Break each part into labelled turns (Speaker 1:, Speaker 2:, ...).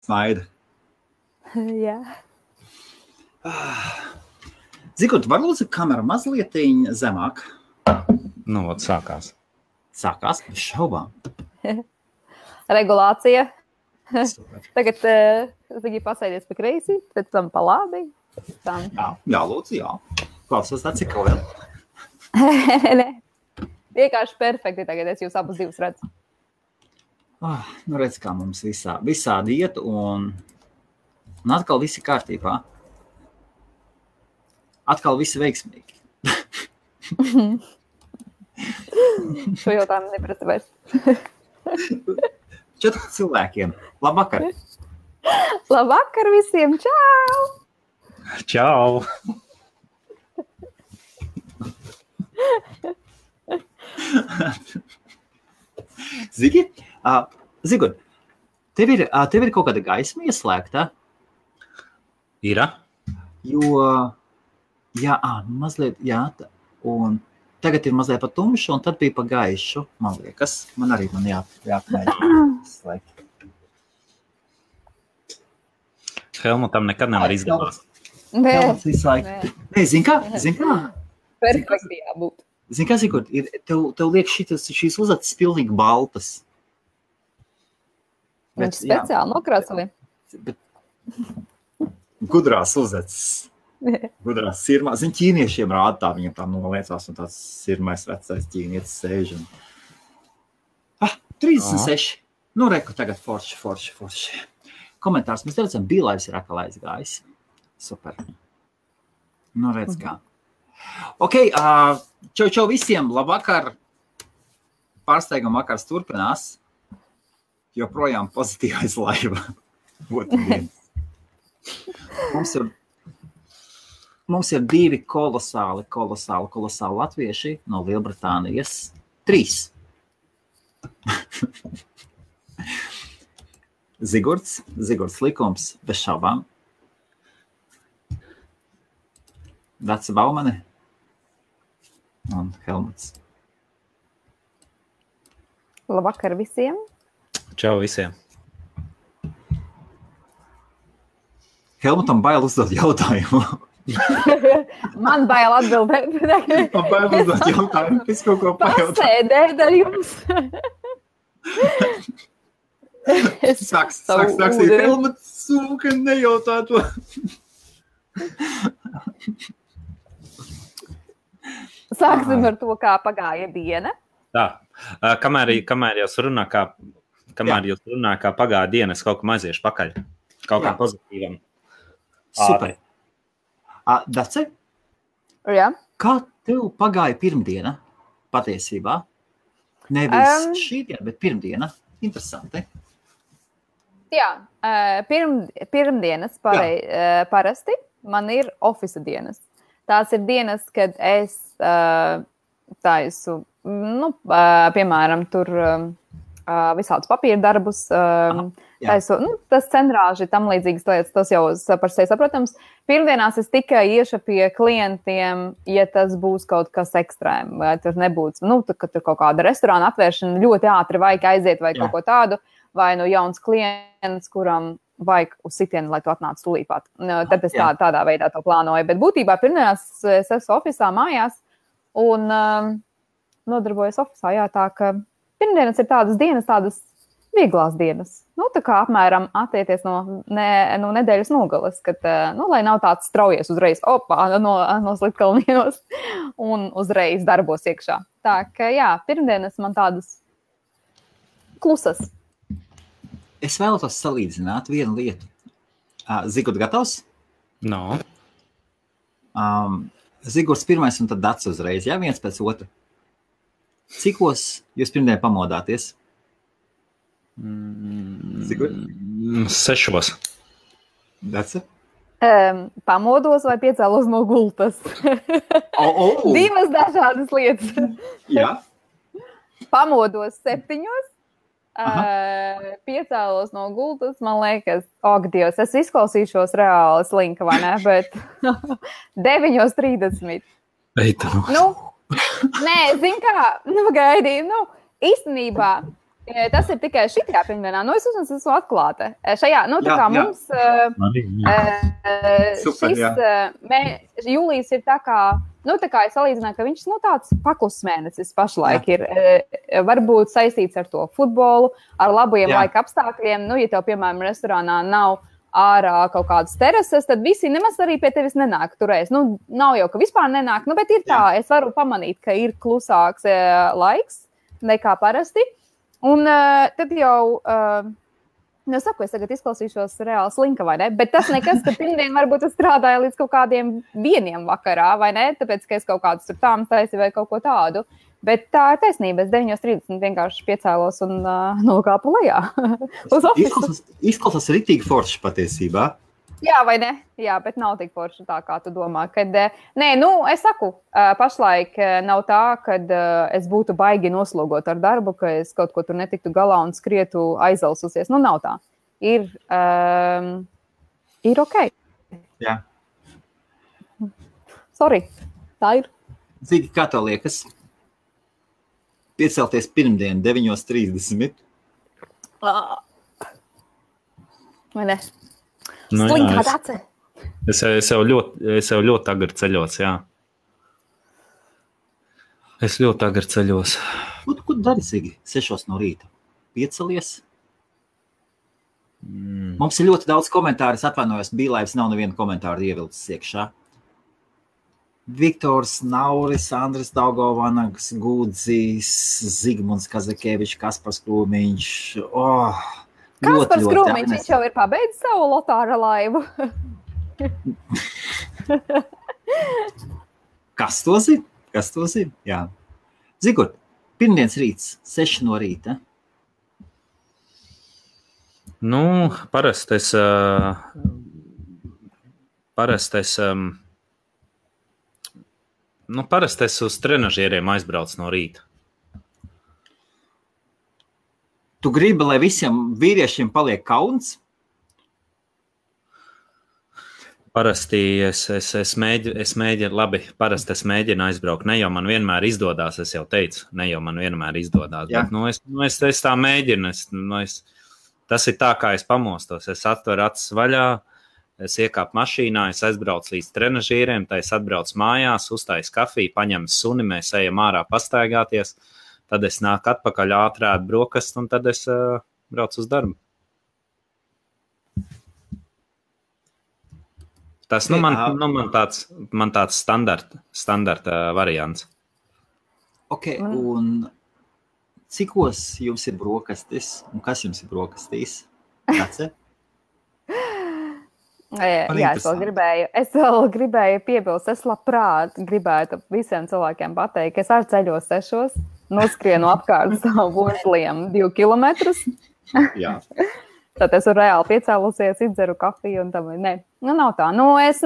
Speaker 1: Smaida.
Speaker 2: Jā.
Speaker 1: Zigurt, var lūdzu kameru mazliet zemāk?
Speaker 3: Nu, ot, sākās.
Speaker 1: Sākās, bez šaubām.
Speaker 2: Regulācija.
Speaker 1: Super.
Speaker 2: Tagad Zigi pasēdies pa kreisi, pēc tam pa labi.
Speaker 1: Jā, lūdzu, jā. Klausos tā, cik vēl?
Speaker 2: Ne. Vienkārši perfekti tagad, es jūs abus divus redzu.
Speaker 1: Nu redz, kā mums visādi iet, un atkal visi kārtībā. Atkal visi veiksmīgi.
Speaker 2: Šo jautājumu neprasa vairs.
Speaker 1: 4 cilvēkiem. Labvakar!
Speaker 2: Labvakar visiem! Čau!
Speaker 3: Čau!
Speaker 1: Zigi? Zigur, tev ir kaut kāda gaisma ieslēgta?
Speaker 3: Ira?
Speaker 1: Jo, jā, mazliet, jā, un tagad ir mazliet pa tumšu, un tad bija pa gaišu, man liekas. Man jāpamēģina slēgt.
Speaker 3: Helmutam nekad nevar izdevās.
Speaker 2: Nē.
Speaker 1: Nē, zin kā?
Speaker 2: Perfekti jābūt.
Speaker 1: Zin kā, Zigur, tev liek šīs uzacis pilnīgi baltas.
Speaker 2: Viņš speciāli nokrāsoja.
Speaker 1: Gudrās uzacis. Gudrās sirmā. Zin, ķīniešiem rāda tā, viņam tā noliecās, un tāds sirmais vecais ķīnietis sēž. 36. Nu, reku tagad forši. Komentārs. Mēs redzam, Bīlaivs ir atkal aizgājis. Super. Nu, redz kā. Ok, čau visiem, labvakar. Pārsteiguma vakars turpinās. Joprojām pozitīvais laiva. Mums ir 2 kolosāli latvieši no Lielbritānijas. 3. Zigurds likums, bez šaubām. Daca Baumane un Helmuts.
Speaker 2: Labvakar visiem.
Speaker 3: Čau visiem.
Speaker 1: Helmutam bail uzdot jautājumu.
Speaker 2: Man bail atbildēt.
Speaker 1: Man bail uzdot jautājumu, es kaut ko pajautāt.
Speaker 2: Pasēdēt ar jums.
Speaker 1: Sāks Helmuts sūka nejautā to.
Speaker 2: Sāksim ar to, kā pagāja diena.
Speaker 3: Tā, kamēr jūs runā, kā pagāja diena, es kaut ko aiziešu pakaļ. Kaut kā pozitīvam.
Speaker 1: Super. Dace?
Speaker 2: Jā.
Speaker 1: Kā tev pagāja pirmdiena patiesībā? Nevis šī diena, bet pirmdiena. Interesanti.
Speaker 2: Jā, pirmdienas parasti man ir ofisa dienas. Tās ir dienas, kad es taisu, piemēram, tur visādus papīra darbus, taisu, tas centrāži, tam līdzīgas lietas, tas jau par sevi saprotams. Pirmdienās es tikai iešu pie klientiem, ja tas būs kaut kas ekstrēm, vai tur nebūs, kad tur kaut kāda restorāna atvēršana ļoti ātri vajag aiziet vai kaut ko tādu, vai jauns klients, kuram vajag uz sitienu, lai tu atnāc tūlīpāt. Tad es tādā veidā to plānoju. Bet būtībā pirmdienās es esmu ofisā mājās un nodarbojos ofisā. Jā, tā ka pirmdienas ir tādas dienas, tādas vieglās dienas. Tā kā apmēram attieties no nedēļas nogalas, kad, lai nav tāds straujies uzreiz, no Slitkalnienos un uzreiz darbos iekšā. Tā ka, jā, pirmdienas man tādas klusas.
Speaker 1: Es vēlētos salīdzināt vienu lietu. Zigurds gatavs?
Speaker 3: No.
Speaker 1: Zigurds pirmais un tad Dace uzreiz, jā, viens pēc otra. Cikos jūs pirmdien pamodāties? Zigurd?
Speaker 3: 6.
Speaker 1: Dace?
Speaker 2: Pamodos vai piecēlos no gultas? Divas dažādas lietas.
Speaker 1: Jā.
Speaker 2: Pamodos 7. Piecēlos no gultas, man liekas, Dievs, es izklausīšos reāli slinka, vai ne, bet 9:30.
Speaker 3: Eita.
Speaker 2: Nē, zin kā, gaidīju, īstenībā Tas ir tikai šitajā pirmdienā. Es esmu atklāta. Šajā, tā kā mums jūlijas ir tā kā, es salīdzināju, ka viņš, tāds paklus mēnesis pašlaik ir. Varbūt saistīts ar to futbolu, ar labajiem laika apstākļiem. Ja tev, piemēram, restorānā nav ārā kaut kādas terases, tad visi nemaz arī pie tevis nenāk turēs. Nav jau, ka vispār nenāk, bet ir tā, es varu pamanīt, ka ir klusāks laiks nekā parasti. Un tad jau, saku, es tagad izklausīšos reāli slinka, vai ne? Bet tas nekas, ka pirmdien varbūt es strādāju līdz kaut kādiem 1 vakarā, vai ne? Tāpēc, ka es kaut kādus tur tām taisi vai kaut ko tādu. Bet tā ir taisnība. Es 9:30 vienkārši piecēlos un nokāpu lejā.
Speaker 1: Izklausās ritīgi forši patiesībā.
Speaker 2: Jā, vai ne? Jā, bet nav tik forši tā, kā tu domā. Kad, es saku, pašlaik nav tā, kad es būtu baigi noslogot ar darbu, ka es kaut ko tur netiktu galā un skrietu aizalsusies. Nav tā. Ir ok.
Speaker 1: Jā.
Speaker 2: Sorry, tā ir.
Speaker 1: Zigi, kā tev liekas? Piecelties pirmdien 9:30.
Speaker 2: Vai ne? Slinkā dace.
Speaker 3: Es jau ļoti agri ceļos, jā. Es ļoti agri ceļos.
Speaker 1: Ko dari, Zigi? 6 no rīta. Piecelies? Mums ir ļoti daudz komentāru. Es atvainojos, Bīlaivs nav nevienu komentāru ievilcis iekšā. Viktors Nauris, Andris Daugavanags, Gūdzīs, Zigmunds Kazakevičs, Kaspars Krūmiņš.
Speaker 2: Kaspars Krūmiņš, viņš jau ir pabeidzis savu lotāra laivu.
Speaker 1: Kas to zina? Jā. Zigur, pirmdienas rīts, 6 no rīta.
Speaker 3: Parasti es uz trenažieriem aizbraucu no rīta.
Speaker 1: Tu gribi, lai visiem vīriešiem paliek kauns?
Speaker 3: Parasti es mēģinu aizbraukt. Ne jau man vienmēr izdodās, es jau teicu, bet es tā mēģinu. Tas ir tā, kā es pamostos. Es atveru acis vaļā, es iekāpu mašīnā, es aizbraucu līdz trenažieriem, tad es atbraucu mājās, uztaisu kafiju, paņemu suni, mēs ejam ārā pastaigāties, tad es nāku atpakaļ ātrēt brokastu un tad es braucu uz darbu. Tas man tāds standarta variants.
Speaker 1: Ok, un cikos jums ir brokastis? Un kas jums ir brokastīs? Dace?
Speaker 2: Jā, es vēl gribēju piebilst, es labprāt gribētu visiem cilvēkiem pateikt, ka es arī ceļos 6, noskrienu apkārt savu burtliem 2 kilometrus.
Speaker 1: Jā.
Speaker 2: Tad es reāli piecēlusies, izdzeru kafiju un tam, nav tā. Es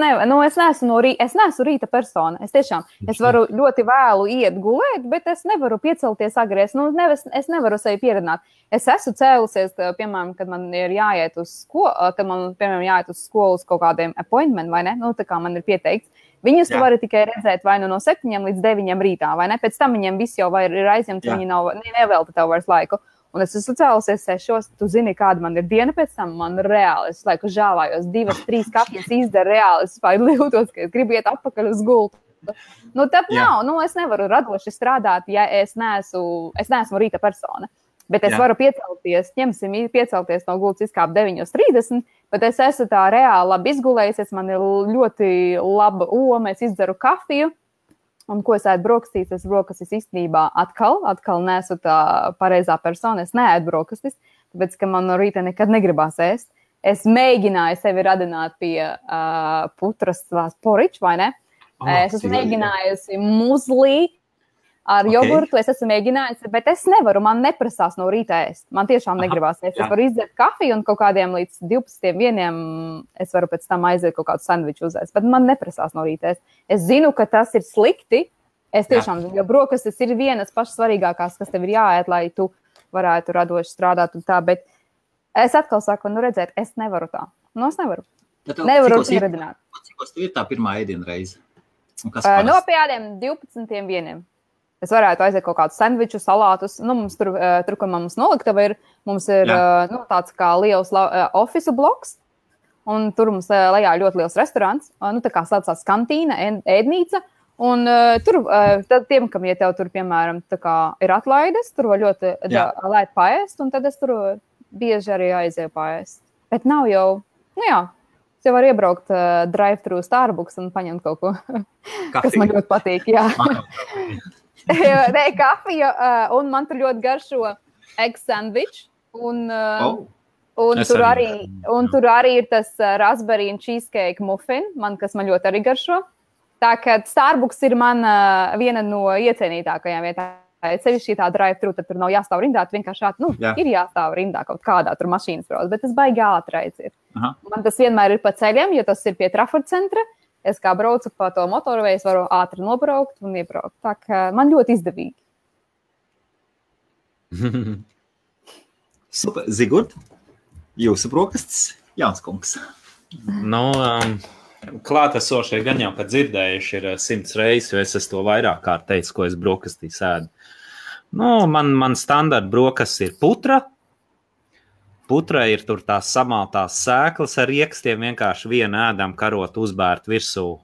Speaker 2: neesmu rīta persona. Es varu ļoti vēlu iet gulēt, bet es nevaru piecelties agri. Es nevaru sevi pieredzināt. Es esmu cēlusies, piemēram, kad man ir jāiet uz skolu uz kaut kādiem appointment, vai ne? Tā kā man ir pieteikts. Viņus tu vari tikai redzēt vai no 7 līdz 9 rītā, vai ne? Pēc tam viņiem viss jau ir aizņemts, viņi nevelta tev vairs laiku. Un es esmu cēlusies 6, tu zini, kāda man ir diena pēc tam, man reāli, es laiku žāvājos, 2-3 kafijas izdaru reāli, es jūtos, ka es gribu iet atpakaļ uz gultu. Tad nav, es nevaru radoši strādāt, ja es neesmu rīta persona. Bet es varu piecelties no gultas izkāpt 9:30, bet es esmu tā reāli labi izgulējusies, man ir ļoti laba oma, es izdaru kafiju. Un ko es ēdu brokastīs? Es brokastis īstenībā atkal neesmu tā pareizā persona. Es neēdu brokastis, tāpēc, ka man no rīta nekad negribās ēst. Es mēģināju sevi radināt pie putras poriča, vai ne? Es esmu mēģinājusi muzlī ar jogurtu, es esmu mēģinājusi, bet es nevaru, man neprasās no rīta ēst. Man tiešām negribās ēst. Es varu izdzert kafiju un kaut kādiem līdz 12:01 es varu pēc tam aiziet kaut kādu sandviču uzēst, bet man neprasās no rīta ēst. Es zinu, ka tas ir slikti. Es tiešām zinu, jo brokastis ir vienas pašas svarīgākās, kas tev ir jāēd, lai tu varētu radoši strādāt un tā, bet es atkal saku, redzēt, es nevaru tā. Es nevaru. Nevaru pieredzināt.
Speaker 1: Cikos tev ir tā pirmā ēdiena reize?
Speaker 2: No pie ādiem 12:01. Es varētu aiziet kaut kādus sandviču, salātus. Nu, mums tur, kur mums noliktava ir, mums ir tāds kā liels ofisu bloks, un tur mums lejā ļoti liels restorāns, tā kā saucās kantīna, ēdnīca, un tur tiem, kam, ja tev tur, piemēram, tā kā ir atlaides, tur var ļoti lēt paēst, un tad es tur bieži arī aizēju paēst. Bet nav jau, es jau varu iebraukt drive-thru Starbucks un paņemt kaut ko, kas man ļoti patīk, jā. Nē, kafiju, un man tur ļoti garšo egg sandwich, un tur arī ir tas raspberry and cheesecake muffin, kas man ļoti arī garšo. Tā kā Starbucks ir man viena no iecienītākajām vietām. Sevišķi tā drive-thru, tad tur nav jāstāv rindā, vienkārši ir jāstāv rindā kaut kādā tur mašīnas brauc, bet tas baigi ātri aiziet. Man tas vienmēr ir pa ceļiem, jo tas ir pie Trafford centra. Es kā braucu pa to motorveju, es varu ātri nobraukt un iebraukt. Tā kā man ļoti izdevīgi.
Speaker 1: Super. Zigurd, jūsu brokastis, Jānis kungs.
Speaker 3: Klātesošie gan jau, kad dzirdējuši ir 100 reizes, jo es to vairāk kārt teicu, ko es brokastīs ēdu. Man standarta brokastis ir putra. Putra ir tur tās samaltās sēklas ar riekstiem, vienkārši vienu ēdam karot uzbērt virsū.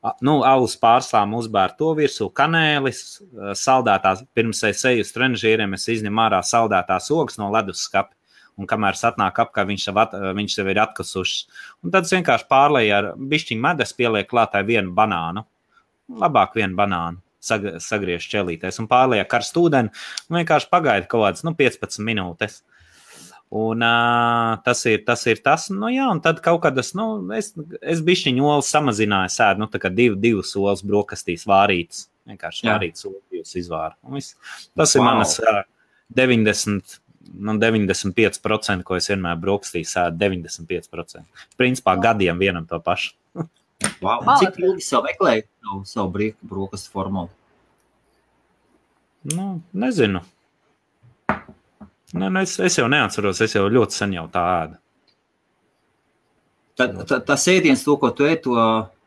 Speaker 3: Alus pārslām uzbērt to virsū, kanēlis, saldētās, pirms es eju uz trenažieriem, es izņemu ārā saldētās ogas no leduskapa. Un kamēr es atnāku apkārt, viņš sev ir atkusušas. Un tad es vienkārši pārlēju ar bišķiņu medus, pielieku klātai vienu banānu. Labāk vienu banānu sagriež ķelītēs un pārlēju karstu ūdeni un vienkārši pagaida kaut kādas 15 minūtes. Un tas ir tas. Un tad kaut kad es bišķiņu olas samazināju sēdu, tā kā divas olas brokastīs vārītas. Vienkārši vārītas olas izvāra. Tas ir manas 95%, ko es vienmēr brokastīs sēdu, 95%. Principā gadiem vienam to pašu.
Speaker 1: Wow. Cik ilgi savu meklēju savu brokastu formulu?
Speaker 3: Nezinu. Es jau neatceros, es jau ļoti sen jau tā ēdu.
Speaker 1: Tas ēdiens, to, ko tu ēd, to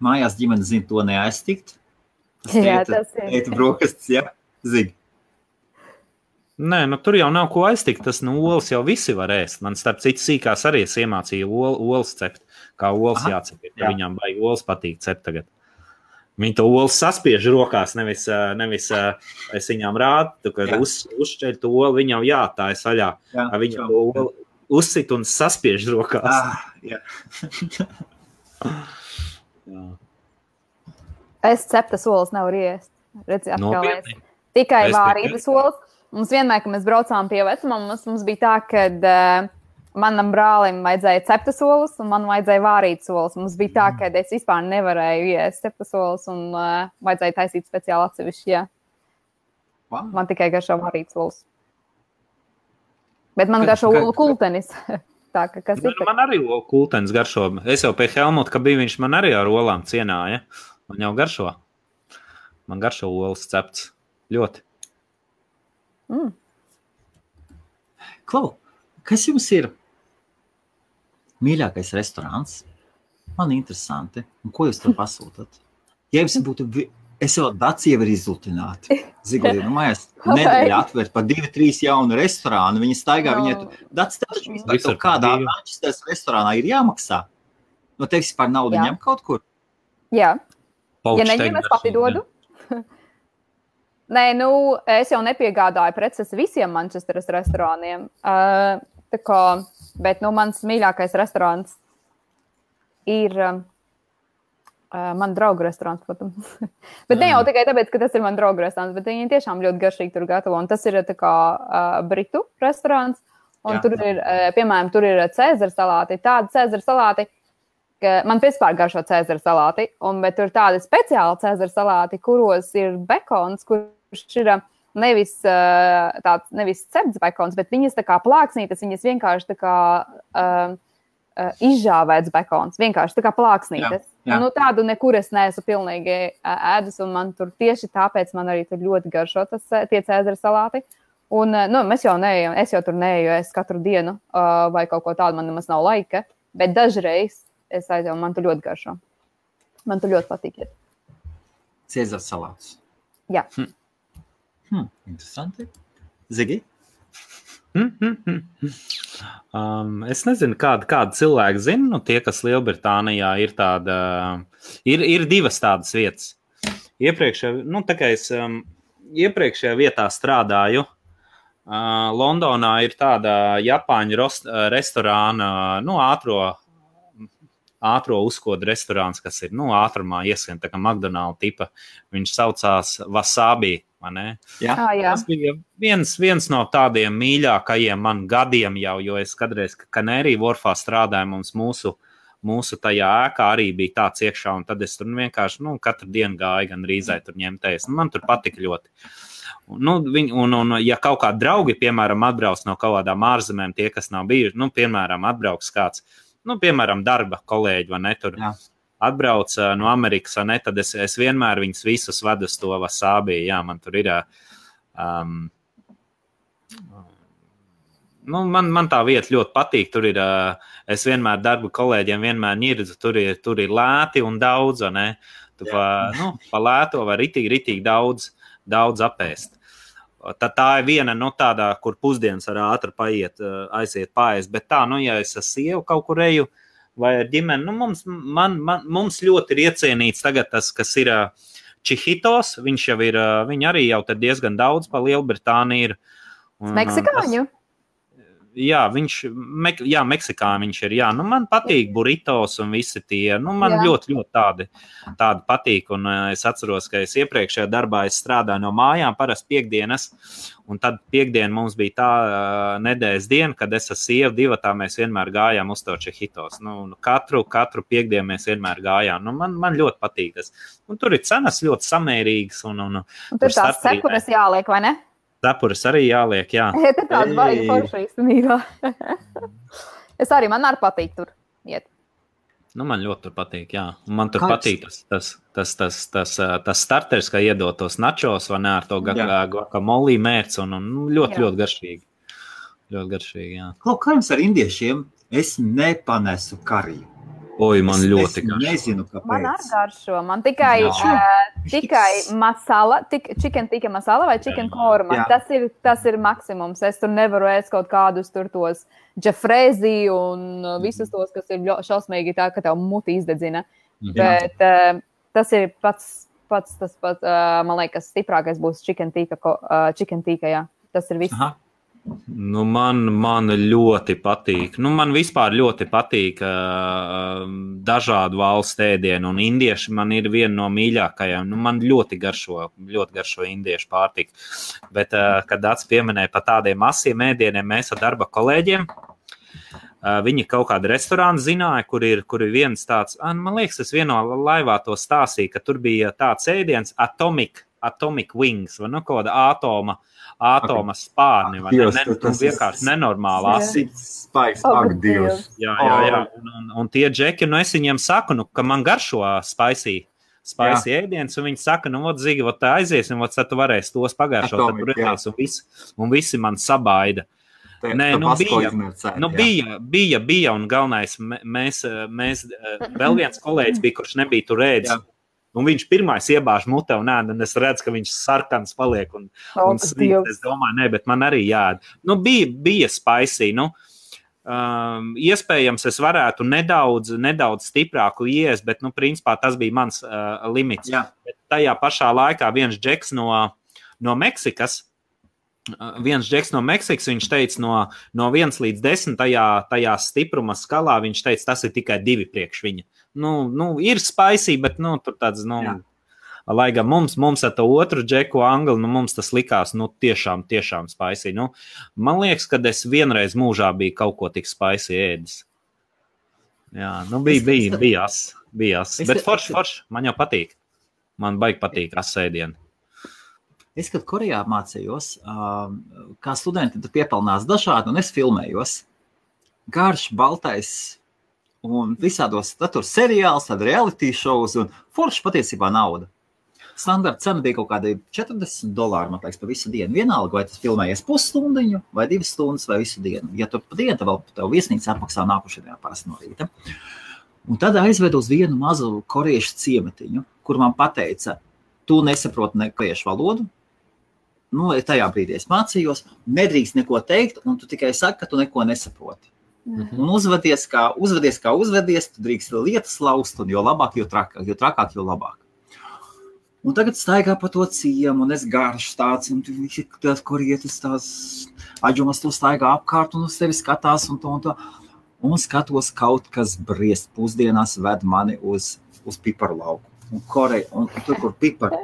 Speaker 1: mājās ģimene zina, to neaiztikt?
Speaker 2: Tas ir.
Speaker 1: Ēta brokastis, jā? Zini.
Speaker 3: Nē, tur jau nav ko aiztikt, tas olas jau visi var ēst. Man starp citu sīkās arī es iemācīju olas cept, kā olas jācep. Viņām baigi olas patīk cept tagad. Viņi to olas saspiež rokās, nevis es viņām rādu, kad uzšķeļ to olu, viņam tā ir saļā. Viņa to olu uzsit un saspiež rokās.
Speaker 2: Es ceptas olas nevaru iest. Redzi, atkal tikai vārītas olas. Mums vienmēr, kad mēs braucām pie vecmammas, mums bija tā, ka manam brālim vajadzēja ceptas olas un man vajadzēja vārītas olas. Mums bija tā, ka es vispār nevarēju iest ceptas olas un vajadzēja taisīt speciāli atsevišķi, jā.
Speaker 1: Wow.
Speaker 2: Man tikai garšo vārītas olas. Bet man garšo olu kultenis. Tā, kas ir?
Speaker 3: Man arī olu kultenis garšo. Es jau pie Helmuta, ka bija viņš man arī ar olām cienāja. Man jau garšo. Man garšo olas cepts. Ļoti.
Speaker 1: Klau, kas jums ir mīļākais restorāns? Man interesanti. Un ko jūs tur pasūtat? Ja jums būtu, es jau daci jau ir izlutināti. Zigulī, mājās nedēļa atvērt pa 2-3 jaunu restorānu. Viņi staigā, daci taču vispār kaut kādā Manchesteras restorānā ir jāmaksā. No tevis par naudu ņem kaut kur?
Speaker 2: Jā. Ja neņem, es pati dodu. Nē, es jau nepiegādāju preces visiem Manchesteras restorāniem. Bet mans mīļākais restorāns ir man draugu restorāns, protams. Bet ne jau tikai tāpēc, ka tas ir man draugu restorāns, bet viņi tiešām ļoti garšīgi tur gatavo. Un tas ir tā kā britu restorāns. Un tur ir, piemēram, tur ir Cēzara salāti. Tādi Cēzara salāti, ka man vispār garšo Cēzara salāti. Bet tur ir tādi speciāli Cēzara salāti, kuros ir bekons, kurš ir nevis cepts bekons, bet viņas tā kā plāksnītas, viņas vienkārši tā kā izžāvēts bekons, vienkārši tā kā plāksnītas. Jā. Tādu nekur es neesmu pilnīgi ēdus, un man tur tieši tāpēc man arī tur ļoti garšo tie Cēzara salāti. Un, es jau tur neeju, es katru dienu vai kaut ko tādu, man nemaz nav laika, bet dažreiz es aizēju, man tur ļoti garšo. Man tur ļoti patīk.
Speaker 1: Cēzara salāts.
Speaker 2: Jā.
Speaker 1: Interesanti. Zigi?
Speaker 3: Es nezinu, kāda cilvēka zina, nu tie, kas Lielbritānijā ir tāda, ir divas tādas vietas. Iepriekšējā vietā strādāju. Londonā ir tāda Japāņu restorāna, ātro uzkodu restorāns, kas ir, ātrumā iesien, tā kā McDonald's tipa. Viņš saucās Wasabi, vai ne?
Speaker 1: Jā.
Speaker 3: Tas bija viens no tādiem mīļākajiem man gadiem jau, jo es kādreiz Canary Wharfā strādāju, mums mūsu tajā ēkā arī bija tāds iekšā, un tad es tur vienkārši, katru dienu gāju gan rīzai tur ņemties. Man tur patika ļoti. Un ja kaut kādi draugi, piemēram, atbrauc no kaut kādām ārzemēm, tie, kas nav bijuši, piemēram, atbrauks kāds, piemēram, darba kolēģi, vai ne, tur atbrauc no Amerikas, vai ne, tad es vienmēr viņus visus vedu uz to Wasabi, jā, man tur ir, man tā vieta ļoti patīk, tur ir, es vienmēr darba kolēģiem vienmēr ņirdzu, tur ir lēti un daudz, vai ne, tu pa lēto vai ritīgi daudz apēst. Tā ir viena tādā, kur pusdienas var ātri aiziet paēst, bet tā, ja es ar sievu kaut kur eju vai ar ģimeni, mums ļoti ir iecienīts tagad tas, kas ir Chihitos, viņi arī jau tad diezgan daudz pa Lielbritāniju ir.
Speaker 2: Meksikāņu?
Speaker 3: Jā, Meksikā viņš ir, jā. Man patīk burritos un visi tie, man ļoti tādi patīk, un es atceros, ka es iepriekšējā darbā strādāju no mājām, parasti piekdienas, un tad piekdien mums bija tā nedēļas diena, kad es ar sievu divatā mēs vienmēr gājām uz to Chihitos. Katru piekdienu mēs vienmēr gājām. Man ļoti patīk tas. Un tur ir cenas ļoti samērīgas. Un
Speaker 2: tur tās cepures jāliek, vai ne?
Speaker 3: Cepures arī jāliek, jā.
Speaker 2: Tur tāds baigi forši īstenībā. Man arī patīk tur iet.
Speaker 3: Man ļoti tur patīk, jā. Man tur patīk tas starters, kā iedot tos nachos, vai ne, ar to guacamole mērci, un ļoti garšīgi. Ļoti garšīgi, jā.
Speaker 1: Kā jums ar indiešiem? Es nepanesu kariju.
Speaker 3: Oi, man ļoti garšo.
Speaker 1: Es nezinu, kāpēc.
Speaker 2: Man arī garšo. Man tikai masala, chicken tikka masala vai chicken korma. Tas ir maksimums. Es tur nevaru ēst kaut kādus tur tos džefrēzi un visus tos, kas ir šausmīgi tā, ka tev muti izdedzina. Bet tas ir pats, man liekas, stiprākais būs chicken tikka, jā. Tas ir viss.
Speaker 3: Aha. Man ļoti patīk. Man vispār ļoti patīk dažādu valstu ēdienu, un indieši man ir viena no mīļākajām. Man ļoti garšo indiešu pārtika. Bet, kad Dats pieminēja par tādiem masiem ēdieniem, mēs ar darba kolēģiem, viņi kaut kādu restorānu zināja, kur ir viens tāds, man liekas, es vienā laivā to stāstīju, ka tur bija tāds ēdiens Atomic Wings, vai kaut kāda ātoma spārni, vai vienkārši nenormāli asins.
Speaker 1: Dievs.
Speaker 3: Jā. Un tie džeki, es viņiem saku, ka man garšo spicy ēdiens, un viņi saka, Zigi, tā aiziesim, tad tu varēsi tos pagaršot, tad tur redzēs, un visi man sabaida. Nē, bija, un galvenais, mēs vēl viens kolēģis bija, kurš nebija tur ēdis. Un viņš pirmais iebāž mutē un ēd, un es redzu, ka viņš sarkans paliek un svīt. Es domāju, bet man arī jāēd. Bija spicy, iespējams, es varētu nedaudz stiprāku iest, bet, principā tas bija mans limits. Bet tajā pašā laikā viens džeks no Meksikas, viņš teica no 1 līdz 10 tajā stipruma skalā, viņš teica, tas ir tikai 2 priekš viņa. Ir spicy, bet, tur tāds, lai gan mums ar to otru džeku angli, mums tas likās, tiešām spicy. Man liekas, kad es vienreiz mūžā biju kaut ko tik spicy ēdis. Jā, bija as. Bet forši, man jau patīk. Man baigi patīk asēdieni.
Speaker 1: Es, kad Korejā mācījos, kā studenti tur piepelnās dažādi, un es filmējos. Garš, baltais, un visādos, tad tur seriāls, tad reality shows, un forši patiesībā nauda. Standarta cena bija kaut kādi $40, man liekas, pa visu dienu. Vienalga, vai tas filmējies pusstundiņu, vai 2 stundas, vai visu dienu. Ja tu pa dienu, tad vēl tev viesnīca apmaksā nākušajā parasti no rīta. Un tad aizvedu uz vienu mazu koriešu ciematiņu, kur man pateica, tu nesaproti ne koriešu valodu, nu, tajā brīdī es mācījos, nedrīkst neko teikt, un tu tikai saki, ka tu neko nesaproti. Un uzvedies, kā uzvedies, tu drīkst lietas laust, un jo labāk, jo trakāk, jo labāk. Un tagad staigā pa to ciemu, un es garš tāds, un visi tās korietis, tās aģumas to staigā apkārt, un uz tevi skatās, un to. Un skatos kaut kas briest pusdienās ved mani uz piparu lauku. Un tur, kur pipari.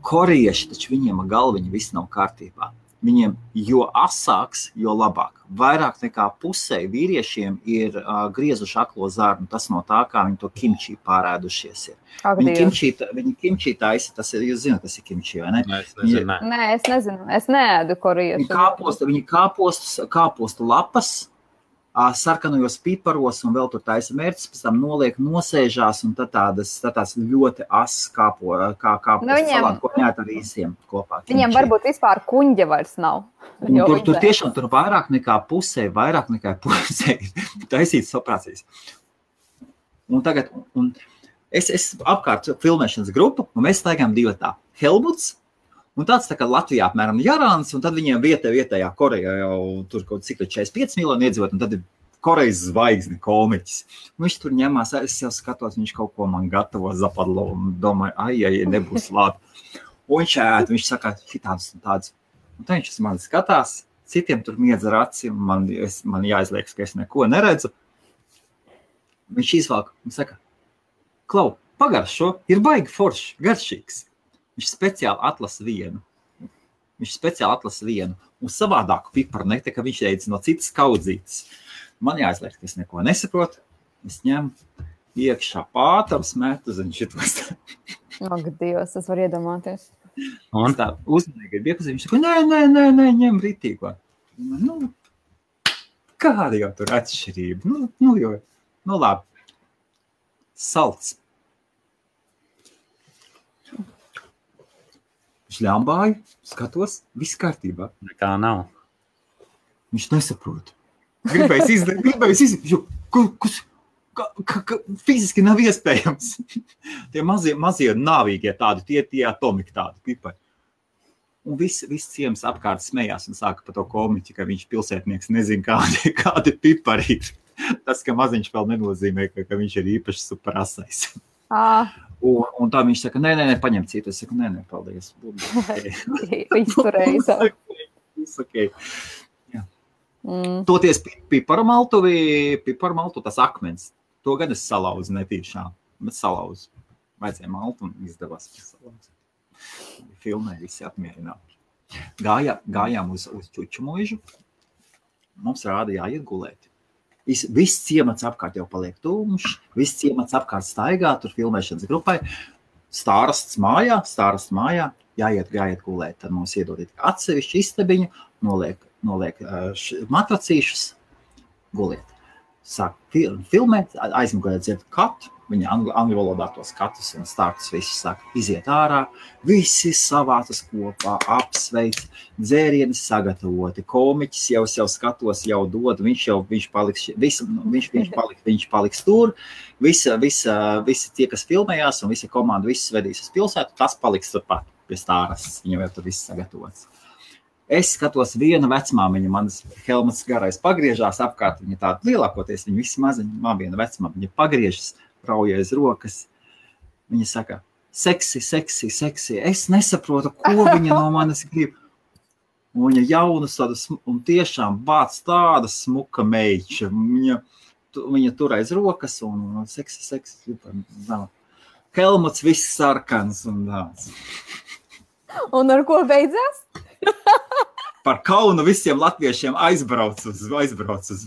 Speaker 1: Korieši, taču viņiem galviņi viss nav kārtībā. Viņiem jo asāks, jo labāk. Vairāk nekā pusē vīriešiem ir griezuši aklo zarnu. Tas no tā, kā viņi to kimči pārēdušies ir. Viņi kimči taisa, tas ir, jūs zināt, tas ir kimči, vai ne?
Speaker 2: Nē, es nezinu. Es neēdu koriešu.
Speaker 1: Viņi kāpostu lapas, sarkanojos piparos un vēl tur taisa mērķis, pēc tam noliek, nosēžās un tad tās ļoti asas kāpostu salāti, ko ņēt ar īsiem kopā.
Speaker 2: Viņiem varbūt vispār kuņģa vairs nav.
Speaker 1: Tur tiešām tur vairāk nekā pusē taisītas operācijas. Un tagad, es apkārt filmēšanas grupu, un mēs staigām divatā. Helmuts, un tāds tā kā Latvijā apmēram Jarāns, un tad viņiem vietējā Koreja jau tur kaut cik 45 miljoni iedzīvot, un tad ir Korejas zvaigzne komiķis. Un viņš tur ņemās, es jau skatos, viņš kaut ko man gatavo zapadlo, un domāju, ai, nebūs labi. Un viņš ēd, viņš saka, šitāds un tāds. Un tad viņš uz mani skatās, citiem tur miedz ar acim, man jāizliekas, ka es neko neredzu. Viņš izvalk, un saka, Klau, pagaršo, ir baigi foršs, garšīgs. Viņš speciāli atlasa vienu. Un savādāku piparu nekta, ka viņš ēdz no citas kaudzītes. Man jāizliek, ka es neko nesaprotu. Es ņemu iekšā pātams, metu zem šitos.
Speaker 2: Ak, Dievs, es varu iedomāties.
Speaker 1: Un tā uzmanīgi ir iepazīt. Viņš saka, nē, ņem ritīgo. Nu, kāda jau tur atšķirība? Nu labi. Salts. Viņš ļambāju, skatos, viss kārtībā.
Speaker 3: Nekā nav.
Speaker 1: Viņš nesaprot. Gribējis izdarīt, fiziski nav iespējams. Tie mazie nāvīgie tādi, tie atomiki tādi pipari. Un viss ciems apkārt smējās un sāka par to komiķi, ka viņš pilsētnieks nezin, kādi pipari ir. Tas, ka maziņš vēl nenozīmē, ka viņš ir īpaši superasais. Un tā viņš saka, nē, paņem citu. Es saku, nē, paldies.
Speaker 2: Izturējis.
Speaker 1: Okay. Jā. Toties piparmaltu, tas akmens, to gan es salauzu netīšām, bet salauzu. Vajadzēja maltu un izdevās salauzu. Filmē visi apmierināti. Gājām uz Čuču mūžu, mums rāda jāiet gulēt. Viss ciemats apkārt jau paliek tumšs, viss ciemats apkārt staigā, tur filmēšanas grupai, stārasts mājā, jāiet gulēt, tad mums iedod atsevišķu istabiņu, noliek matracīšus, guliet. Sāk filmēt, aizmugurē dzird katu, viņa angļu valodā tos katus un stāstus visus sāk iziet ārā, visi savācas kopā, apsveic, dzērienes sagatavoti, komiķis jau skatos, jau dod, viņš paliks tur, visi tie, kas filmējās un visa komanda, visus vedīs uz pilsētu, tas paliks turpat pie stāras, viņam jau tur viss sagatavots. Es skatos viena vecmāmiņa, manas Helmuts garais pagriežās apkārt, viņa tāda lielākoties, viņa visi maziņa, viena vecmāmiņa, viņa pagriežas, raujais rokas, viņa saka, seksi, es nesaprotu, ko viņa no manis grib. Un viņa jaunas tādas, un tiešām bāc tāda smuka meiča, viņa tur aiz rokas, un seksi, Helmuts viss sarkans un tāds.
Speaker 2: Un ar ko beidzās?
Speaker 1: Par kaunu visiem latviešiem aizbrauc uz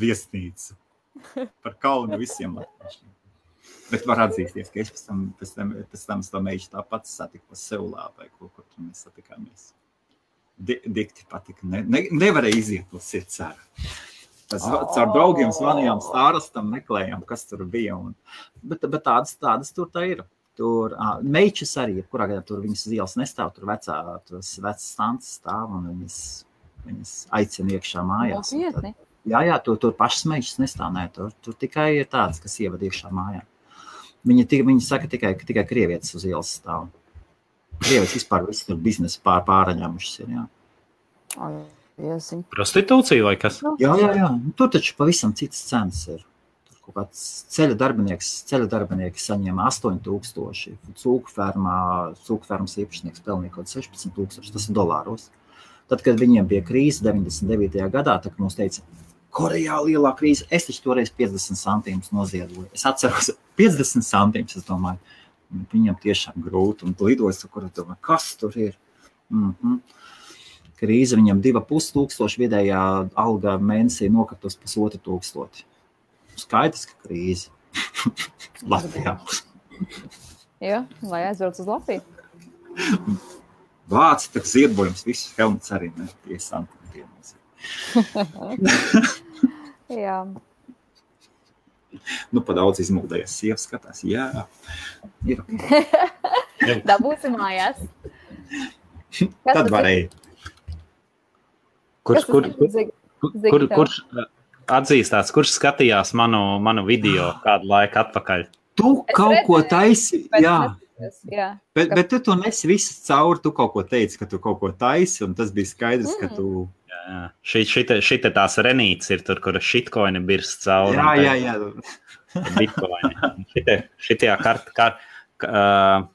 Speaker 1: viesnīcu. Par kaunu visiem latviešiem. Bet var atzīsties, ka es pēc tam to meišu tāpat satiku pa Seulā vai kur tur mēs satikāmies. Dikti patika. Nevarēja iziet uz sirds ārā. Caur draugiem zvanījām stārastam, meklējām, kas tur bija. Bet tādas tur tā ir. Tur meičas arī, kurā gadā tur viņas uz ielas nestāv, tur vecas stances stāv un viņas aicina iekšā mājās. Jā, tur pašas meičas nestāv, nē, tur tikai ir tādas, kas ievada iekšā mājā. Viņi saka tikai krievietes uz ielas stāv. Krievijas vispār visi tur biznesi pāraņēmušas ir, jā.
Speaker 3: Prostitūcija vai kas?
Speaker 1: Jā. Tur taču pavisam citas cenas ir. Tur kaut kāds ceļa darbinieki saņēma 8,000. Cūku fermas īpašnieks pelnīja kaut 16,000. Tas ir dolāros. Tad, kad viņiem bija krīze 99. gadā, tad mums teica, Korejā lielā krīze, es taču toreiz 50 centīmus noziedoju. Es atceros 50 centīmus, es domāju, viņam tiešām grūti un lidojas, kur es domāju, kas tur ir? Krīze viņam 2,5 vidējā alga mēnesī nokartos 1,500. Skaidrs, ka krīze. Latvijā.
Speaker 2: Jā, lai aizbrauc uz Latviju.
Speaker 1: Vāci, tak ziedbojums, visus helmets arī ne 5 centīmus.
Speaker 2: Jā.
Speaker 1: Pa daudz izmuldējies sievas skatās. Jā, ir.
Speaker 2: Dabūsi mājās.
Speaker 1: Tad varēja.
Speaker 3: Kurš atzīstās, kurš skatījās manu video kādu laiku atpakaļ?
Speaker 1: Tu kaut ko taisi, jā.
Speaker 2: Jā.
Speaker 1: Bet tu to nesi visu cauri, tu kaut ko teici, ka tu kaut ko taisi, un tas bija skaidrs, ka tu...
Speaker 3: Jā. Šite tās renītes ir tur, kur shitcoini birst cauri.
Speaker 1: Jā.
Speaker 3: Bitcoini. Šitajā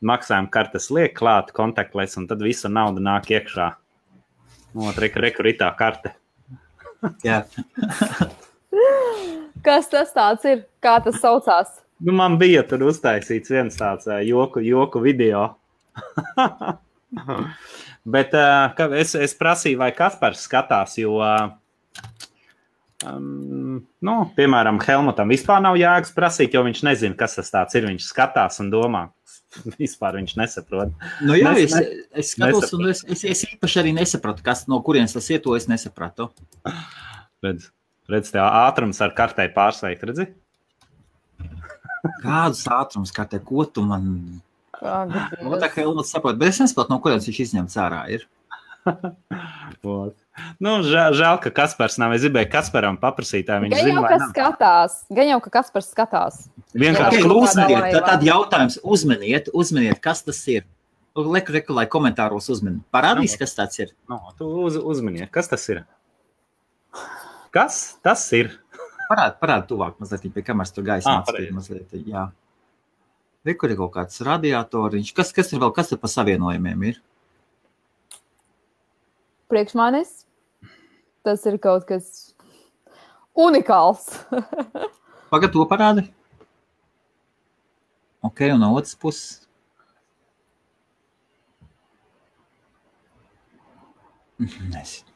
Speaker 3: maksājuma kartes liek klāt kontaktless, un tad visa nauda nāk iekšā. Rekur ir tā karte.
Speaker 1: Jā.
Speaker 2: Kas tas tāds ir? Kā tas saucās?
Speaker 3: Man bija tur uztaisīts viens tāds joku video. Bet es prasīju, vai Kaspars skatās, jo, piemēram, Helmutam vispār nav jēgas prasīt, jo viņš nezina, kas tas tāds ir. Viņš skatās un domā. Vispār viņš nesaprot.
Speaker 1: Jā, es skatos, un es īpaši arī nesapratu, no kurienes tas iet, to es nesapratu.
Speaker 3: Redz, tev ātrums ar kartei pārsveikt, redzi?
Speaker 1: Kādus ātrums kartē, ko tu man... Tā kā Helmuts saprot, bet es nesaprotu, no kurienes viņš izņemts ārā ir.
Speaker 3: Žēl, ka Kaspars nav. Es gribēju Kasparam paprasīt, viņš zina, vai nav.
Speaker 2: Gan jau, ka Kaspars skatās.
Speaker 3: Vienkārši
Speaker 1: uzmeniet, tad jautājums, uzmeniet, kas tas ir. Reku, lai komentāros uzmeni. Parādīs, kas tāds ir.
Speaker 3: Tu uzmeniet, kas tas ir? Kas tas ir?
Speaker 1: Parādi tuvāk mazliet, pie kameras tur gaisa atspīd mazliet, jā. Rekur ir kaut kāds radiatoriņš. Kas ir vēl, kas ir pa savienojumiem ir?
Speaker 2: Priekš manis tas ir kaut kas unikāls.
Speaker 1: Pagad to parādi. Ok, un no otras puses. Nezinu.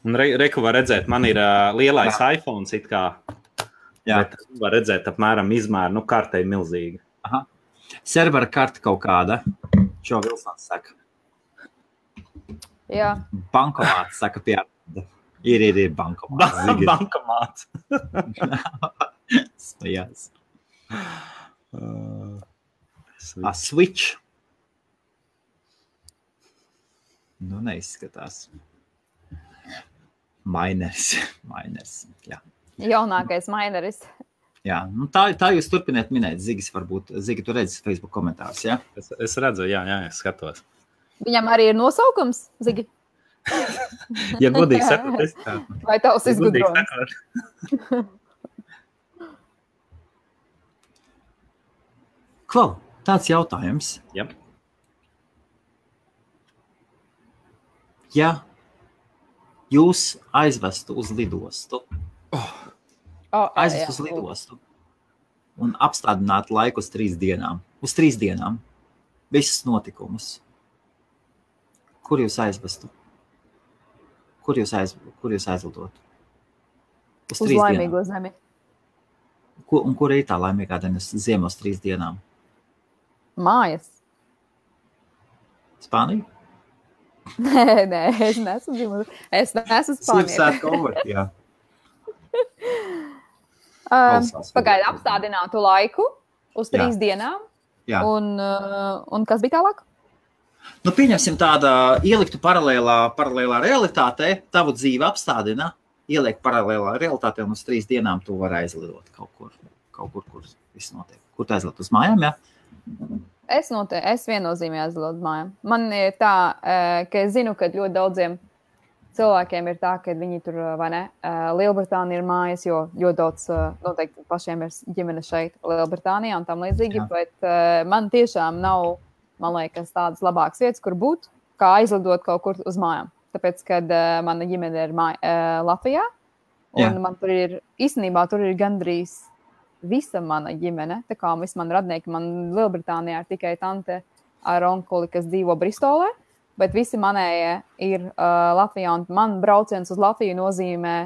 Speaker 3: Un reku var redzēt, man ir lielais iPhone it kā. Jā. Bet var redzēt apmēram izmēru, kartei milzīga.
Speaker 1: Aha. Servera karta kaut kāda. Čo Vilsons saka?
Speaker 2: Jā.
Speaker 1: Bankomāts saka pie. Ir bankomāts.
Speaker 3: Bankomāts.
Speaker 1: Yes. Switch. Neizskatās. Miners, jā.
Speaker 2: Jaunākais mineris.
Speaker 1: Jā, tā jūs turpiniet minēt. Zigi, tu redzi Facebook komentārus, jā?
Speaker 3: Es redzu, jā, es skatos.
Speaker 2: Viņam arī ir nosaukums, Zigi?
Speaker 3: Ja godīgi sakot, es tā.
Speaker 2: Vai tavs izgudrojums?
Speaker 1: Klau, tāds jautājums.
Speaker 3: Jā.
Speaker 1: Ja jūs aizvestu uz lidostu, un apstādinātu laiku uz 3 dienām, visus notikumus, kur jūs aizvestu? Kur jūs aizlidotu?
Speaker 2: Uz laimīgo zemi.
Speaker 1: Un kur ir tā laimīgā zeme uz 3 dienām?
Speaker 2: Mājas.
Speaker 1: Spānija?
Speaker 2: Nē, es neesmu dzimusi. Es neesmu Spānija.
Speaker 1: Jā.
Speaker 2: Pagaidi, apstādinātu laiku uz 3 dienām.
Speaker 1: Jā.
Speaker 2: Un kas bija tālāk?
Speaker 1: Pieņemsim tāda, ieliktu paralēlā realitātē, tavu dzīvi apstādina, ieliek paralēlā realitātē un uz 3 dienām tu vari aizlidot kaut kur, kur viss notiek. Kur tu aizlidot uz mājām, jā?
Speaker 2: Es viennozīmīgi aizlidotu mājām. Man ir tā, ka es zinu, ka ļoti daudziem cilvēkiem ir tā, ka viņi tur, vai ne, Lielbritānija ir mājas, jo ļoti daudz noteikti pašiem ir ģimene šeit Lielbritānijā un tam līdzīgi, bet man tiešām nav, man liekas, tādas labākas vietas, kur būt, kā aizlidot kaut kur uz mājām. Tāpēc, kad mana ģimene ir Latvijā, un man tur ir, īstenībā tur ir gandrīz visa mana ģimene, tā kā visi man radnieki, man Lielbritānijā ir tikai tante ar onkuli, kas dzīvo Bristolē, bet visi manējie ir Latvijā, un man brauciens uz Latviju nozīmē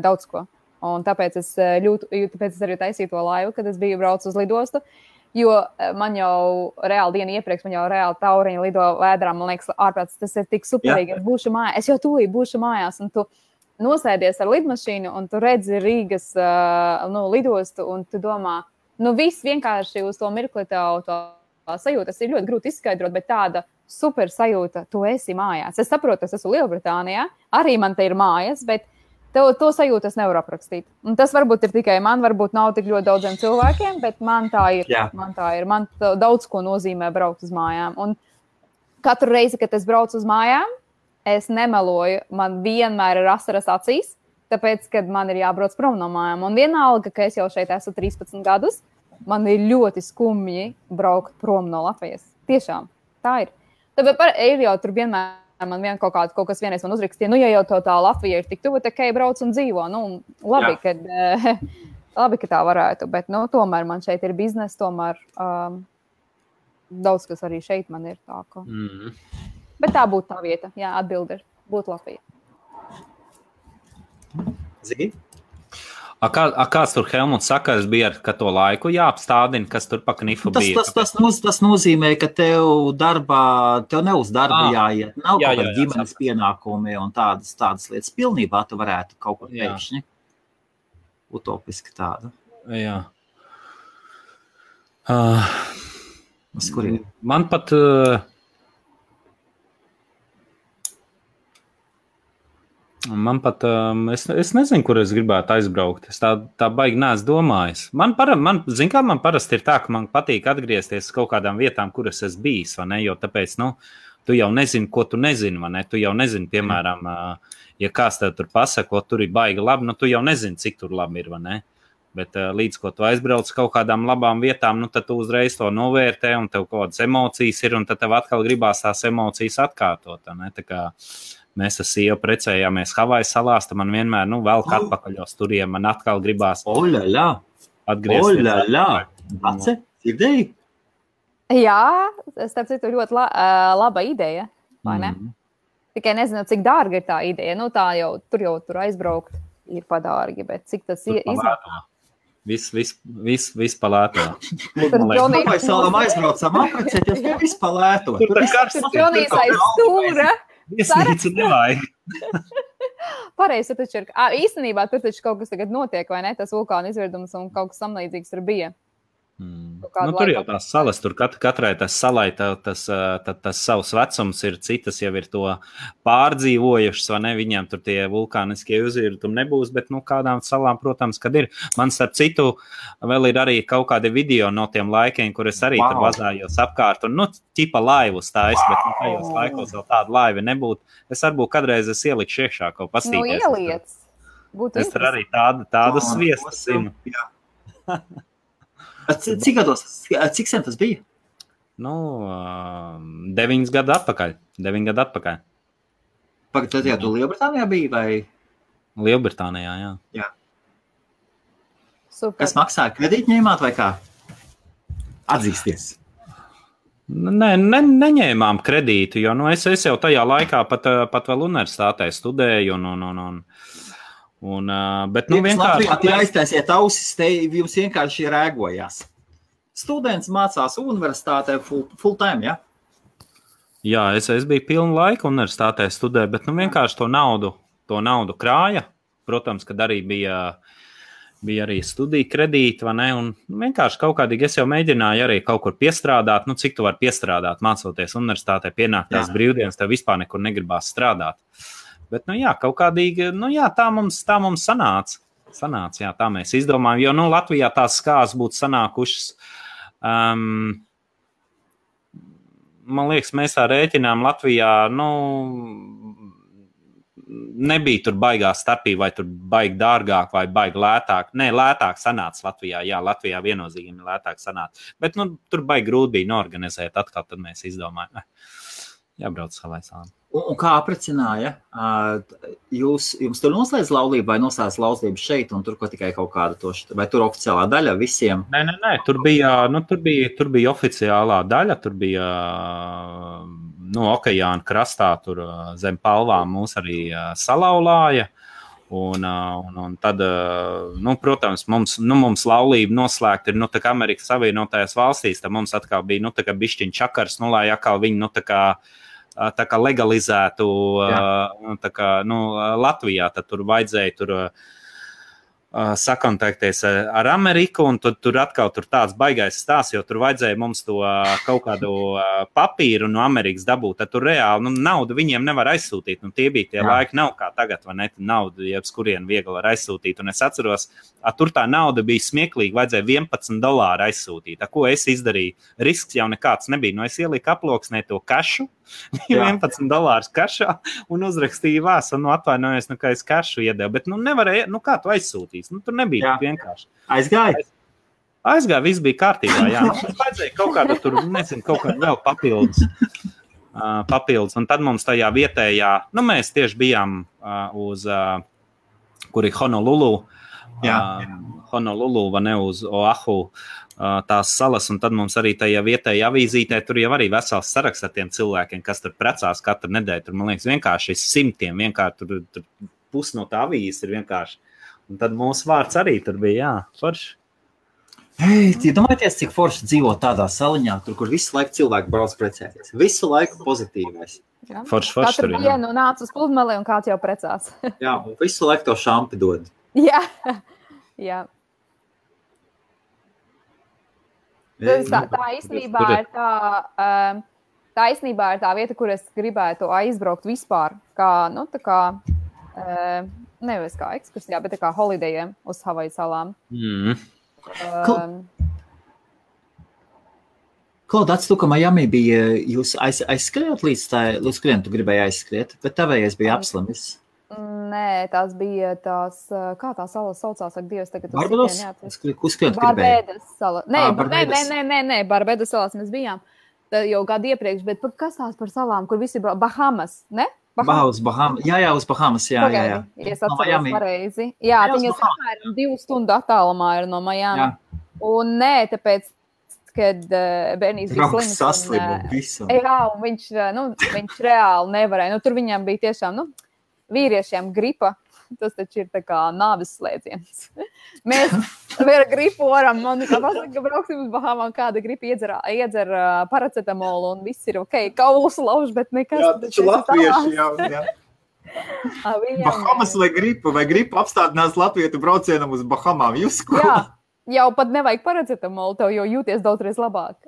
Speaker 2: daudz ko. Un tāpēc es arī taisīju to laivu, kad es biju braucu uz lidostu, jo man jau reāli dienu iepriekš, man jau reāli tauriņi lido vēdrā, man liekas, ārprāts, tas ir tik superīgi, es jau tūlīt būšu mājās, un tu nosēdies ar lidmašīnu, un tu redzi Rīgas lidostu, un tu domā, viss vienkārši uz to mirkli tev to sajūta, tas ir ļoti grūti izskaidrot, bet tāda super sajūta, tu esi mājās. Es saprotu, es esmu Lielbritānijā, arī man te ir mājas, bet to sajūtu es nevaru aprakstīt. Un tas varbūt ir tikai man, varbūt nav tik ļoti daudziem cilvēkiem, bet man tā ir. Jā. Man daudz ko nozīmē braukt uz mājām. Un katru reizi, kad es braucu uz mājām, es nemeloju, man vienmēr ir asaras acīs, tāpēc, kad man ir jābrauc prom no mājām. Un vienalga, ka es jau šeit esmu 13 gadus, man ir ļoti skumji braukt prom no Latvijas. Tiešām, tā ir. Tāpēc ir jau tur vienmēr man kaut kas vienreiz man uzrakstīja, ja jau tā Latvija ir tik tuvu, tā kā brauc un dzīvo. Labi, ka tā varētu, bet tomēr man šeit ir biznesa, tomēr daudz kas arī šeit man ir tā. Ka... Bet tā būtu tā vieta, atbilde ir, būtu Latvija.
Speaker 1: Zini?
Speaker 3: Kāds tur Helmuts saka, bija ar to laiku jāapstādina, kas tur pa knifu bija?
Speaker 1: Tas nozīmē, ka tev ne uz darbu jāiet, nav kaut kāda ģimenes pienākumi un tādas lietas. Pilnībā tu varētu kaut kur pēkšņi. Utopiski tāda.
Speaker 3: Jā.
Speaker 1: Uz kuriem?
Speaker 3: Man pat... es nezinu, kur es gribētu aizbraukt. Es tā baigi neesmu domājis. Man parasti ir tā, ka man patīk atgriezties kaut kādām vietām, kuras es bijis, vai ne? Jo tāpēc, tu jau nezini, ko tu nezini, vai ne? Tu jau nezini, piemēram, ja kāds tev tur pasaka, tur ir baigi labi, tu jau nezini, cik tur labi ir, vai ne? Bet līdz, ko tu aizbrauc kaut kādām labām vietām, tad tu uzreiz to novērtē, un tev kaut kādas emocijas ir, un tad tev atkal gribās tās emocijas atkārtot, vai ne? Tā kā mēs ar sievu precējāmies Havaju salās, tad man vienmēr, velk atpakaļ uz turiem, man atkal gribās atgriezties.
Speaker 1: Dace, dzirdēji?
Speaker 2: Jā, starp citu ļoti laba ideja, vai ne? Tikai nezinu, cik dārga ir tā ideja. Tur aizbraukt ir padārgi, bet cik tas izmaksā?
Speaker 3: Viss palēto.
Speaker 1: Vai salām aizbraucam aprecēties, to viss palēto.
Speaker 3: Tur ir karsts.
Speaker 2: Tur Jonīs aiz stūra.
Speaker 3: Viesnīca nevajag.
Speaker 2: Pareizi, taču ir. Īstenībā tur taču kaut kas tagad notiek, vai ne? Tas vulkāna izvirdums un kaut kas samlīdzīgs tur bija.
Speaker 3: Tur jau tās salas, tur katrai tas salai, tas savs vecums ir, citas jau ir to pārdzīvojušas, vai ne, viņiem tur tie vulkāniskie uzvirdumi nebūs, bet, kādām salām, protams, kad ir. Man starp citu vēl ir arī kaut kādi video no tiem laikiem, kur es arī tur vazājos apkārt, un, ķipa laivu stājas, bet, tajos laikos vēl tāda laiva nebūtu. Es varbūt kādreiz ieliku iekšā kaut pastīties.
Speaker 2: Ieliec.
Speaker 3: Es tur arī tādu sviestu zinu.
Speaker 1: Cik sen tas bija?
Speaker 3: 9 gadu atpakaļ. 9 gadu atpakaļ.
Speaker 1: Tad jau tu Lielbritānijā biji, vai?
Speaker 3: Lielbritānijā, jā.
Speaker 2: Super.
Speaker 1: Kas maksāja? Kredīti ņēmāt vai kā? Atzīsties.
Speaker 3: Nē, neņēmām kredītu, jo es jau tajā laikā pat vēl universitātē studēju bet vienkārši...
Speaker 1: Latvijā aiztaisiet ausis, te jums vienkārši rēgojās. Students mācās universitātē full time, ja?
Speaker 3: Jā, es biju pilnu laiku universitātē studēju, bet vienkārši to naudu krāja. Protams, kad arī bija arī studiju kredīti, vai ne? Un vienkārši kaut kādīgi es jau mēģināju arī kaut kur piestrādāt. Cik tu vari piestrādāt, mācoties universitātē, pienāktās brīvdienas, tev vispār nekur negribās strādāt. Bet, kaut kādīgi, tā mums sanāca. Jā, tā mēs izdomājam, jo, Latvijā tās skās būtu sanākušas man liekas, mēs tā rēķinām Latvijā, nebija tur baigā starpība, vai tur baigi dārgāk, vai baigi lētāk. Nē, lētāk sanāca Latvijā. Jā, Latvijā viennozīmīgi lētāk sanāca. Bet tur baigi grūti bija norganizēt. Atkal tad mēs izdomājām, jābrauc savai salām.
Speaker 1: Un kā aprecināja? Jums tur noslēdz laulību vai noslēdz laulību šeit un tur ko tikai kaut kāda toša? Vai tur oficiālā daļa visiem?
Speaker 3: Nē. Tur bija oficiālā daļa. Tur bija okeāna krastā, tur zem palvām mūs arī salauzāja. Un tad, protams, mums laulība noslēgta ir, tā kā Amerikas Savienotajās valstīs, tad mums atkal bija, tā kā bišķiņ čakars, lai atkal viņi, tā kā legalizētu, Latvijā, tad tur vajadzēja sakontaktēties ar Ameriku, un tur atkal tāds baigais stāsts, jo tur vajadzēja mums to kaut kādu papīru no Amerikas dabūt, tad tur reāli naudu viņiem nevar aizsūtīt, tie bija tie laiki, nav kā tagad, vai ne, naudu, jebs kurien viegli var aizsūtīt, un es atceros, tur tā nauda bija smieklīga, vajadzēja $11 aizsūtīt, ko es izdarīju, risks jau nekāds nebija, es ieliku aploksnē to kašu, $11 kašā un uzrakstīju vēstuli, atvainojos, ka es kašu iedevu, bet nevarēja, kā tu aizsūtīs, tur nebija vienkārši. Aizgāja, viss bija kārtībā, jā. Vajadzēja kaut kādu tur, kaut kādu vēl papildus, un tad mums tajā vietējā, mēs tieši bijām uz, kur ir Honolulu, Honolulu, vai ne, uz Oahu, tās salas, un tad mums arī tajā vietējā avīzītē tur jau arī vesels saraksts ar tiem cilvēkiem, kas tur precās katru nedēļu. Tur, man liekas, vienkārši simtiem, vienkārši tur pus no tā avīzes ir vienkārši. Un tad mūsu vārds arī tur bija, forši.
Speaker 1: Domājieties, cik forši dzīvo tādā saliņā, tur, kur visu laiku cilvēki brauc precēties. Visu laiku pozitīvais.
Speaker 3: Forši
Speaker 2: Katru
Speaker 3: tur,
Speaker 2: dienu nāc uz pludmali un kāds jau precās.
Speaker 1: Jā, un visu laiku to šampi dod.
Speaker 2: Jā. Tā īstenībā ir tā vieta, kur es gribētu aizbraukt vispār, nevis kā ekskursijā, bet kā holidejiem uz Havaju salām.
Speaker 1: Klaudāts, tu, ka Miami bija, jūs aizskriet līdz kuriem tu gribēji aizskriet, bet tavējais bija apslimis.
Speaker 2: Nē, tās bija kā tā sala saucās, ak, Dievs, tagad
Speaker 1: Barbados? Uz kuriem tu gribēji?
Speaker 2: Barbados sala. Nē, Barbados salās mēs bijām jau gadu iepriekš, bet kas tās par salām, kur visi Bahamas, ne?
Speaker 1: Uz Bahamas, jā, uz Bahamas, jā.
Speaker 2: Es atceros pareizi. Jā, viņas apmēram 2 stundu attālumā ir no Miami. Un nē, tāpēc, kad bērnīs bija slims.
Speaker 1: Saslima visu.
Speaker 2: Jā, un viņš reāli nevarēja. Tur viņam bija tiešām, vīriešiem gripa, tas taču ir tā kā nāves slēdziens. Mēs ar gripu varam, man kā pasaka, ka brauksim uz Bahamām, kāda gripa iedzer paracetamolu un viss ir ok, kaulus lauž, bet nekas.
Speaker 1: Jā, taču latvieši jau, jā. Bahamas vai gripa apstādinās latvietu braucienam uz Bahamām, jūs ko?
Speaker 2: Jā, jau pat nevajag paracetamolu, tev jau jūties daudzreiz labāk.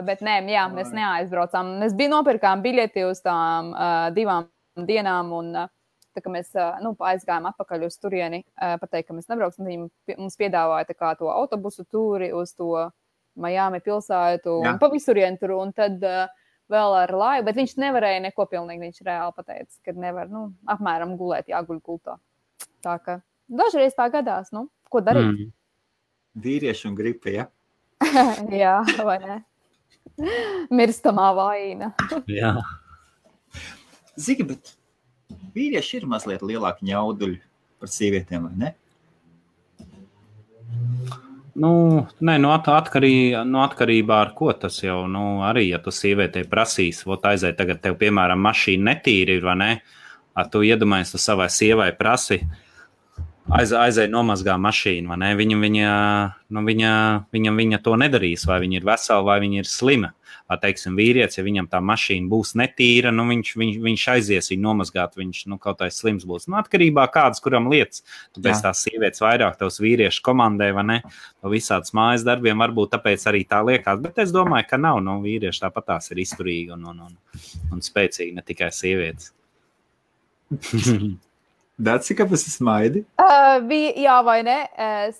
Speaker 2: Bet nē, jā, mēs neaizbraucām. Mēs nopirkām biļeti uz tām 2 dienām un tā kā mēs aizgājām atpakaļ uz turieni, pateikt, ka mēs nebrauksim, viņi mums piedāvāja tā kā to autobusu tūri uz to Miami pilsētu un pa visurienu tur, un tad vēl ar laivu, bet viņš nevarēja neko pilnīgi, viņš reāli pateica, ka nevar, apmēram gulēt, jāguļ gultā. Tā ka dažreiz tā gadās, ko darīt?
Speaker 1: Vīrieši un gripa, ja?
Speaker 2: Jā, vai ne? Mirstamā vaina.
Speaker 3: Jā.
Speaker 1: Zigi, bet vīrieši ir mazliet lielāki ņauduļi par sievietēm, vai ne?
Speaker 3: Atkarībā ar ko tas jau, arī, ja tu sievietei prasīs, aiziet tagad tev, piemēram, mašīna netīri ir, vai ne? Tu iedomājies, tu savai sievai prasi, aizēja nomazgā mašīnu, vai ne? Viņa to nedarīs, vai viņa ir vesela, vai viņa ir slima. Teiksim, vīrietis, ja viņam tā mašīna būs netīra, viņš aizies viņu nomazgāt, viņš kaut kā slims būs. Atkarībā kādas, kuram lietas, tāpēc tās sievietes vairāk tavs vīriešu komandē, vai ne, pa visādas mājas darbiem, varbūt tāpēc arī tā liekas, bet es domāju, ka nav, vīrieši tāpat tās ir izturīgi un spēcīgi, ne tikai sievietes.
Speaker 1: Dāci, kāpēc es smaidi?
Speaker 2: Jā, vai ne?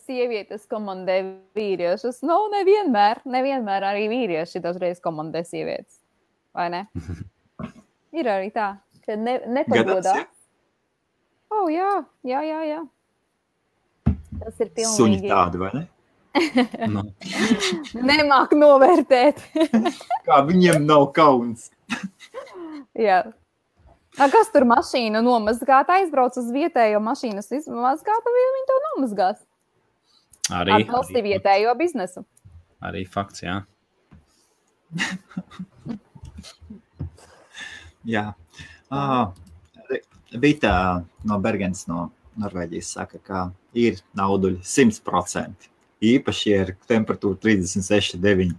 Speaker 2: Sievietes komandē vīriešus. Nevienmēr arī vīrieši dažreiz komandē sievietes. vai ne? Ir arī tā, ka nepagodās.
Speaker 1: Ja?
Speaker 2: Jā. Tas ir pilnīgi.
Speaker 1: Suņi tādi, vai ne?
Speaker 3: Nu.
Speaker 2: Nemāk novērtēt.
Speaker 1: Kā viņiem nav kauns.
Speaker 2: Jā. Kas tur mašīnu nomazgāt? Aizbrauc uz vietējo mašīnas izmazgāt, vai viņi to nomazgās? Atbalsti vietējo biznesu.
Speaker 3: Arī fakts, jā.
Speaker 1: Jā. Vita no Bergens no Norvēģijas saka, ka ir nauduļi 100%. Īpaši ir temperatūra 36,9.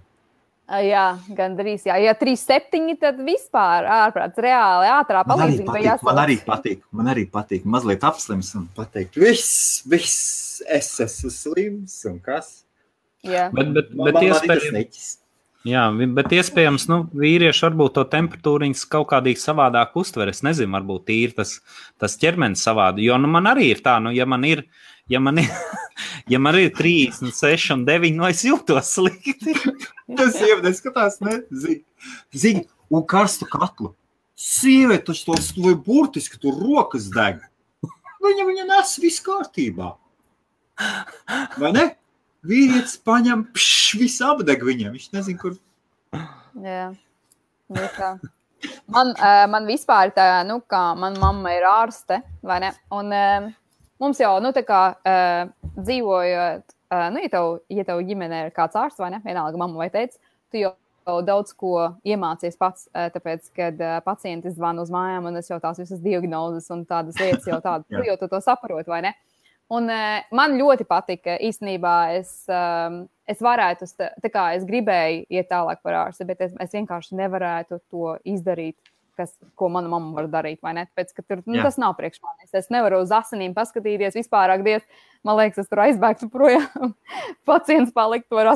Speaker 2: Jā, gandrīz. Jā. Ja 3,7, tad vispār ārprāts reāli ātrā palīdzība.
Speaker 1: Man arī patīk mazliet apslims un pateikt, viss, es esmu slims un kas.
Speaker 2: Jā.
Speaker 3: Bet iespējams, vīrieši varbūt to temperatūriņas kaut kādīgi savādāk uztver. Es nezinu, varbūt ir tas ķermenis savādi. Jo man arī ir tā, ja man ir 36 un 9, es jūtos slikti.
Speaker 1: Tas sieva neskatās, ne? Zini, un karstu katlu. Sieviete taču to burtiski tur rokas deg. Viņa nes viss kārtībā. Vai ne? Vīrietis paņem, viss apdeg viņam. Viņš nezin, kur.
Speaker 2: Jā. Man vispār tā, kā man mamma ir ārste, vai ne? Un mums jau, dzīvojot, ja tev ģimenē ir kāds ārsts, vai ne? Vienalga mamma vai teica, tu jau daudz ko iemācies pats, tāpēc, kad pacienti zvana uz mājām, un es jau tās visas diagnozes un tādas lietas jau tādas, tu jau to saproti, vai ne? Un man ļoti patika, īstenībā es varētu, es gribēju iet tālāk par ārsti, bet es vienkārši nevarētu to izdarīt, ko mana mamma var darīt, vai ne? Tāpēc, ka tur, tas nav priekš manis. Es nevaru uz asinīm paskatīties, vispārāk diez, man liekas, es tur aizbēgtu projām, pacients paliktu ar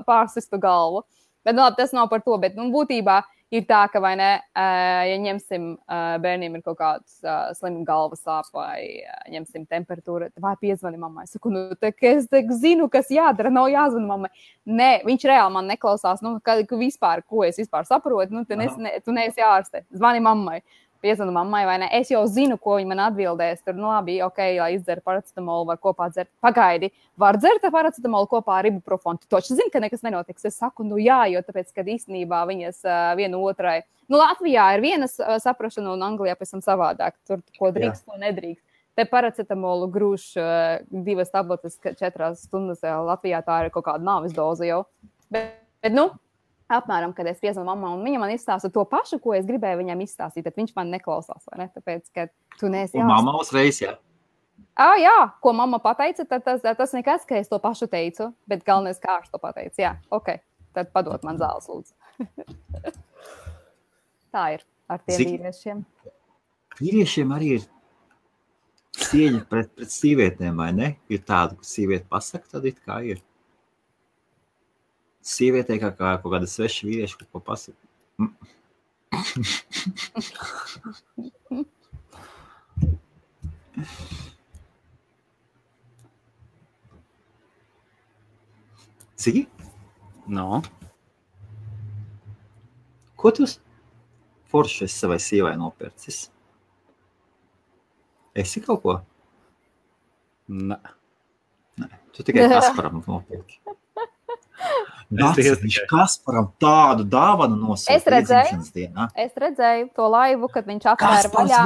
Speaker 2: pārsistu galvu. Bet tas nav par to, bet būtībā ir tā, ka, vai ne, ja ņemsim, bērniem ir kaut kāds slims galvas sāp vai ņemsim temperatūru, vai piezvani mammai. Es saku, es zinu, kas jādara, nav jāzvana mammai. Nē, viņš reāli man neklausās, vispār, ko es vispār saprotu, tu neesi ārste, zvani mammai. Piezvanu mammai, vai ne? Es jau zinu, ko viņa man atbildēs. Tur, labi, ok, lai izdzer paracetamolu, var kopā dzert. Pagaidi, var dzert paracetamolu kopā ar ibuprofonu. Tu taču zini, ka nekas nenotiks. Es saku, jā, jo tāpēc, kad īstenībā viņas viena otrai. Latvijā ir vienas saprašana un Anglijā pēc tam savādāk. Tur, ko drīkst, ko nedrīkst. Te paracetamolu grūž 2 tabletes 4 stundas. Latvijā tā ir kaut kāda nāves doze jau. Bet apmēram, kad es piezvanu mammai, un viņa man izstāsta to pašu, ko es gribēju viņam izstāstīt, tad viņš man neklausās, vai ne? Tāpēc, ka tu neesi
Speaker 1: un mamma uzreiz, jā?
Speaker 2: Jā, ko mamma pateica, tad tas nekas, ka es to pašu teicu, bet galvenais kārš to pateica. Jā, ok, tad padod man zāles, lūdzu. Tā ir ar tiem vīriešiem.
Speaker 1: Vīriešiem arī ir cieņa pret sīvietēm, vai ne? Ir tāda, ka sīviete pasaka, tad it kā ir. Sievietē kā kaut kāda sveša vīrieša, ko pasaka. Cigi?
Speaker 3: No.
Speaker 1: Ko tu forši esi savai sievai nopērcis? Esi kaut ko?
Speaker 3: Nē.
Speaker 1: Tu tikai Kasparam nopērki. Viņš Kasparam tādu dāvanu nosūta iedzimšanas dienā.
Speaker 2: Es redzēju to laivu, kad viņš atvēra vaļā.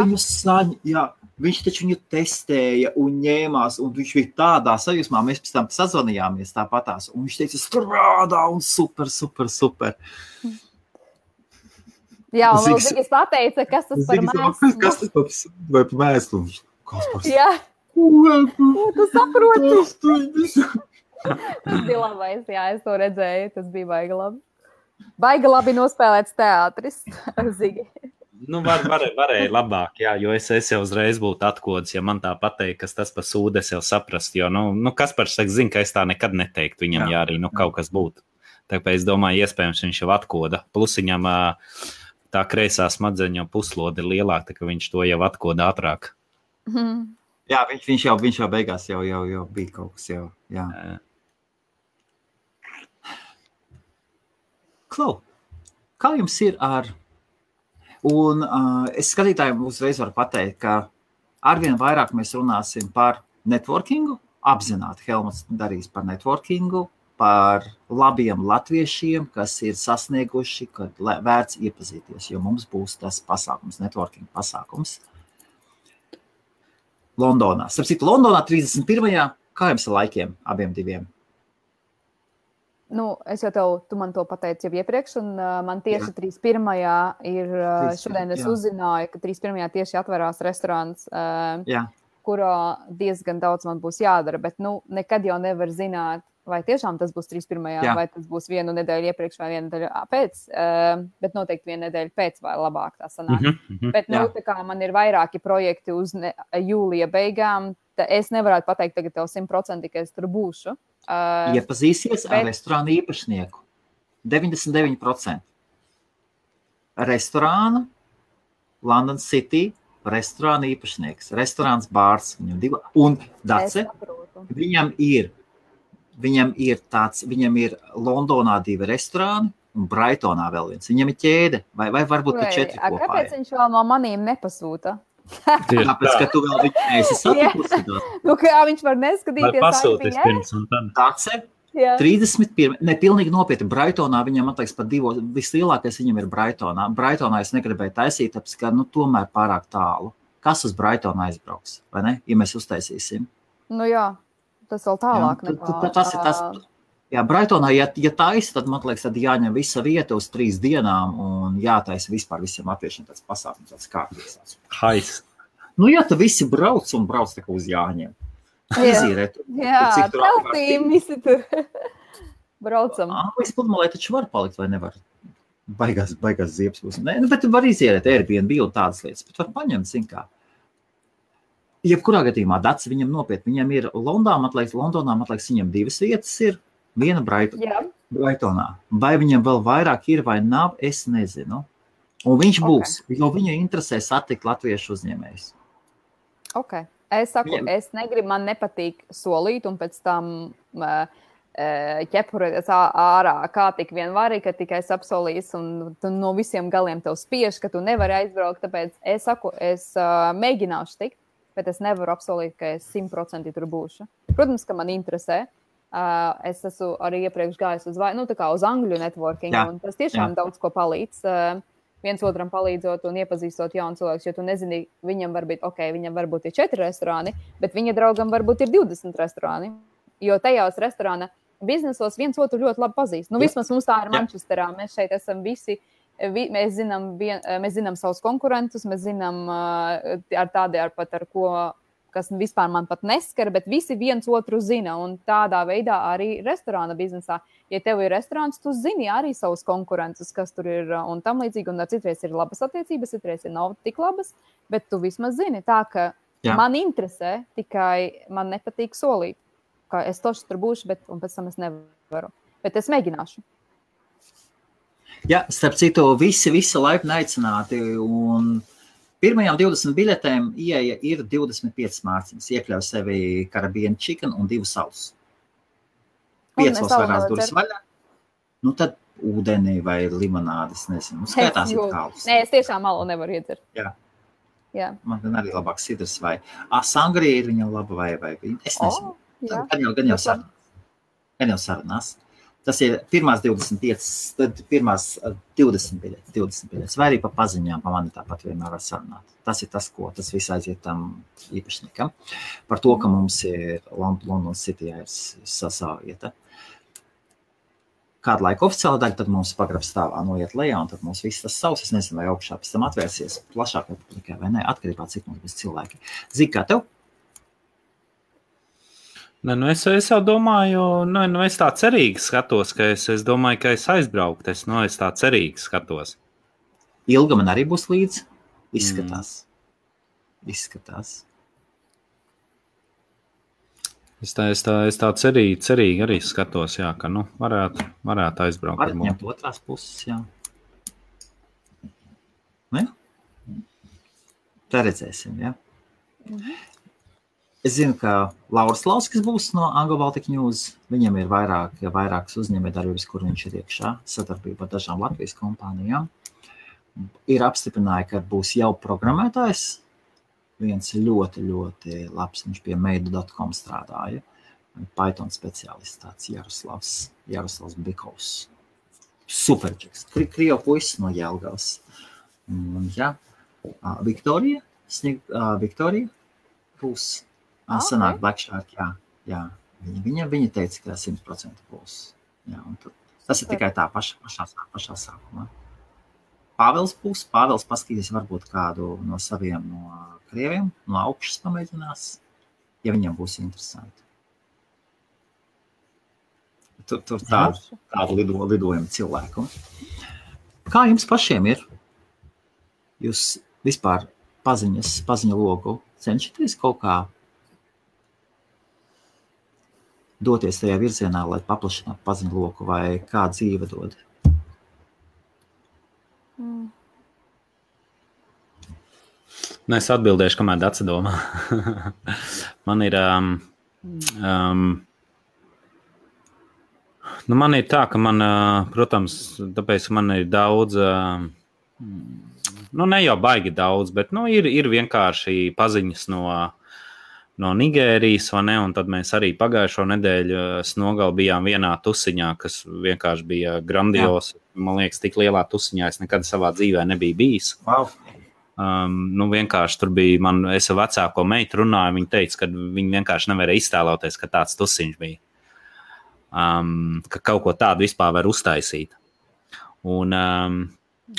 Speaker 1: Viņš taču viņu testēja un ņēmās, un viņš bija tādā sajūsmā. Mēs pēc tam sazvanījāmies tāpatās, un viņš teica, strādā un super.
Speaker 2: Jā, un vēl Zigis pateica, kas tas par mēslu.
Speaker 1: Kas tas par mēslu? Kaspars.
Speaker 2: Jā. Tu saproti. Tas bija labais, jā, es to redzēju, tas bija baigi labi. Baigi labi nospēlēts teātris ar Zigi.
Speaker 3: Varēja labāk, jā, jo es jau uzreiz būtu atkodis, ja man tā pateikt, kas tas pa sūdu, es jau saprast, jo, Kaspars saka, zina, ka es tā nekad neteiktu viņam, ja arī, kaut kas būtu. Tāpēc es domāju, iespējams, viņš jau atkoda. Plus viņam tā kreisā smadzeņa jau puslode ir lielāka, ka viņš to jau atkoda ātrāk.
Speaker 1: Jā, viņš jau beigās jau bija kaut kas jau, jā. Klau, Kā jums ir ar... Un es skatītājiem uzreiz varu pateikt, ka arvien vairāk mēs runāsim par networkingu, apzināti Helmuts darīs par networkingu, par labiem latviešiem, kas ir sasnieguši, kad vērts iepazīties, jo mums būs tas pasākums, networking pasākums Londonā. Starp citu, Londonā 31. Kā jums ar laikiem abiem diviem?
Speaker 2: Nu, es jau tu man to pateici jau iepriekš, un man tieši 31. ir, šodien es uzzināju, ka 31. tieši atverās restorāns, kurā diezgan daudz man būs jādara, bet nekad jau nevar zināt, vai tiešām tas būs 31. vai tas būs vienu nedēļu iepriekš vai vienu nedēļu pēc, bet noteikti vienu nedēļu pēc vai labāk tā sanāk. Bet tā kā man ir vairāki projekti uz jūlija beigām, es nevarētu pateikt tagad tev 100%, ka es tur būšu.
Speaker 1: Iepazīsies ar restorānu īpašnieku. 99%. Restorāna, London City, restorāna īpašnieks. Restorāns bārs. Un Dace, viņam ir Londonā 2 restorāni un Brightonā vēl viens. Viņam ir ķēde, vai varbūt pat 4 kopā.
Speaker 2: Kāpēc viņš vēl no manīm nepasūta?
Speaker 1: Tāpēc, ka tu vēl viņu neesi satikusi.
Speaker 2: Kā viņš var neskatīties?
Speaker 3: Pasūties pirms un tad.
Speaker 1: Dace, 31. Pilnīgi nopietni. Brightonā viņam atliks pat 2. Vislielākais viņam ir Brightonā. Brightonā es negribēju taisīt, tāpēc, ka tomēr pārāk tālu. Kas uz Brightonu aizbrauks, vai ne? Ja mēs uztaisīsim.
Speaker 2: Jā, tas vēl tālāk.
Speaker 1: Tas ir tas. Jā, Brightonā, ja taisa, tad man liekas, tad jāņem visa vieta uz 3 dienām un jātaisa vispār visiem latviešiem tāds pasākums, tāds kārtības.
Speaker 3: Hais.
Speaker 1: Ja tu visi brauc tā kā uz jāņem. Izīrēt.
Speaker 2: Jā, teltīm visi tur braucam.
Speaker 1: Anglijas pludmalē taču var palikt vai nevar? Baigās ziepes būs. Bet var izierēt Airbnb un tādas lietas, bet var paņemt, zin kā. Jebkurā gadījumā Dace viņam nopietni. Viņam ir Londonā, man liekas, viņam 2 vietas ir. Viena Brightonā. Vai viņam vēl vairāk ir vai nav, es nezinu. Un viņš būs, jo viņu interesē satikt latviešu uzņēmējus.
Speaker 2: Es saku, es negribu, man nepatīk solīt un pēc tam ķepurēties ārā, kā tik vien vari, ka tikai es apsolīs un tu no visiem galiem tev spiež, ka tu nevari aizbraukt. Tāpēc es saku, es mēģināšu tikt, bet es nevaru apsolīt, ka es 100% tur būšu. Protams, ka man interesē. Es esmu arī iepriekš gājis uz angļu networking, un tas tiešām daudz ko palīdz. Viens otram palīdzot un iepazīstot jaunu cilvēku, jo tu nezini, viņam varbūt ir 4 restorāni, bet viņa draugam varbūt ir 20 restorāni, jo tajās restorāna biznesos viens otru ļoti labi pazīst. Vismaz mums tā ir Manchesterā, mēs šeit esam visi, mēs zinām savus konkurentus, mēs zinām ar ko, kas vispār man pat neskar, bet visi viens otru zina, un tādā veidā arī restorāna biznesā. Ja tev ir restorāns, tu zini arī savus konkurentus, kas tur ir un tam līdzīgi, un citreiz ir labas attiecības, citreiz ir nav tik labas, bet tu vismaz zini tā, ka man interesē, tikai man nepatīk solīt, ka es toši tur būšu, un pēc tam es nevaru. Bet es mēģināšu.
Speaker 1: Jā, starp citu, visi laipni aicināti, un pirmajām 20 biļetēm ieeja ir 25 mārciņas. Iekļauj sevi karabienu chicken un 2 sausus. 5 vairās durvis vaļā. Tad ūdenī vai limonādes, nezinu. Skaitās ir kālus.
Speaker 2: Nē, es tiešām malu nevaru iedzert. Jā.
Speaker 1: Man arī labāk sidrs vai sangrija ir viņam laba vai es nezinu. Gan jau sarunās. Tas ir pirmās 25, tad pirmās 20 biļetes, vai arī pa paziņām, pa mani tāpat vienmēr var sarunāt. Tas ir tas, ko tas viss aiziet tam īpašniekam. Par to, ka mums ir London City ir savā vieta. Kādu laiku oficiāla daļa, tad mums pagrabs stāvā noiet lejā, un tad mums viss tas savs, es nezinu, vai augšā pēc tam atvērsies plašāk publikai vai ne, atkarībā cik mums būs cilvēki. Zini, kā tev?
Speaker 3: Es jau domāju, es tā cerīgi skatos, ka es domāju, ka es aizbraukt, es tā cerīgi skatos.
Speaker 1: Ilga man arī būs līdz, izskatās.
Speaker 3: Es tā cerīgi arī skatos, jā, ka, varētu aizbraukt.
Speaker 1: Varat ņemt otrās puses, jā. Tā redzēsim, jā. Es zinu, ka Lauris Lauskis būs no Anglo Baltic News. Viņam ir vairākas uzņēmējdarbības, kur viņš ir iekšā, sadarbībā ar dažām Latvijas kompānijām. Ir apstiprināja, ka būs jau programmētājs. Viens ļoti, ļoti labs, viņš pie meidu.com strādāja. Python speciālists, tāds Jaroslavs Bikovs. Superčeks. Krievu puisis no Jelgavas. Jā. Viktorija būs. Sanāk Black Shark, jā. Viņa teica, ka 100% būs. Jā, un tas ir tikai tā pašā sākumā. Pāvils būs. Pāvils paskatīs varbūt kādu no saviem no krieviem, no augšas pamēģinās, ja viņam būs interesanti. Tur tādu lidojumu cilvēku. Kā jums pašiem ir? Jūs vispār paziņa logu cenšaties kaut kā doties tajā virzienā, lai paplašinātu paziņu loku, vai kā dzīve dod?
Speaker 3: Es atbildēšu, kamēr Dace domā. Man ir... man ir tā, ka man, protams, tāpēc man ir daudz... ne jau baigi daudz, bet ir vienkārši paziņas no Nigērijas, vai ne? Un tad mēs arī pagājušo nedēļu nogali bijām vienā tusiņā, kas vienkārši bija grandios. Man liekas, tik lielā tusiņā es nekad savā dzīvē nebiju bijis.
Speaker 1: Wow.
Speaker 3: Vienkārši tur bija, es ar vecāko meitu runāju, viņa teica, ka viņa vienkārši nevarēja iztēloties, ka tāds tusiņš bija. Ka kaut ko tādu vispār var uztaisīt.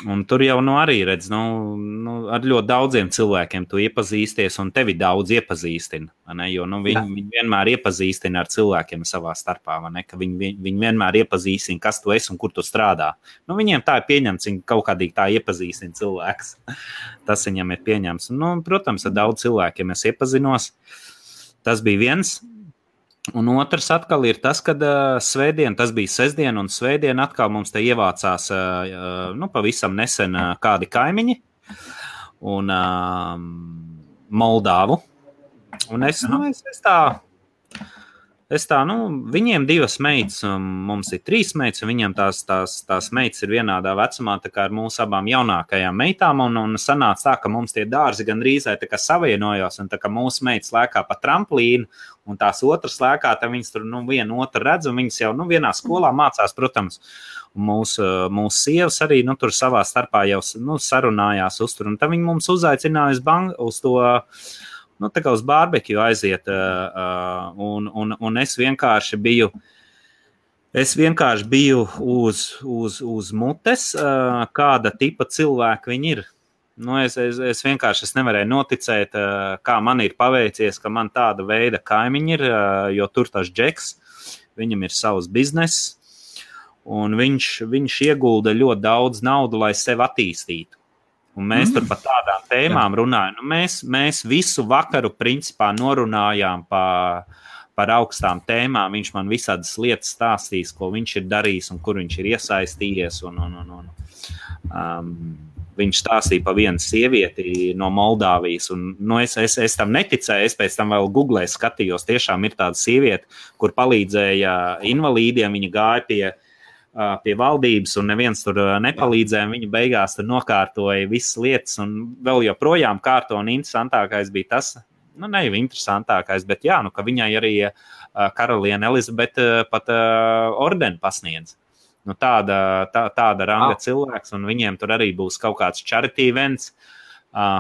Speaker 3: Un tur jau arī redz, ar ļoti daudziem cilvēkiem tu iepazīsties, un tevi daudz iepazīstina, ne? Jo viņi vienmēr iepazīstina ar cilvēkiem savā starpā, ne? Ka viņi vienmēr iepazīstina, kas tu esi un kur tu strādā. Viņiem tā ir pieņemts, viņi kaut kādīgi tā iepazīstina cilvēks. Tas viņam ir pieņemts. Protams, ar daudz cilvēkiem es iepazinos. Tas bija viens. Un otrs atkal ir tas, kad svētdien, tas bija sestdien, un svētdien atkal mums te ievācās pavisam nesen kādi kaimiņi un Moldāvu. Un es tā, viņiem 2 meitas, mums ir 3 meitas, un viņiem tās meitas ir vienādā vecumā, tā kā ar mūsu abām jaunākajām meitām, un sanāca tā, ka mums tie dārzi gandrīz tā kā savienojās, un tā kā mūsu meitas lēkā pa tramplīnu, un tās otras lēkā, tad viņas tur vienu otru redz, un viņas jau vienā skolā mācās, protams. Un mūsu sievas arī tur savā starpā jau sarunājās uztur, un tad viņi mums uzaicināja uz to, tā kā uz barbekju aiziet, un es vienkārši biju uz mutes, kāda tipa cilvēka viņi ir. Es vienkārši nevarēju noticēt, kā man ir paveicies, ka man tāda veida kaimiņi ir, jo tur tas Džeks, viņam ir savs bizness, un viņš iegulda ļoti daudz naudu, lai sevi attīstītu. Un mēs tur par tādām tēmām runājam. Mēs visu vakaru principā norunājām par augstām tēmām. Viņš man visādas lietas stāstīs, ko viņš ir darījis un kur viņš ir iesaistījies. Viņš stāstīja par vienu sievieti no Moldāvijas, un es tam neticēju, es pēc tam vēl googlē skatījos, tiešām ir tāda sieviete, kur palīdzēja invalīdiem, viņa gāja pie valdības, un neviens tur nepalīdzēja, viņa beigās tur nokārtoja visas lietas, un vēl joprojām kārto, un interesantākais bija tas, ne jau interesantākais, bet jā, ka viņai arī karaliene Elizabete pat ordeni pasniedz. Tāda ranga cilvēks, un viņiem tur arī būs kaut kāds charity events,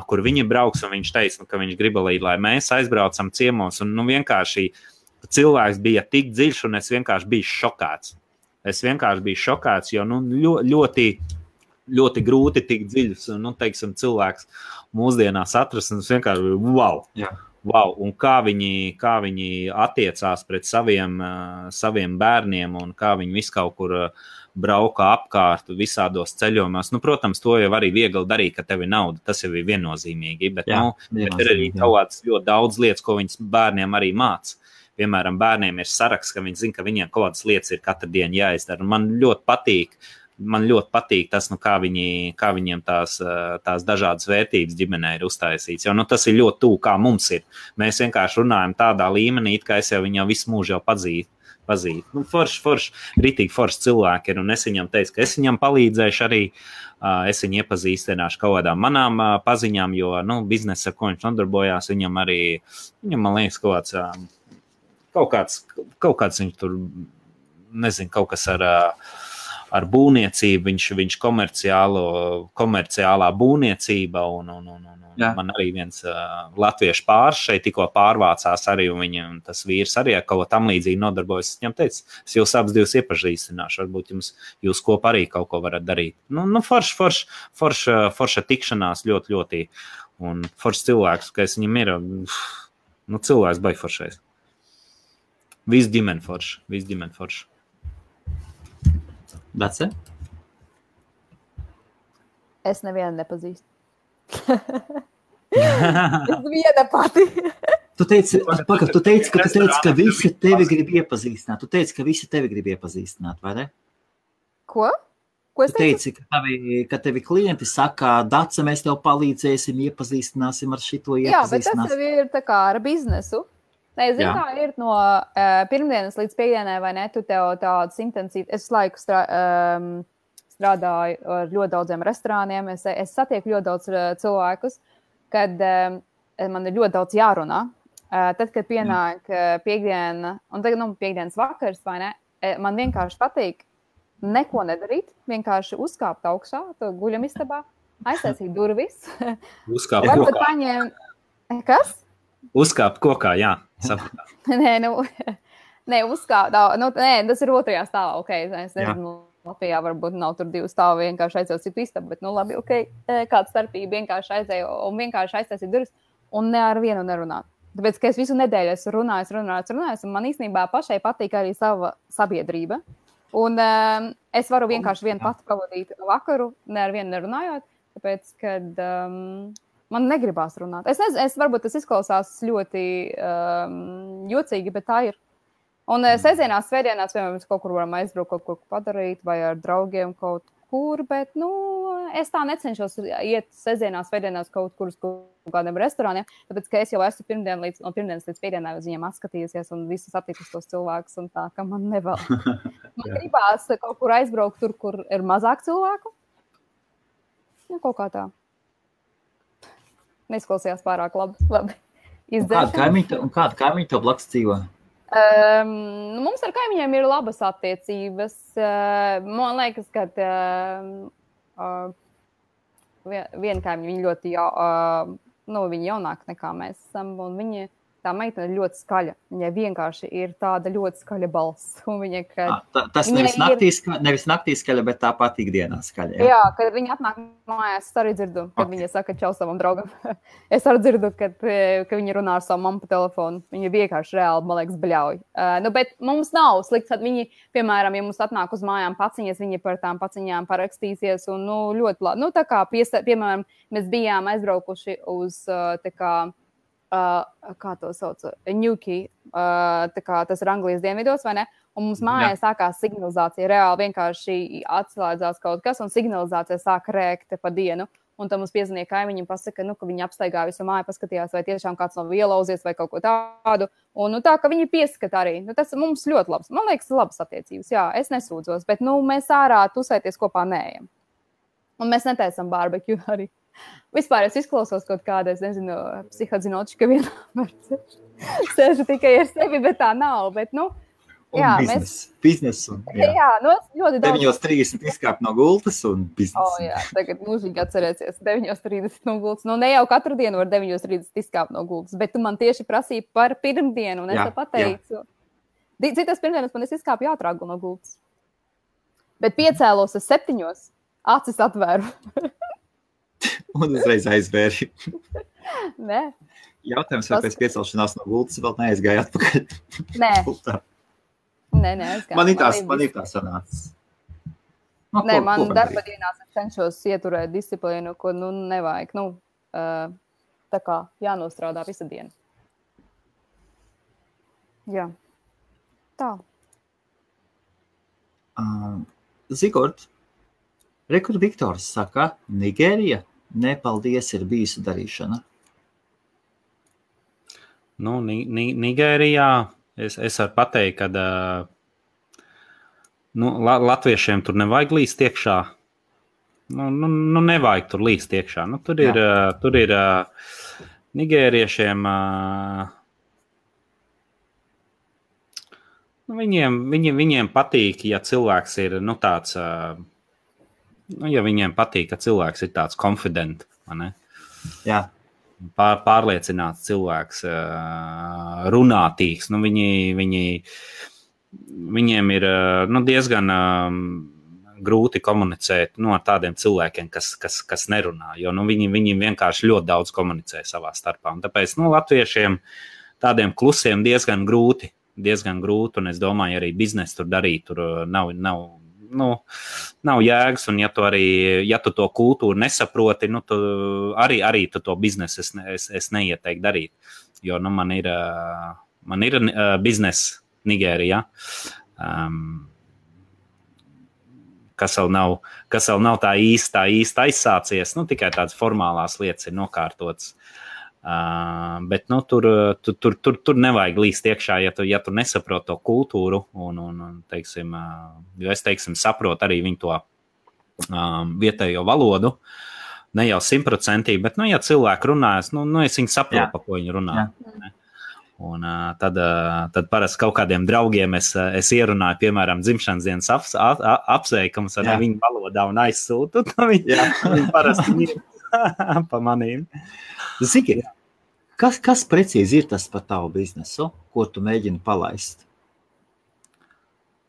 Speaker 3: kur viņi brauks, un viņš teica, ka viņš grib, lai mēs aizbraucam ciemos, un vienkārši cilvēks bija tik dziļš, un es vienkārši biju šokāts. Jo ļoti, ļoti grūti tik dziļs, teiksim, cilvēks mūsdienās atrast, un es vienkārši wow.
Speaker 1: Jā.
Speaker 3: Wow, un kā viņi attiecās pret saviem bērniem, un kā viņi visu kaut kur brauka apkārt visādos ceļojumos. Protams, to jau arī viegli darīt, ka tev ir nauda, tas jau ir viennozīmīgi, bet ir arī kaut ļoti daudz lietas, ko viņas bērniem arī māca. Piemēram, bērniem ir saraksts, ka viņi zina, ka viņiem kaut kādas lietas ir katru dienu jāizdara. Man ļoti patīk man ļoti patīk tas, kā viņiem tās dažādas vērtības ģimenē ir uztaisīts. Jo tas ir ļoti tuvu, kā mums ir. Mēs vienkārši runājam tādā līmenī, it kā es jau viņu visu mūžu jau pazīstu. Ritīgi forši cilvēki ir, un es viņam teicu, ka es viņam palīdzēšu arī, es viņu iepazīstināšu kaut kādām manām paziņām, jo, biznesa, ar ko viņš nodarbojās, viņam, man liekas, kaut kāds viņš tur, nezinu, kaut kas ar būvniecību, viņš komerciālā būvniecība, un man arī viens latviešu pāris šeit tikko pārvācās arī, un viņam tas vīrs arī ar kaut ko tam līdzīgi nodarbojas. Es viņam teicu, es jūs abas divas iepazīstināšu, varbūt jūs kopā arī kaut ko varat darīt. Forša tikšanās ļoti, ļoti, un foršs cilvēks, ka es viņam ir, cilvēks baigi foršais. Viss ģimene forša.
Speaker 1: Dace?
Speaker 2: Es nevienu nepazīstu. Es viena pati.
Speaker 1: Tu teici, ka visi tevi grib iepazīstināt. Vai ne?
Speaker 2: Ko? Ko es
Speaker 1: teici? Ka tevi klienti saka, Dace, mēs tev palīdzēsim, iepazīstināsim ar šito iepazīstinās.
Speaker 2: Jā, bet tas ir tā kā ar biznesu. Nē, zinu, kā ir no pirmdienas līdz piekdienai, vai ne? Tu tev tādas intensīvas, es laiku strādāju ar ļoti daudziem restorāniem, es satieku ļoti daudz cilvēkus, kad man ir ļoti daudz jārunā. Tad, kad pienāk piekdiena, un tagad, piekdienas vakars, vai ne, man vienkārši patīk neko nedarīt, vienkārši uzkāpt augšā, to guļamistabā, aiztaisīt durvis.
Speaker 3: Uzkāpt kokā.
Speaker 2: Kas?
Speaker 3: Uzkāpt kokā, jā.
Speaker 2: Nē, uzkāpt, tas ir otrajā stāvā, es nezinu. Latvijā varbūt nav tur 2 stāvi, vienkārši aizēju citu istabu, bet, labi, kāda starpība, vienkārši aizēju un vienkārši aiztaisīju durvis un ne ar vienu nerunāt. Tāpēc, ka es visu nedēļu esmu runājis, un man īstenībā pašai patīk arī sava sabiedrība. Un es varu vienkārši vienu pati pavadīt vakaru, ne ar vienu nerunājot, tāpēc, kad man negribās runāt. Es nezinu, varbūt tas izklausās ļoti jocīgi, bet tā ir. Un sestdienās, svētdienās, piemēram, kaut kur varam aizbraukt, kaut ko padarīt, vai ar draugiem kaut kur, bet, es tā necenšos iet sestdienās, svētdienās kaut kur uz kādiem restorāniem, tāpēc, ka es jau esmu no pirmdienas līdz piekdienai uz viņiem atskatījusies un visus attikus tos cilvēkus, un tā, ka man nevēl. Man gribās kaut kur aizbraukt tur, kur ir mazāk cilvēku. Kaut kā tā. Neizklausījās pārāk labi.
Speaker 1: Kāda kaimiņa tev blakus dzīvo?
Speaker 2: Mums ar kaimiņiem ir labas attiecības. Man liekas, ka viena kaimiņa, viņa ļoti viņa jaunāka nekā mēs esam, un tā meitene ir ļoti skaļa. Viņai vienkārši ir tāda ļoti skaļa balss.
Speaker 1: Tas nevis naktī skaļa, bet tāpat ikdienā skaļa.
Speaker 2: Jā, kad viņa atnāk mājās, es arī dzirdu, kad viņa saka čau savam draugam. Es arī dzirdu, ka viņa runā ar savu mammu pa telefonu. Viņa vienkārši reāli, man liekas, bļauj. Bet mums nav slikts, kad viņi, piemēram, ja mums atnāk uz mājām paciņas, viņi par tām paciņām parakstīsies. Un, ļoti labi. Tā kā, piemēram, mēs bijām aizbraukuši uz kā to sauc, Ņuki, tas ir Anglijas dienvidos, vai ne? Un mums mājās sākās signalizācija, reāli vienkārši atslēdzās kaut kas, un signalizācija sāk rēkt pa dienu. Un tad mums piezvanīja kaimiņi un pasaka, ka viņi apstaigā visu māju, paskatījās, vai tiešām kāds nav ielauzies vai kaut ko tādu. Un tā, ka viņi pieskata arī. Tas mums ļoti labs. Man liekas, labas attiecības. Jā, es nesūdzos, bet mēs ārā tusēties kopā neejam. Un mēs netaisam barbekju arī. Vispār es izklausos kaut kāda, es nezinu, psihozinotiska vienmēr sēžu tikai ar sevi, bet tā nav. Bet, jā,
Speaker 1: biznesu.
Speaker 2: Jā, ļoti daudz.
Speaker 1: 9:30 izkāpt no gultas un biznesu.
Speaker 2: Jā, tagad mūžīgi atcerēsies 9:30 no gultas. Ne jau katru dienu var 9:30 izkāpt no gultas, bet tu man tieši prasīji par pirmdienu, un es te pateicu. Citas pirmdienas man es izkāpu jātrāgu no gultas. Bet piecēlos 7, acis atvēru.
Speaker 1: Un uzreiz aizvēri.
Speaker 2: Nē.
Speaker 1: Jautājums, vai pēc piecelšanās no gultas vēl neaizgāja atpakaļ?
Speaker 2: Nē. Nē, aizgāja.
Speaker 1: Man ir tā sanācis.
Speaker 2: Nē, man darba dienās es cenšos ieturēt disciplīnu, ko nevajag. Tā kā jānostrādā visa diena. Jā. Tā.
Speaker 1: Zigort, Rekur Viktors saka, Nigērija, nepaldies, ir bijusi darīšana.
Speaker 3: Nu, Nigērijā es varu pateikt, ka latviešiem tur nevajag līst iekšā. Nu, nevajag tur līst iekšā. Nu, tur ir nigēriešiem, viņiem patīk, ja cilvēks ir, tāds, ja viņiem patīk, ka cilvēks ir tāds confident, vai ne?
Speaker 1: Jā.
Speaker 3: Pārliecināts cilvēks, runātīgs, viņiem ir diezgan grūti komunicēt ar tādiem cilvēkiem, kas nerunā, jo viņi vienkārši ļoti daudz komunicē savā starpā. Un tāpēc latviešiem tādiem klusiem diezgan grūti, un es domāju, arī biznesu tur darīt, tur nav jēgas, un ja tu to kultūru nesaproti, tu arī tu to biznesu es neieteiktu darīt, jo man ir bizness Nigērijā, kas vēl nav tā īsti aizsācies, tikai tādas formālās lietas ir nokārtotas. Bet tur nevajag līst iekšā, ja tu nesaproti to kultūru, un teiksim, jo es saprotu arī viņu to vietējo valodu, ne jau 100%, bet ja cilvēki runājas, es viņu saprotu, pa ko viņi runā. Jā. Un tad parasti kaut kādiem draugiem es ierunāju, piemēram, dzimšanas dienas apsveikumus ar viņu valodā un aizsūtu, un viņi parasti ir pa manīm.
Speaker 1: Ziki, kas precīzi ir tas par tavu biznesu, ko tu mēģini palaist?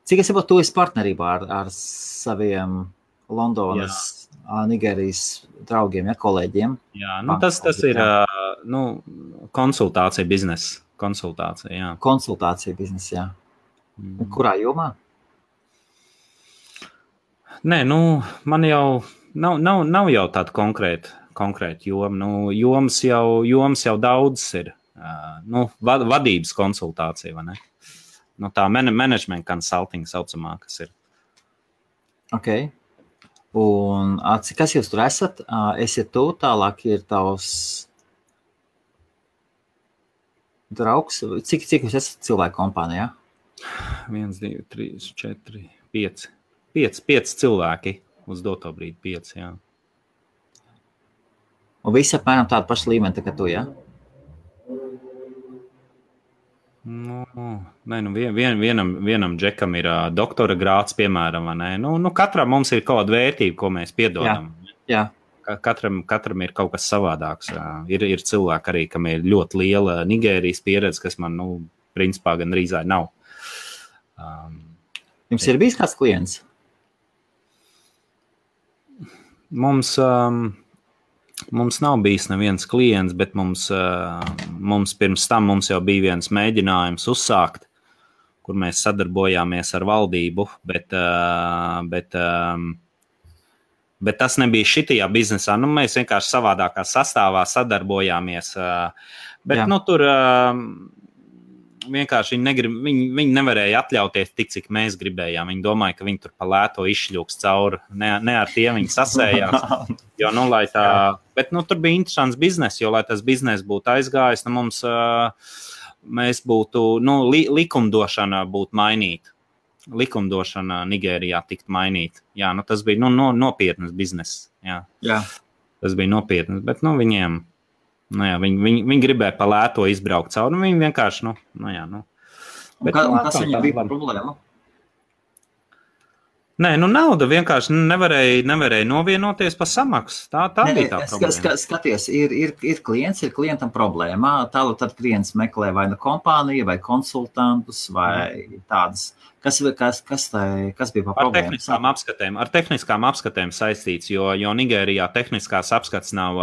Speaker 1: Cik es saprotu, tu esi partnerībā ar saviem Londonas, Nigērijas draugiem, kolēģiem?
Speaker 3: Jā, tas ir konsultācija biznesa. Konsultācija, jā.
Speaker 1: Konsultācija biznesa, jā. Kurā jomā? Nē,
Speaker 3: man jau nav jau tāda konkrēta joma. Jomas jau daudz ir. Vadības konsultācija, vai ne? Tā management consulting saucamā, kas ir.
Speaker 1: Ok. Un kas jūs tur esat? Esiet tu, tālāk ir tavs draugs. Cik jūs esat cilvēku kompānijā?
Speaker 3: 1, 2, 3, 4, 5. 5 cilvēki uz doto brīdi, 5, jā.
Speaker 1: Un visi apmēram tādu pašu līmeni, tā kā tu, jā?
Speaker 3: Vienam džekam ir doktora grāds, piemēram, vai ne? Katram mums ir kaut kāda vērtība, ko mēs piedodam.
Speaker 1: Jā.
Speaker 3: Katram ir kaut kas savādāks. Ir cilvēki arī, kam ir ļoti liela Nigērijas pieredze, kas man, principā gan rīzāji nav.
Speaker 1: Jums ir bijis kāds klients?
Speaker 3: Mums nav bijis neviens klients, bet mums pirms tam jau bija viens mēģinājums uzsākt, kur mēs sadarbojāmies ar valdību, bet tas nebija šitajā biznesā. Mēs vienkārši savādākā sastāvā sadarbojāmies. Bet tur vienkārši viņi nevarēja atļauties tik, cik mēs gribējām. Viņi domāja, ka viņi tur pa lēto izšļūks cauri. Ne ar tiem viņi sasējās. Jo, bet tur bija interesants biznes, jo, lai tas biznes būtu aizgājis, mēs būtu, likumdošana būtu mainīta. Likumdošana Nigērijā tikt mainīt. Jā, tas bija nopietnas bizness. Jā. Tas bija nopietnas, bet viņiem, viņi gribēja pa lēto izbraukt cauri, viņi vienkārši, Bet,
Speaker 1: kas viņam bija problēma?
Speaker 3: Nē, nauda vienkārši nevarēja novienoties par samaksu. Tā bija tā problēma.
Speaker 1: Skaties, ir klients, ir klientam problēma. Tālāk tad klients meklē vai kompāniju, vai konsultantus, vai tādas. Kas bija par problēmu?
Speaker 3: Ar tehniskām apskatēm saistīts, jo Nigērijā tehniskās apskats nav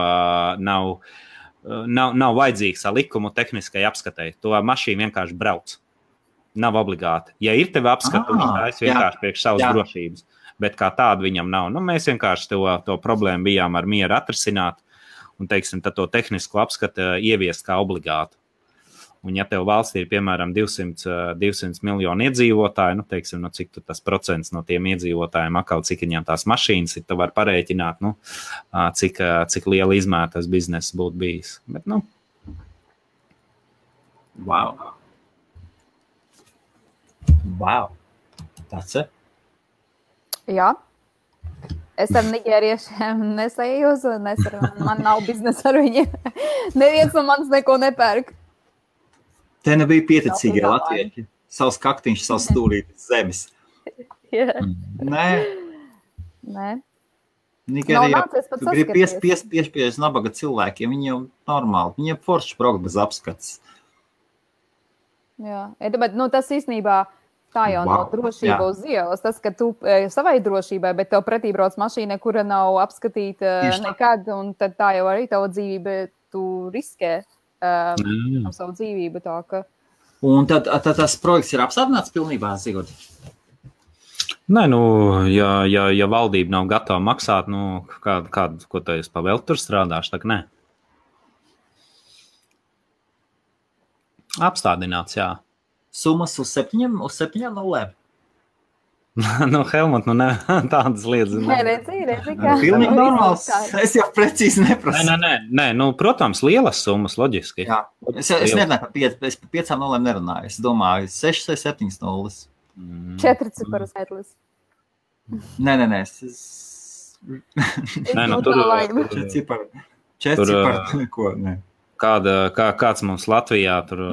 Speaker 3: vajadzīgs ar likumu tehniskai apskatei. To mašīnu vienkārši brauc. Nav obligāti. Ja ir tev apskatu, viņš vienkārši priekš savas drošības, bet kā tādu viņam nav. Mēs vienkārši to problēmu bijām ar mieru atrisināt un, tad to tehnisko apskatu ieviest kā obligātu. Un ja tev valstī ir, piemēram, 200 miljoni iedzīvotāji, nu, teiksim, no cik tas procents no tiem iedzīvotājiem atkal, cik viņiem tās mašīnas ir, tu var parēķināt, nu, cik liela izmēra tas bizness būtu bijis. Bet, nu.
Speaker 1: Wow. Tāds ir?
Speaker 2: Jā. Es ar nigēriešiem nesējos, man nav biznesa ar viņiem. Neviens no manis neko nepērk.
Speaker 1: Te nebija pieticīgie latvieši. Savs kaktiņš, savs stūrītis zemes. Nē. Nigērijā, tu gribi piespiež nabaga cilvēkiem, viņi jau normāli, viņiem forši braukt bez apskats.
Speaker 2: Jā, bet tas īstenībā tā jau nav drošība uz ielas. Tas, ka tu savai drošībai, bet tev pretī brauc mašīna, kura nav apskatīta nekad, un tad tā jau arī tavu dzīvību tu riskē ar savu dzīvību. Tā, ka...
Speaker 1: Un tad tas projekts ir apstādināts pilnībā, Zigurd?
Speaker 3: Nē, nu, ja valdība nav gatava maksāt, nu, ko tu esi pa vēl tur strādāšu, tā nē. Apstādināts, jā.
Speaker 1: Summas uz 7 nulēm.
Speaker 3: Nu, Helmut, nu ne, tādas lietas.
Speaker 2: Nē, redzi, kā.
Speaker 1: Pilnīgi normāls. Es jau precīzi neprasu.
Speaker 3: Nē, nu, protams, lielas summas, loģiski.
Speaker 1: Jā, es nerunāju par 5 nulēm nerunāju. Es domāju, 6 vai 7 nulles.
Speaker 2: 4 ciparu skaitlis.
Speaker 1: Nē.
Speaker 3: Nē, nu, tur
Speaker 1: 4 ciparu neko, nē.
Speaker 3: Kāds mums Latvijā tur...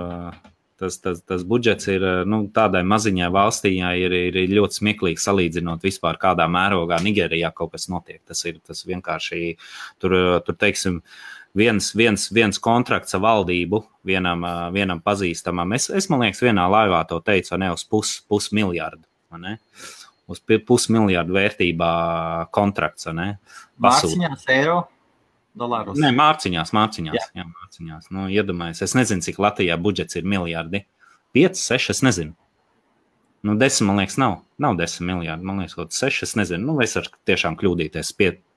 Speaker 3: Tas budžets ir, nu, tādai maziņai valstī ir ļoti smieklīgi salīdzinot vispār kādā mērogā Nigērijā kaut kas notiek. Tas vienkārši, tur teiksim, viens kontrakts ar valdību, vienam pazīstamam. Es man liekas, vienā laivā to teicu, ne, uz pusmiljardu, ne? Uz pusmiljardu vērtībā kontrakts, ne?
Speaker 1: Mārciņās, eiro? Dolāros.
Speaker 3: Nē, mārciņās. Jā, mārciņās. Nu, iedomājies, es nezinu, cik Latvijā budžets ir miljardi. 5, 6, es nezinu. Nu, 10, man liekas, nav 10 miljardi. Man liekas, kaut 6, es nezinu. Nu, es varu tiešām kļūdīties,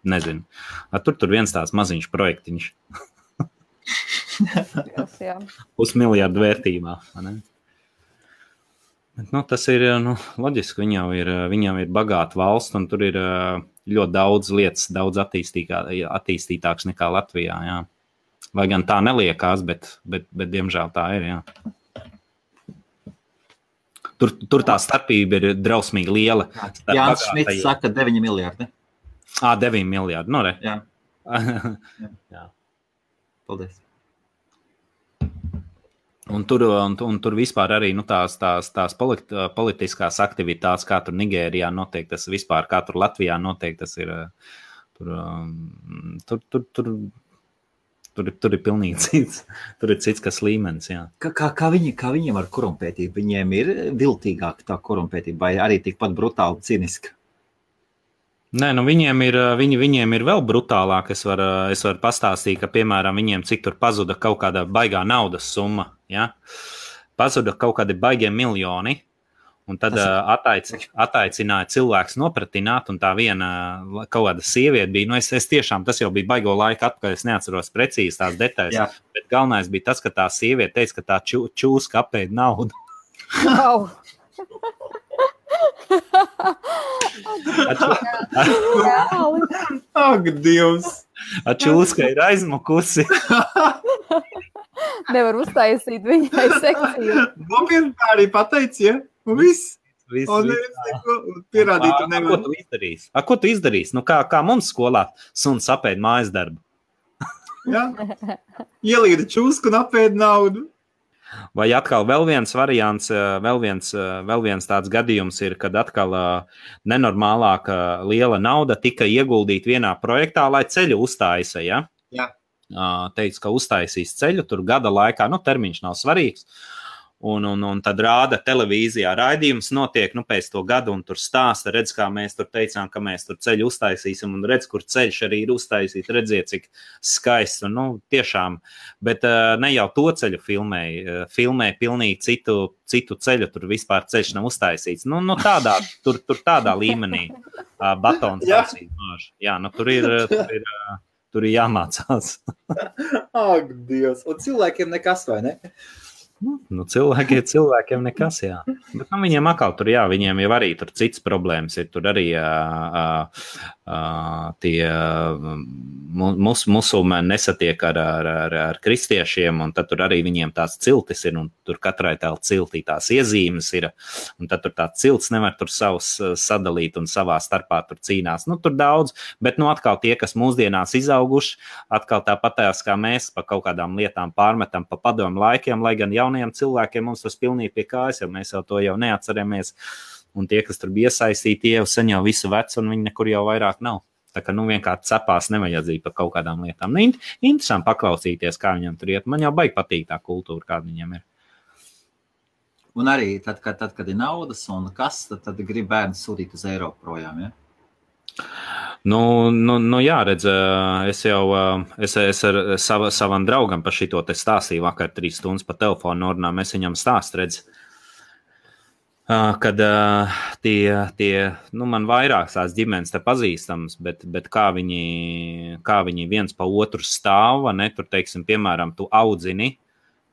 Speaker 3: nezinu. Tur viens tāds maziņš projektiņš.
Speaker 2: Jā.
Speaker 3: Pusmiljardu vērtībā, ne? Bet, nu, tas ir, nu, loģiski, viņam ir bagāta valsts, un tur ir ļoti daudz lietas, daudz attīstītāks nekā Latvijā, jā. Lai gan tā neliekās, bet diemžēl tā ir, jā. Tur tā starpība ir drausmīgi liela.
Speaker 1: Jānis Šmits saka 9 miljardi.
Speaker 3: 9 miljardi, nu re.
Speaker 1: Jā.
Speaker 3: Jā.
Speaker 1: Paldies.
Speaker 3: Un tur vispār arī, nu, tās politiskās aktivitātes, kā tur Nigērijā notiek, tas vispār, kā tur Latvijā notiek, tas ir, tur ir pilnīgi cits, tur ir cits, kas līmenis, jā.
Speaker 1: Kā viņiem ar korumpētību? Viņiem ir viltīgāka tā korumpētība, vai arī tikpat brutāli ciniska?
Speaker 3: Nē, nu viņiem ir vēl brutālāk. Es varu pastāstīt, ka, piemēram, viņiem cik tur pazuda kaut kāda baigā naudas summa, ja? Pazuda kaut kādi baigie miljoni, un tad ataicināja cilvēks nopratināt, un tā viena kaut kāda sieviete bija, nu es tiešām, tas jau bija baigo laika atpakaļ, es neatceros precīzi tās detaļas, bet galvenais bija tas, ka tā sieviete teica, ka tā čūska apēd naudu.
Speaker 2: Wow.
Speaker 1: Ak, Dievs!
Speaker 3: Čūska ir aizmukusi.
Speaker 2: Nevar uztaisīt viņai sekciju.
Speaker 1: Nopietni tā arī pateici, ja? Un viss. Un pierādītu nevar.
Speaker 3: Ko tu izdarīsi? Nu, kā mums skolā suns apēd mājas darbu?
Speaker 1: Jā. Ielīda čūsku un apēd naudu.
Speaker 3: Vai atkal vēl viens variants, vēl viens tāds gadījums ir, kad atkal nenormālāka liela nauda tika ieguldīta vienā projektā, lai ceļu uztaisa, ja?
Speaker 1: Jā.
Speaker 3: Teica, ka uztaisīs ceļu, tur gada laikā, nu, termiņš nav svarīgs. Un tad rāda televīzijā raidījums notiek, nu, pēc to gadu, un tur stāsta, redz, kā mēs tur teicām, ka mēs tur ceļu uztaisīsim, un redz, kur ceļš arī ir uztaisīt, redziet, cik skaists, un, nu, tiešām, bet ne jau to ceļu filmē pilnīgi citu ceļu, tur vispār ceļš nav uztaisīts, nu tur tādā līmenī batons taisīt. Jā, nu, tur ir jāmācās.
Speaker 1: Ak, Dievs, un cilvēkiem nekas, vai ne?
Speaker 3: Nu, cilvēkiem nekas, jā. Bet viņiem atkal tur, jā, viņiem jau arī tur cits problēmas ir. Tur arī tie musulmaņi nesatiek ar kristiešiem, un tad tur arī viņiem tās ciltis ir, un tur katrai tā ciltī tās iezīmes ir, un tad tur tā cilts nevar tur savus sadalīt un savā starpā tur cīnās. Nu, tur daudz, bet nu atkal tie, kas mūsdienās izauguši, atkal tāpatās kā mēs pa kaut kādām lietām pārmetam pa padomu laikiem, lai gan jaunajiem cilvēkiem mums tas pilnīgi pie kājas, jo mēs jau to jau neatceramies, un tie, kas tur bija iesaistīti, jau sen jau visu vecu, un viņi nekur jau vairāk nav. Tā kā vienkārši cepās nevajadzīgi par kaut kādām lietām. Nu, interesanti paklausīties, kā viņam tur iet. Man jau baigi patīk tā kultūra, kāda viņam ir.
Speaker 1: Un arī tad, kad ir naudas un kas, tad grib bērni sūtīt uz Eiropu projām, ja?
Speaker 3: Nu jā, redz, es ar savam draugam par šito te stāstīju vakar 3 stundas pa telefonu norunām, es viņam stāstu, redz, kad man vairākas tās ģimenes te pazīstams, bet kā viņi viens pa otru stāv, ne, tur, teiksim, piemēram, tu audzini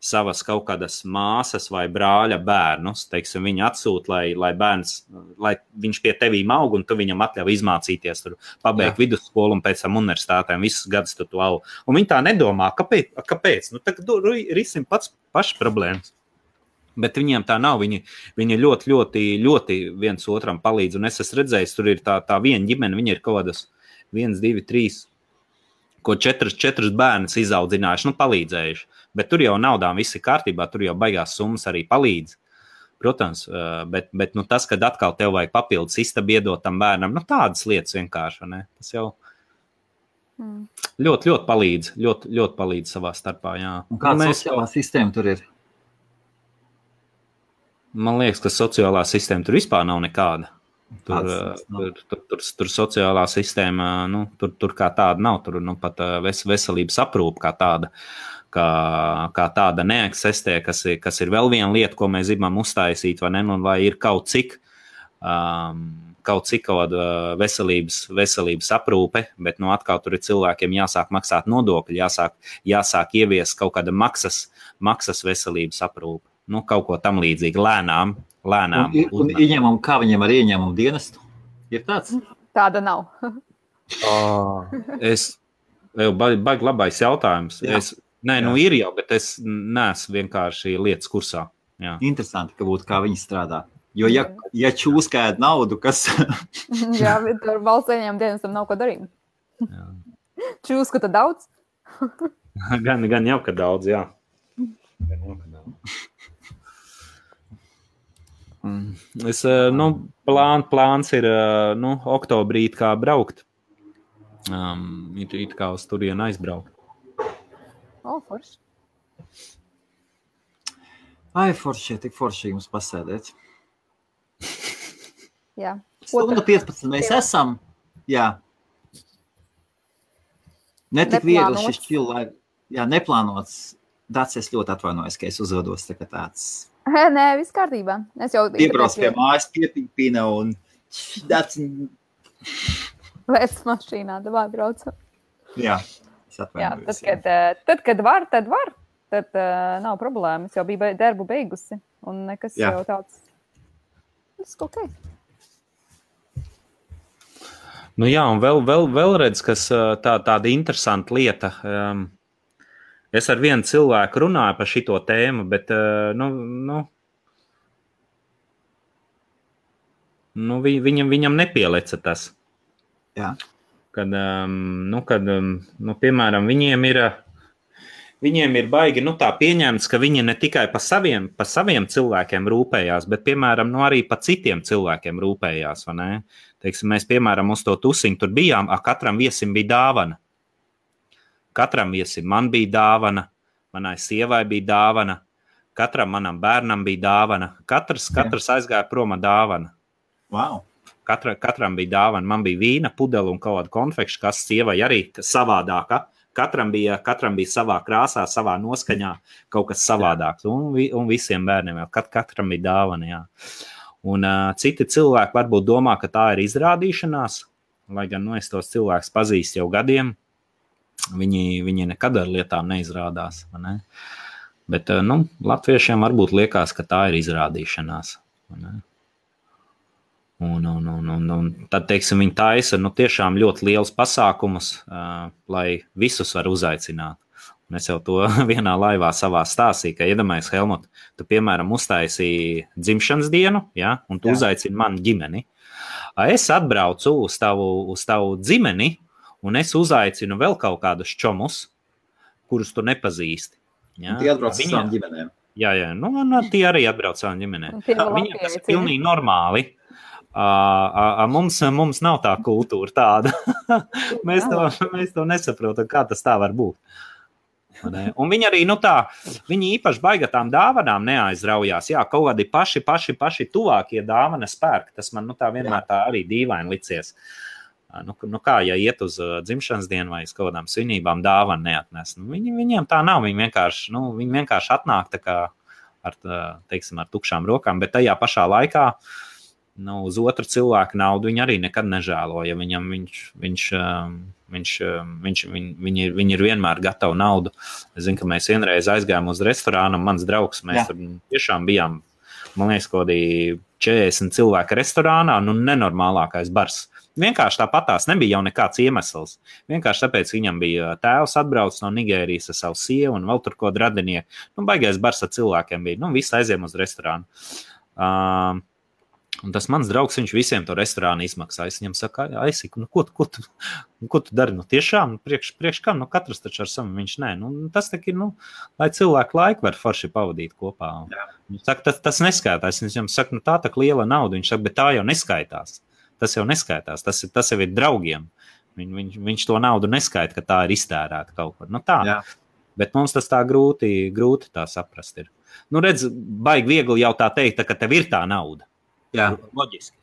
Speaker 3: savas kaut kādas māsas vai brāļa bērnus, teiksim, viņi atsūta, lai viņš pie tevīm aug, un tu viņam atļauj izmācīties, tur pabeigt vidusskolu un pēc tam universitātēm, visus gadus tu aug. Un viņi tā nedomā, kāpēc? Nu, tagad risim paši problēmas. Bet viņiem tā nav, viņi ļoti, ļoti, ļoti viens otram palīdz, un es esmu redzējis, tur ir tā viena ģimene, viņi ir kaut kādas 1, 2, 3, ko 4 bērnus izaudzinājuši, palīdzējuši. Bet tur jau naudām viss ir kārtībā, tur jau baigās summas arī palīdz. Protams, bet tas, kad atkal tev vajag papildus istabu iedot tam bērnam, tādas lietas vienkārši, ne? Tas jau ļoti, ļoti palīdz, ļoti, ļoti palīdz savā starpā, jā.
Speaker 1: Un kāda sociālā sistēma tur ir?
Speaker 3: Man liekas, ka sociālā sistēma tur vispār nav nekāda. Tur sociālā sistēma, tur kā tāda nav, tur pat veselības aprūpe kā tāda neeksistē, kas ir vēl viena lieta, ko mēs gribam uztaisīt, vai ne, un lai ir kaut cik veselības aprūpe, bet atkal tur ir cilvēkiem jāsāk maksāt nodokļi, jāsāk ievies kaut kāda maksas veselības aprūpe. Kaut ko tam līdzīgi, lēnām.
Speaker 1: Un kā viņiem ar ieņēmumu dienestu? Ir tāds?
Speaker 2: Tāda nav.
Speaker 3: Baigi labais jautājums. Ir jau, bet es neesmu vienkārši lietas kursā. Jā.
Speaker 1: Interesanti, ka būtu kā viņi strādā. Jo ja čūskēd naudu, kas...
Speaker 2: Jā, bet ar valsts ieņēmumu dienestam nav ko darīt. Čūskata daudz?
Speaker 3: Gan jau, ka daudz, jā. Plāns ir oktobrī kā braukt. It kā uz turienu aizbraukt.
Speaker 2: Forši.
Speaker 1: Forši, tik forši jums pasēdēt.
Speaker 2: Jā.
Speaker 1: 15 mēs esam. Jā. Netik viegli šis čilai. Jā, neplānots. Dats, es ļoti atvainojos, ka es uzvedos tā kā tāds...
Speaker 2: Nē, viss kārtībā. Es jau
Speaker 1: piebrauc pie mājas, piepīpina un Dats...
Speaker 2: Lēc mašīnā, davai braucam.
Speaker 1: Jā, es atvainojos.
Speaker 2: Tad, kad var, tad var. Tad nav problēmas. Es jau biju darbu beigusi. Un nekas jau tāds... Viss ok.
Speaker 3: Jā, un vēl redz, kas tāda interesanta lieta... Es ar vienu cilvēku runāju par šito tēmu, bet, viņam nepieleca tas.
Speaker 1: Jā.
Speaker 3: Kad, piemēram, viņiem ir baigi, tā pieņemts, ka viņi ne tikai pa saviem cilvēkiem rūpējās, bet, piemēram, arī pa citiem cilvēkiem rūpējās, vai ne? Teiksim, mēs, piemēram, uz to tusiņu tur bijām, katram viesim bija dāvana. Katram viesim man bija dāvana, manai sievai bija dāvana, katram manam bērnam bija dāvana, katrs aizgāja prom ar dāvana.
Speaker 1: Wow.
Speaker 3: Katram bija dāvana, man bija vīna, pudele un kaut kāda konfekša, kas sievai arī savādāka. Katram bija savā krāsā, savā noskaņā kaut kas savādāks, un visiem bērniem vēl, katram bija dāvana, jā. Un citi cilvēki varbūt domā, ka tā ir izrādīšanās, lai gan es tos cilvēkus pazīstu jau gadiem. Viņi nekad ar lietām neizrādās. Ne? Bet, latviešiem varbūt liekas, ka tā ir izrādīšanās. Un tad, teiksim, viņi taisa tiešām ļoti liels pasākumus, lai visus var uzaicināt. Un es jau to vienā laivā savā stāstīju, ka iedomājies, Helmut, tu, piemēram, uztaisīji dzimšanas dienu, ja, un tu uzaicini manu ģimeni. Es atbraucu uz tavu dzimeni, un es uzaicinu vēl kaut kādus čomus, kurus tu nepazīsti. Ja?
Speaker 1: Tie atbrauc ar savām ģimenēm.
Speaker 3: Jā, tie arī atbrauc savām ģimenēm. Viņiem tas ir pilnīgi normāli. Mums nav tā kultūra tāda. mēs to nesaprotam, kā tas tā var būt. Un viņi arī, viņi īpaši baigi tām dāvanām neaizraujās. Jā, kaut kādi paši tuvākie dāvanas pērk. Tas man tā vienmēr tā arī dīvaini licies. Kā, ja iet uz dzimšanas dienu vai uz kaut kādām svinībām dāvanu neatnes. Viņiem tā nav, viņi vienkārši atnāk tā kā ar tukšām rokām, bet tajā pašā laikā uz otru cilvēku naudu viņi arī nekad nežēlo, ja viņam viņi ir vienmēr gatavi naudu. Es zinu, ka mēs vienreiz aizgājām uz restorānu, mans draugs, mēs tur tiešām bijām, man liekas, kaut kādi 40 cilvēku restorānā, nenormālākais bars. Vienkārši tāpatās nebija jau nekāds iemesls. Vienkārši tāpēc viņam bija tēvs atbraucis no Nigērijas ar savu sievu un vēl tur kaut radinieki. Baigais bars ar cilvēkiem bija. Visi aiziem uz restorānu. Un tas mans draugs, viņš visiem to restorānu izmaksā. Es viņam saku, Aisik, ko tu dari? Tiešām, priekš kam? Katrs taču ar savu, viņš nē. Tas tak ir, lai cilvēku laiku var forši pavadīt kopā. Viņš saka, tas neskaitās. Es viņam saku, tā tak liela nauda. Viņš saka, bet tā jau neskaitās. Tas jau neskaitās, tas jau ir draugiem. Viņš to naudu neskaita, ka tā ir iztērēta kaut kur. Tā. Jā. Bet mums tas tā grūti tā saprast ir. Redz, baigi viegli jau tā teikt, ka tev ir tā nauda. Jā. Loģiski.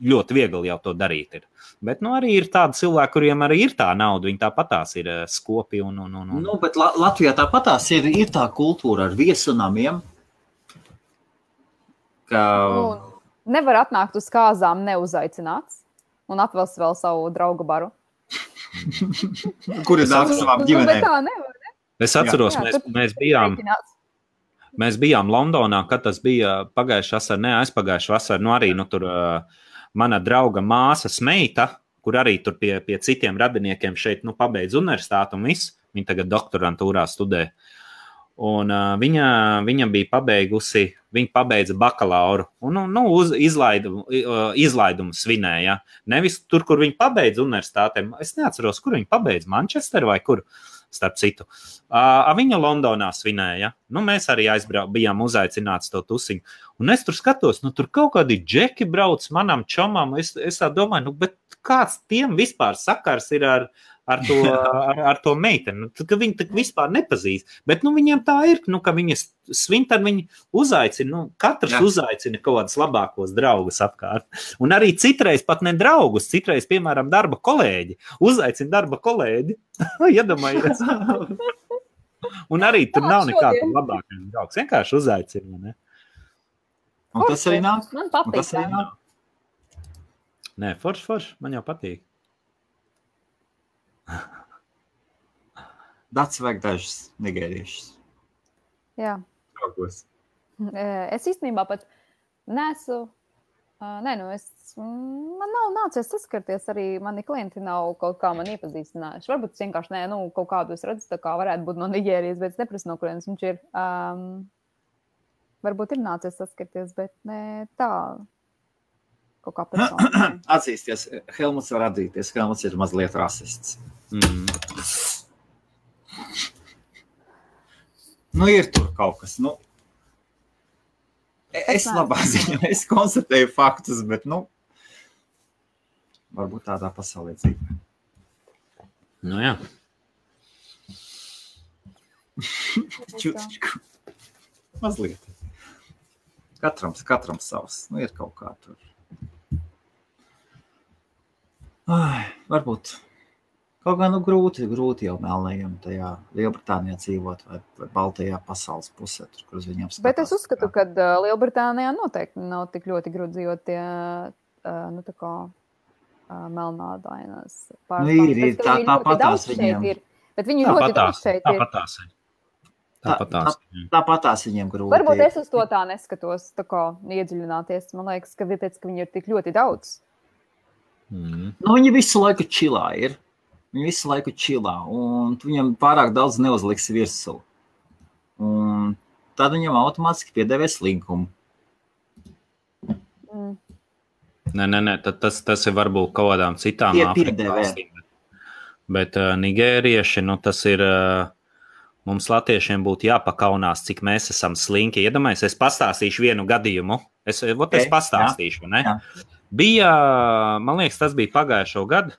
Speaker 3: Ļoti viegli jau to darīt ir. Bet arī ir tādi cilvēki, kuriem arī ir tā nauda, viņi tāpatās ir skopi un.
Speaker 1: Bet Latvijā tāpatās ir tā kultūra ar viesunamiem, ka...
Speaker 2: Nevar atnākt uz kāzām neuzaicināts un atvelst vēl savu draugu baru.
Speaker 1: Kur ir nāk savām ģimenēm?
Speaker 2: Bet tā nevar, ne?
Speaker 3: Es atceros, mēs bijām Londonā, kad tas bija pagājušā vasara, aizpagājušā vasara, arī tur mana drauga māsas meita, kur arī tur pie citiem radiniekiem šeit pabeidz universitāti un viss, viņa tagad doktorantūrā studē. Un viņa bija pabeigusi, viņa pabeidza bakalauru un izlaidumu svinēja. Nevis tur, kur viņa pabeidza universitātēm. Es neatceros, kur viņa pabeidza, Manchester vai kur, starp citu. Viņa Londonā svinēja. Mēs arī bijām uzaicināts to tusiņu. Un es tur skatos, tur kaut kādi džeki brauc manam čomam. Es tā domāju, bet kāds tiem vispār sakars ir ar to meiteni, ka viņi tak vispār nepazīst. Bet viņiem tā ir, ka viņi svin, tad viņi uzaicina, katrs uzaicina kaut kādus labākos draugus apkārt. Un arī citreiz pat ne draugus, citreiz, piemēram, darba kolēģi. Uzaicina darba kolēģi. Iedomājies. Un arī tur nav nekāda labākais draugs. Vienkārši uzaicina, ne?
Speaker 1: Un tas arī nāk?
Speaker 2: Man patīk.
Speaker 3: Nē, forši, man jau patīk.
Speaker 1: Dats vajag dažas nigēriešas.
Speaker 2: Jā.
Speaker 1: Draugos.
Speaker 2: Es īstenībā pat nesu... man nav nācies saskarties arī, mani klienti nav kaut kā man iepazīstinājuši. Varbūt es vienkārši kaut kādu es redzu, tā kā varētu būt no Nigērijas, bet es neprasu, no kurienes viņš ir. Varbūt ir nācies saskarties, bet ne tā... Kaut kā persona.
Speaker 1: Atzīsties, Helmuts var atzīties, Helmuts ir mazliet rasists. Ir tur kaut kas, es labā ziņā, es konstatēju faktus, bet, varbūt tādā pasaulē dzīvē.
Speaker 3: Jā.
Speaker 1: Čutičku. Mazliet. Katram savs, ir kaut kā tur. Varbūt kaut kā grūti jau melnējam tajā Lielbritānijā dzīvot vai Baltajā pasaules pusē, tur, kur uz viņiem skatās.
Speaker 2: Bet es uzskatu, ka Lielbritānijā noteikti nav tik ļoti grūti dzīvot tie, tā kā melnādainās pārstāvs.
Speaker 1: Ir, tāpatās viņiem.
Speaker 2: Bet viņi ļoti daudz šeit ir.
Speaker 3: Tāpatās ir.
Speaker 1: Tāpatās viņiem grūti.
Speaker 2: Varbūt es uz to tā neskatos, tā kā iedziļināties. Man liekas, ka viņi ir tik ļoti daudz.
Speaker 1: Viņi visu laiku čilā ir. Viņi visu laiku čilā, un viņam pārāk daudz neuzliks virsū. Un tad viņam automātiski piedēvēs linkumu.
Speaker 3: Nē, tas ir varbūt kaut kādām citām Āfrikas valstīm. Bet nigērieši, tas ir, mums latviešiem būtu jāpakaunās, cik mēs esam slinki. Iedomājies, es pastāstīšu vienu gadījumu. Es pastāstīšu, ne? Jā. Bija, man liekas, tas bija pagājušo gadu.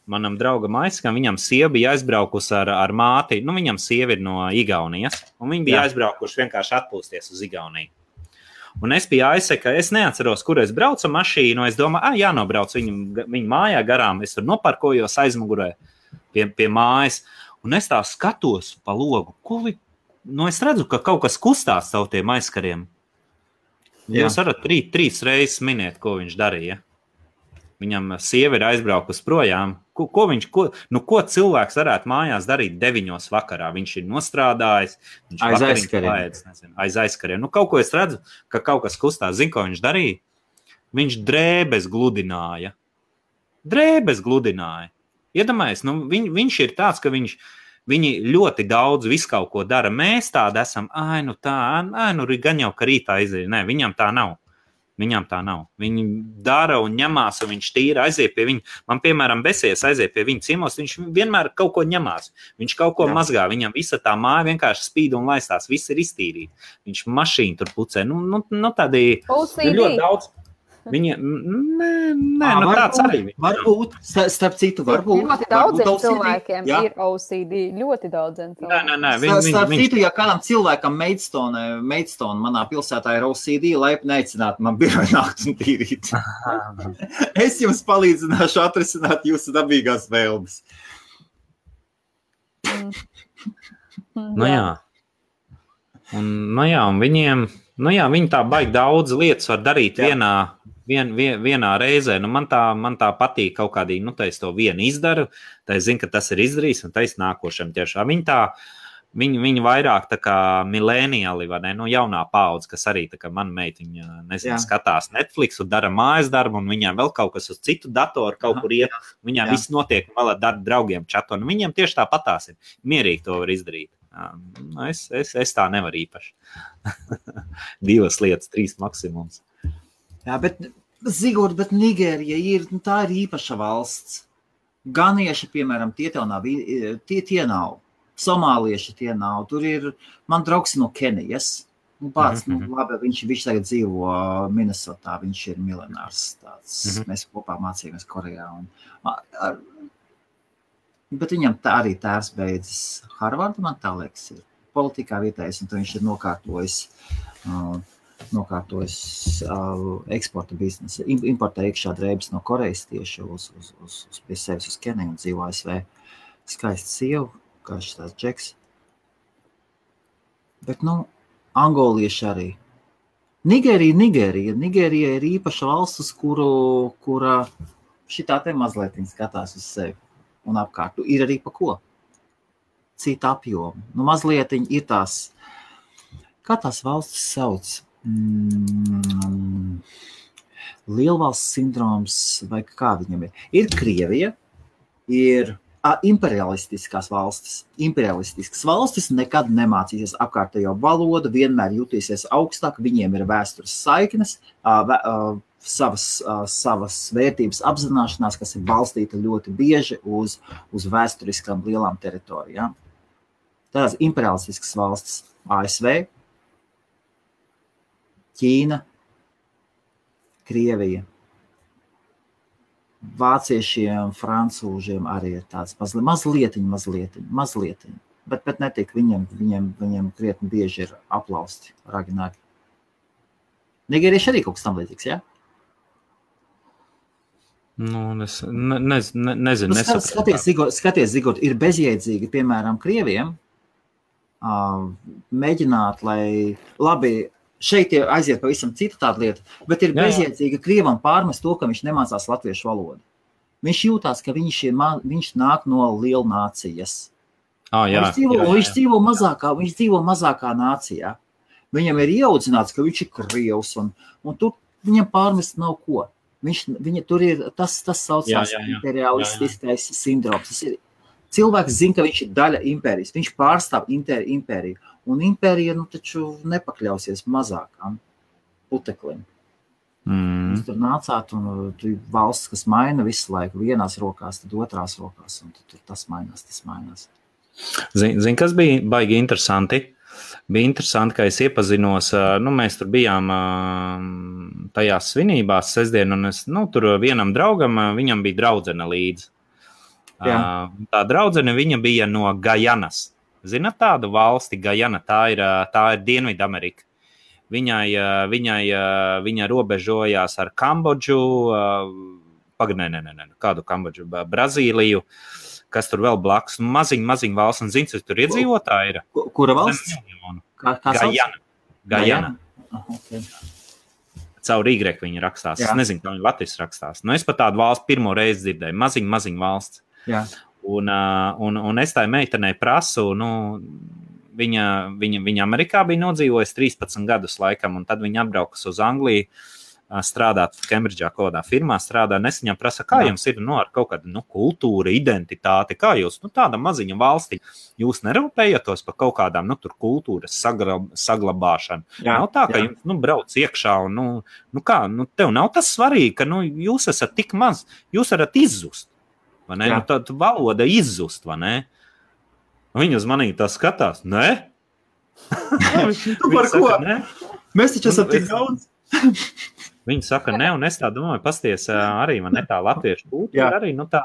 Speaker 3: Manam draugam Aiskam, viņam sieva bija aizbraukusi ar māti. Viņam sieva ir no Igaunijas, un viņi bija aizbraukuši vienkārši atpūsties uz Igauniju. Un es biju aizseka, es neatceros, kur es braucu mašīnu. Es domāju, jānobrauc viņu mājā garām. Es tur noparkojos aizmugurē pie mājas. Un es tā skatos pa logu. Es redzu, ka kaut kas kustās caur tiem aizkariem. Jūs varat trīs reizes minēt, ko viņš darīja. Viņam sieva ir aizbraukusi projām. Ko cilvēks varētu mājās darīt 9 vakarā? Viņš ir nostrādājis. Aiz aizkariem. Kaut ko es redzu, ka kaut kas kustās. Zinu, ko viņš darīja? Viņš drēbes gludināja. Iedomājies, viņš ir tāds, ka viņi ļoti daudz visu kaut ko dara. Mēs tādi esam, gan jau, ka rītā izēja. Nē, viņam tā nav. Viņi dara un ņemās, un viņš tīra aiziet pie viņa. Man, piemēram, besies aiziet pie viņa ciemos, viņš vienmēr kaut ko ņemās. Viņš kaut ko mazgā, viņam visa tā māja vienkārši spīd un laistās, viss ir iztīrīti. Viņš mašīnu tur pucē. Tādi ir ļoti daudz. Viņa, tāds arī.
Speaker 1: Varbūt, starp citu, varbūt.
Speaker 2: Ļoti daudziem cilvēkiem ir OCD, ļoti daudziem cilvēkiem.
Speaker 1: Starp citu, ja kādam cilvēkam Maidstone manā pilsētā ir OCD, laipni aicināt man biroju nākt un tīrīt. Es jums palīdzināšu atrisināt jūsu dabīgās vēlmes.
Speaker 3: Un viņiem, viņi tā baigi daudz lietas var darīt vienā reizē. Man tā patīk kaut kādī, es to vienu izdaru, tā es zinu, ka tas ir izdarījis, un tā es nākošam tiešām. Viņi vairāk tā kā milēniāli, vai ne, jaunā paudze, kas arī tā kā man meitiņa, skatās Netflix un dara mājas darbu, un viņām vēl kaut kas uz citu datoru kaut kur iet, viņām viss notiek, un vēl ar draugiem čatu, un viņiem tieši tāpatās ir. Mierīgi to var izdarīt. Es tā nevaru īpaši. 2 lietas, 3 maksimums.
Speaker 1: Jā, bet Nigērija tā ir īpaša valsts. Ganieši, piemēram, tie nav. Somālieši tie nav. Tur ir, man draugs no Kenijas. Labi, viņš tagad dzīvo Minnesotā, viņš ir miljonārs tāds. Mēs kopā mācījāmies Korejā. Bet viņam tā arī tēvs beidzis Harvardu, man tā liekas, ir politikā vietējais, un viņš ir nokārtojis eksporta biznesu. Importē iekšā drēbes no Korejas tieši pie sevis uz Keniju un dzīvo ASV. Skaista sieva, kā šis tāds džeks. Bet, angolieši arī. Nigērija ir īpaša valsts, uz kura šitā te mazliet skatās uz sevi un apkārt. Ir arī pa ko. Cita apjoma. Mazliet ir tās, kā tās valstis sauc? Lielvalsts sindroms, vai kā viņam ir. Ir Krievija, ir imperialistiskās valstis. Imperialistiskas valstis nekad nemācīsies apkārtējo valodu, vienmēr jutīsies augstāk, viņiem ir vēstures saiknes, savas vērtības apzināšanās, kas ir balstīta ļoti bieži uz vēsturiskām lielām teritorijām. Tās imperialistiskas valstis ASV, Ķīna, Krievija, vāciešiem, francūžiem arī ir tāds mazlietiņ. Bet netik, viņiem krietni bieži ir aplausti raginājumi. Nigērieši arī kaut kas tam līdzīgs, jā?
Speaker 3: Es nezinu.
Speaker 1: Skaties, Zigort, ir bezjēdzīgi, piemēram, Krieviem mēģināt, lai labi, šeit aiziet pavisam cita tāda lieta, bet ir bezjēdzīga Krievam pārmest to, ka viņš nemācās latviešu valodu. Viņš jūtās, ka viņš nāk no lielnācijas. Viņš dzīvo mazākā nācijā. Viņam ir ieaudzināts, ka viņš ir krievs, un tur viņam pārmest nav ko. Tur ir tas saucās imperialistiskais sindroms. Tas ir, cilvēks zina, ka viņš ir daļa impērijas. Viņš pārstāv impēriju. Un impērija taču nepakļausies mazākām puteklim. Jūs tur nācāt, un tu valsts, kas maina visu laiku, vienās rokās, tad otrās rokās, un tur tas mainās.
Speaker 3: Zini, kas bija baigi interesanti? Bija interesanti, ka es iepazinos, mēs tur bijām tajās svinībās sestdien, un es, tur vienam draugam, viņam bija draudzene līdzi. Tā draudzene, viņa bija no Gajanas. Zināt tādu valsti, Gajana, tā ir Dienvidamerika. Viņa robežojās ar Kambodžu, kādu Kambodžu, Brazīliju, kas tur vēl blakus, maziņ valsts, un zini, kas tur iedzīvotāji ir?
Speaker 1: Kura valsts?
Speaker 3: Gajana. Okay. Caur Y viņa rakstās. Es nezinu, kā viņa Latvijas rakstās. Es pat tādu valsts pirmo reizi dzirdēju. Maziņ valsts.
Speaker 1: Jā.
Speaker 3: Un es tai meitenei prasu, viņa Amerikā bija nodzīvojusi 13 gadus laikam, un tad viņa atbraukas uz Angliju, strādāt Kembridžā kādā firmā, nesiņā prasa, kā jums ir ar kaut kādu kultūra, identitāti, kā jūs, tāda maziņa valstī, jūs nerūpējatos par kaut kādām, tur kultūras saglabāšanu. Nav tā, ka jums, brauc iekšā un, tev nav tas svarīgi, ka, jūs esat tik maz, jūs varat izzust, vai ne? Tad valoda izzust, vai ne? Viņa uz manī tā skatās, ne?
Speaker 1: Par ko? Mēs taču esam tik daudz.
Speaker 3: Viņi saka, ne, un es tā domāju, pasties arī, man ne tā latviešu kultūra, arī, tā,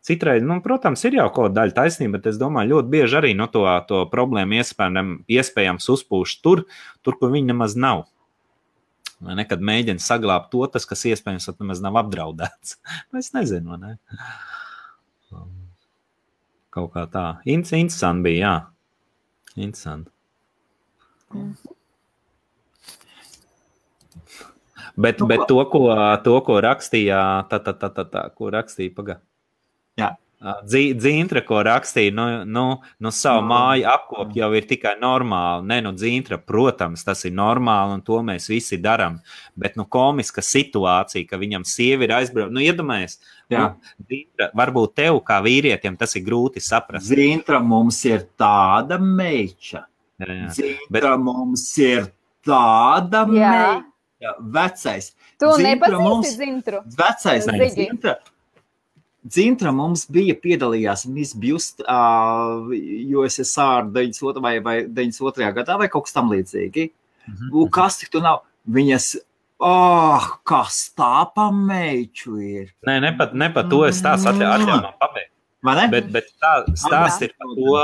Speaker 3: citreiz, protams, ir jau kaut daļa taisnība, bet es domāju, ļoti bieži arī, to problēmu iespējams uzpūš tur, kur viņi nemaz nav. Vai nekad mēģina saglābt to, tas, kas iespējams nemaz nav apdraudēts. Es nezinu, ne? Kaut kā tā. Interesanti bija, jā. Interesanti. Bet to, ko rakstīja, ko rakstīja, pagā.
Speaker 1: Jā.
Speaker 3: Dzīntra, ko rakstīja, savu māju apkop jau ir tikai normāli. Dzīntra, protams, tas ir normāli, un to mēs visi daram. Bet, komiska situācija, ka viņam sievi ir aizbraukt. Iedomājies, Dzīntra, varbūt tev kā vīrietim tas ir grūti saprast.
Speaker 1: Dzīntra mums ir tāda meiča. Dzīntra mums ir tāda meiča. Vecais.
Speaker 2: Tu nepazīsti Dzintru?
Speaker 1: Vecais Dzintra. Dzintra mums piedalījās Miss Just USSR 92. vai 92. gadā vai kaut kas tam līdzīgi. Kas tik tu nav? Viņas, kas tā pa meiču ir?
Speaker 3: Ne pat to es tās atļauju man pabeigt. Bet stāsts ir par to,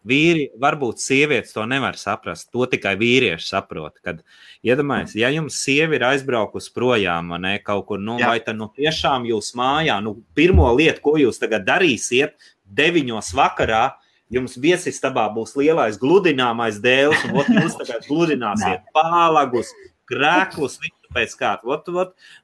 Speaker 3: vīri, varbūt sievietes to nevar saprast, to tikai vīrieši saprot, kad, iedomājies, ja jums sievi ir aizbraukus projām, ne, kaut kur, vai tad, tiešām jūs mājā, pirmo lietu, ko jūs tagad darīsiet, 9 vakarā, jums viesistabā būs lielais gludināmais dēls, un jūs tagad gludināsiet pālagus, krēklus, visu pēc kādu.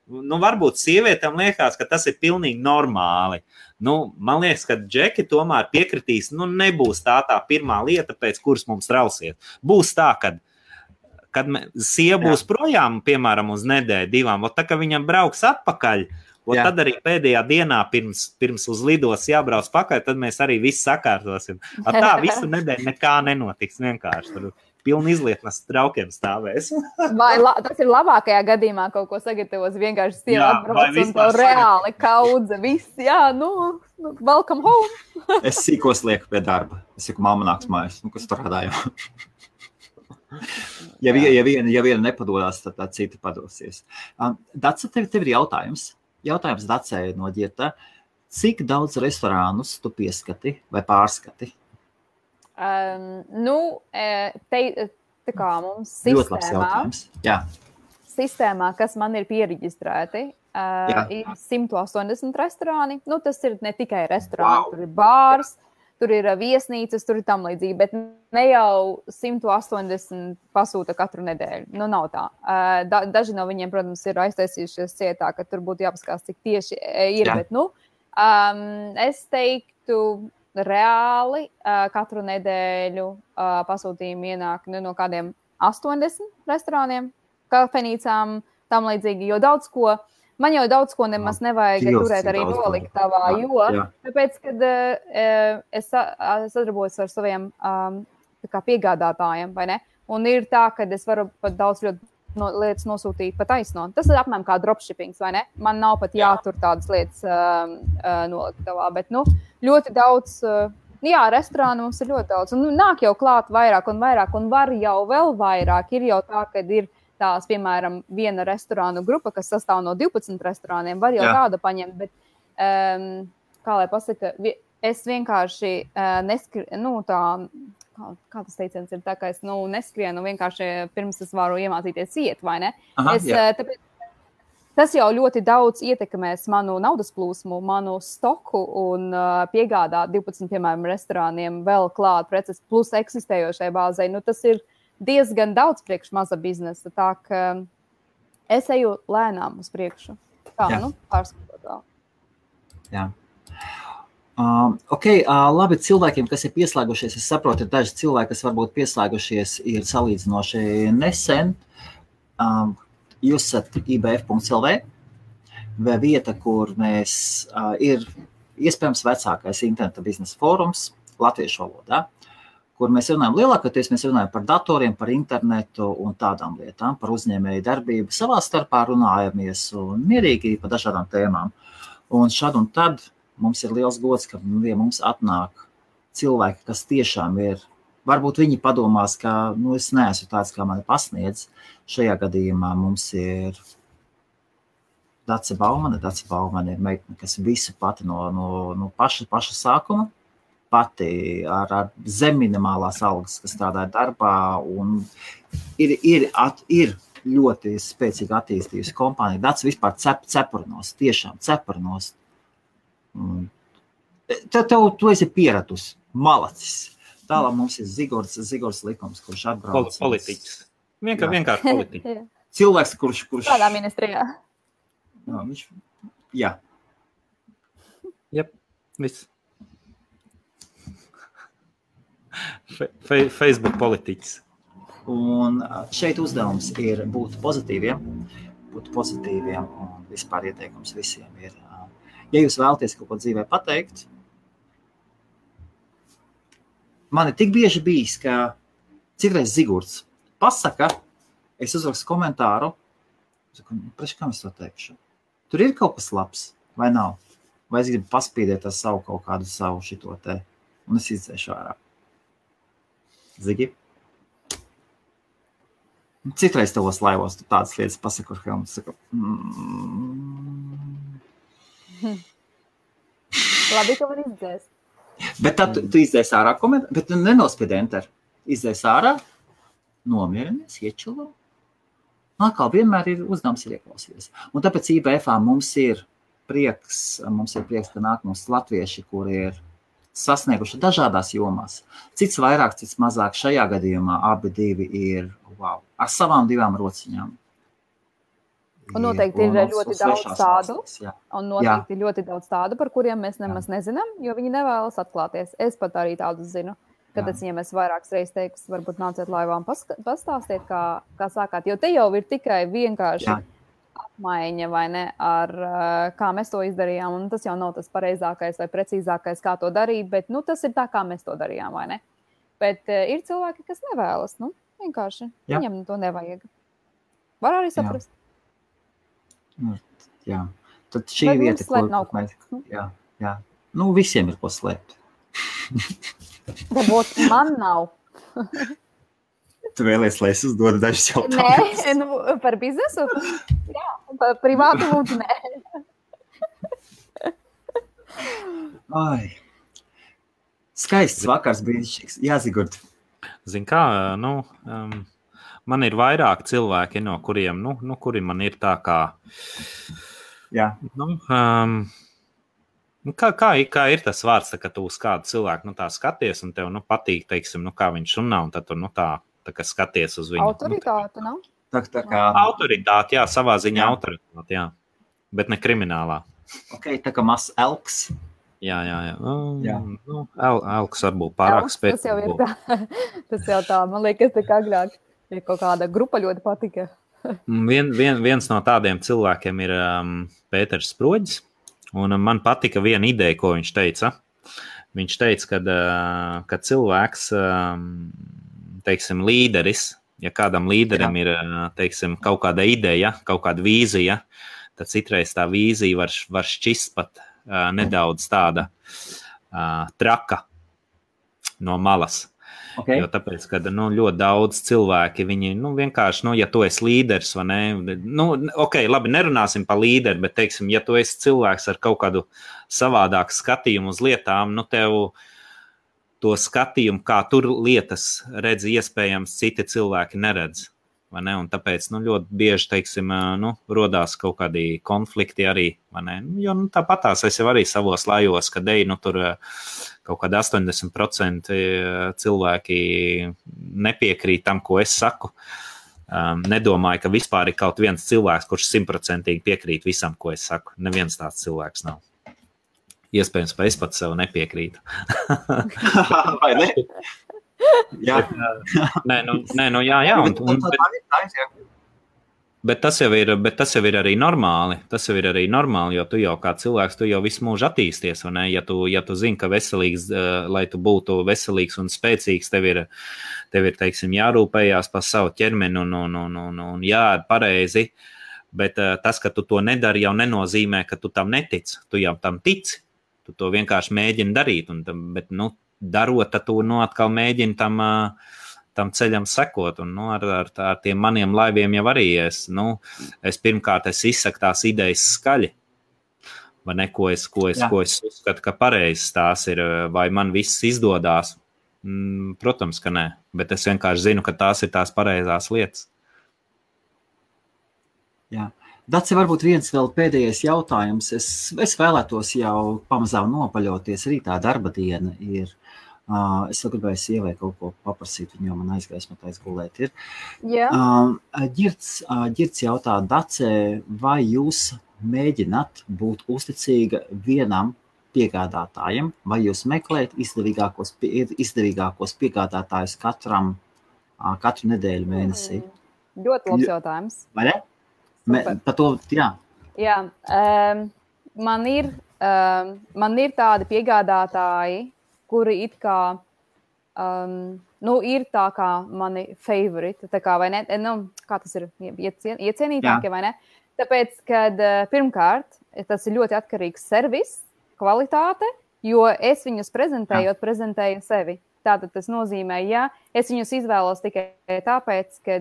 Speaker 3: Varbūt sievietēm liekas, ka tas ir pilnīgi normāli. Man liekas, ka Džeki tomēr piekritīs, nebūs tā pirmā lieta, pēc kuras mums trausiet. Būs tā, kad sieva būs projām, piemēram, uz nedēļu, 2, tā, ka viņam brauks atpakaļ, tad arī pēdējā dienā pirms uz lidos jābrauc pakaļ, tad mēs arī visu sakārtosim. Tā visu nedēļu nekā nenotiks, vienkārši tur pilni izlietnes traukiem stāvēs.
Speaker 2: Vai tas ir labākajā gadījumā kaut ko sagatavos, vienkārši sieva atbrauc un tev reāli kaudze, viss, welcome home.
Speaker 1: Es sīkos lieku pie darba. Es saku, mamma nāks mājās, kas strādāju. Ja viena nepadodās, tad tā cita padosies. Dace, tev ir jautājums. Jautājums Dacei no ģieta. Cik daudz restorānus tu pieskati vai pārskati?
Speaker 2: Tā kā mums sistēmā, kas man ir pieregistrēti, ir 180 restorāni. Tas ir ne tikai restorāni, tur ir bārs, tur ir viesnīcas, tur ir tam līdzīgi, bet ne jau 180 pasūta katru nedēļu. Nav tā. Daži no viņiem, protams, ir aiztaisījušies cietā, ka tur būtu jāpaskās, cik tieši ir, bet, es teiktu, reāli katru nedēļu pasūtījumi ienāk no kādiem 80 restorāniem, kafejnīcām, tam līdzīgi, jo man jau daudz ko nemaz nevajag turēt arī noliktavā, tāpēc, kad es sadarbojos ar saviem piegādātājiem, vai ne? Un ir tā, ka es varu pat daudz ļoti lietas nosūtīt pa taisno. Tas ir apmēram kā dropshippings, vai ne? Man nav pat jātur tādas lietas noliktavā, bet, ļoti daudz, restorānu mums ir ļoti daudz. Un nāk jau klāt vairāk un vairāk, un var jau vēl vairāk. Ir jau tā, kad ir tās, piemēram, viena restorānu grupa, kas sastāv no 12 restorāniem, var jau tādu paņemt, bet, kā lai pasaka, es vienkārši kā tas teiciens ir tā, ka es neskrienu vienkārši pirms es varu iemācīties iet, vai ne? Tāpēc, tas jau ļoti daudz ietekmēs manu naudas plūsmu, manu stoku un piegādāt 12, piemēram, restorāniem vēl klāt preces plus eksistējošai bāzei. Tas ir diezgan daudz priekš maza biznesa, tā ka es eju lēnām uz priekšu. Pārskatot vēl.
Speaker 1: Jā. Labi, cilvēkiem, kas ir pieslēgušies, es saprotu, ir daži cilvēki, kas varbūt pieslēgušies, ir salīdzinoši nesen. Jūs esat ibf.lv, vai vieta, kur mēs ir iespējams vecākais interneta biznesa fórums latviešu valodā, kur mēs runājam lielākoties, mēs runājam par datoriem, par internetu un tādām lietām, par uzņēmēju darbību. Savā starpā runājamies un mierīgi par dažādām tēmām. Un šad un tad mums ir liels gods, ka mums atnāk cilvēki, kas tiešām ir, varbūt viņi padomās, ka es neesmu tāds, kā mani pasniedz. Šajā gadījumā mums ir Dace Baumane. Dace Baumane ir meitene, kas visu pati no paša sākuma, pati ar zemminimālās algas, kas strādāja darbā, un ir ļoti spēcīgi attīstījusi kompānija. Dace vispār cepurnos, tiešām cepurnos. Tu esi pieratus, malacis. Tālāk mums ir Zigords Likums, kurš atbrauc.
Speaker 3: Politiķis. Vienkārši politiķis.
Speaker 1: Cilvēks, kurš...
Speaker 2: Kādā ministrijā?
Speaker 1: Jā.
Speaker 3: Jep, viss. Facebook politiķis.
Speaker 1: Un šeit uzdevums ir būt pozitīviem un vispār ieteikums visiem ir... Ja jūs vēlaties kaut ko dzīvē pateikt, man ir tik bieži bijis, ka citreiz Zigurds pasaka, es uzrakstu komentāru, preču, kam es to teikšu? Tur ir kaut kas labs, vai nav? Vai es gribu paspīdēt ar kaut kādu savu šito te, un es izdzēšu ārā. Zigi? Citreiz tavos laivos tu tādas lietas pasaku, ar Helmuts saka,
Speaker 2: Labi, ka var izdzēst.
Speaker 1: Bet tad tu izdzēs ārā komentāru, bet nenospied enter. Izdzēs ārā, nomierinies, iečilo. Atkal vienmēr ir uzdevums ir ieklausīties. Un tāpēc IBF-ā mums ir prieks, ka nāk mums latvieši, kuri ir sasnieguši dažādās jomās. Cits vairāk, cits mazāk. Šajā gadījumā abi divi ir, ar savām divām rociņām.
Speaker 2: Un noteikti ir ļoti daudz tādu, ir ļoti daudz tādu, par kuriem mēs nemaz nezinām, jo viņi nevēlas atklāties. Es pat arī tādus zinu, kad es viņiem esmu vairākas reizes teikus, varbūt nāciet laivā un pastāstiet, kā sākāt. Jo te jau ir tikai vienkārši apmaiņa, vai ne, ar kā mēs to izdarījām. Un tas jau nav tas pareizākais vai precīzākais, kā to darīt, bet tas ir tā, kā mēs to darījām, vai ne. Bet ir cilvēki, kas nevēlas, vienkārši. Viņam to nevajag. Var arī saprast.
Speaker 1: Jā, tad šī vieta, jā. Visiem ir ko slēpt.
Speaker 2: Varbūt man nav.
Speaker 1: Tu vēlies, lai es uzdodu dažus jautājumus?
Speaker 2: Nē, par biznesu? Jā, par privātu lūdzu, nē.
Speaker 1: Skaists vakars brīnišķīgs. Jā, Zigurd.
Speaker 3: Zin kā, man ir vairāk cilvēki, no kuriem, kuri man ir tā kā...
Speaker 1: Jā.
Speaker 3: Kā ir tas vārds, ka tu uz kādu cilvēku tā skaties un tev patīk, teiksim, kā viņš runā, un tad tu tā kā skaties uz viņu.
Speaker 2: Autoritāte, nav?
Speaker 1: Tā kā...
Speaker 3: Autoritāte, jā, savā ziņā autoritāte, jā. Bet ne kriminālā.
Speaker 1: Ok, tā kā mazs elks.
Speaker 3: Jā. Elks varbūt pārāk spēcīgs.
Speaker 2: Tas jau tā, man liekas, tā kā agrāk. Ja kaut kāda grupa ļoti patika.
Speaker 3: Viens no tādiem cilvēkiem ir Pēters Sproģis, un man patika viena ideja, ko viņš teica. Viņš teica, ka cilvēks, teiksim, līderis, ja kādam līderim ir, teiksim, kaut kāda ideja, kaut kāda vīzija, tad citreiz tā vīzija var šķist pat nedaudz tāda traka no malas. Okay. Jo tāpēc, ka ļoti daudz cilvēki, viņi vienkārši, ja tu esi līderis, vai ne, labi, nerunāsim par līderi, bet, teiksim, ja tu esi cilvēks ar kaut kādu savādāku skatījumu uz lietām, tev to skatījumu, kā tur lietas redz, iespējams, citi cilvēki neredz. Vai ne? Un tāpēc ļoti bieži, teiksim, rodās kaut kādi konflikti arī, vai ne? Jo tāpatās es jau arī savos lajos, kad tur kaut kādi 80% cilvēki nepiekrīt tam, ko es saku. Nedomāju, ka vispār ir kaut viens cilvēks, kurš 100% piekrīt visam, ko es saku. Neviens tāds cilvēks nav. Iespējams, ka es pat sev nepiekrītu.
Speaker 1: Vai ne? Jā.
Speaker 3: Jā. Bet tas jau ir arī normāli. Tas jau ir arī normāli, jo tu jau kā cilvēks, tu jau visu mūžu attīsties. Ja tu zini, ka veselīgs, lai tu būtu veselīgs un spēcīgs, tev ir teiksim, jārūpējās par savu ķermeni un jāēd pareizi. Bet tas, ka tu to nedari, jau nenozīmē, ka tu tam netici. Tu jau tam tici. Tu to vienkārši mēģini darīt. Bet, darot, tad tu atkal mēģini tam ceļam sekot, un ar tiem maniem laiviem jau arī es pirmkārt izsaku tās idejas skaļi, vai ne, ko es uzskatu, ka pareizs tās ir, vai man viss izdodās. Protams, ka nē, bet es vienkārši zinu, ka tās ir tās pareizās lietas.
Speaker 1: Jā. Daci, varbūt viens vēl pēdējais jautājums. Es vēlētos jau pamazām nopaļoties. Rītā darba diena ir. Es vēl gribēju sievai kaut ko paprasīt, jo man aizgaismotais gulēt ir.
Speaker 2: Jā.
Speaker 1: Ģirds jautā, Dace, vai jūs mēģināt būt uzticīga vienam piegādātājam, vai jūs meklējat izdevīgākos piegādātājus katru nedēļu mēnesī?
Speaker 2: Ļoti labs jautājums.
Speaker 1: Vai ne? Par to, jā.
Speaker 2: Jā, man ir tādi piegādātāji, kuri it kā, ir tā kā mani favorite, tā kā, vai ne, kā tas ir, iecienītākie, vai ne? Tāpēc, kad pirmkārt, tas ir ļoti atkarīgs servis, kvalitāte, jo es viņus prezentēju sevi. Tātad tas nozīmē, ja es viņus izvēlos tikai tāpēc, ka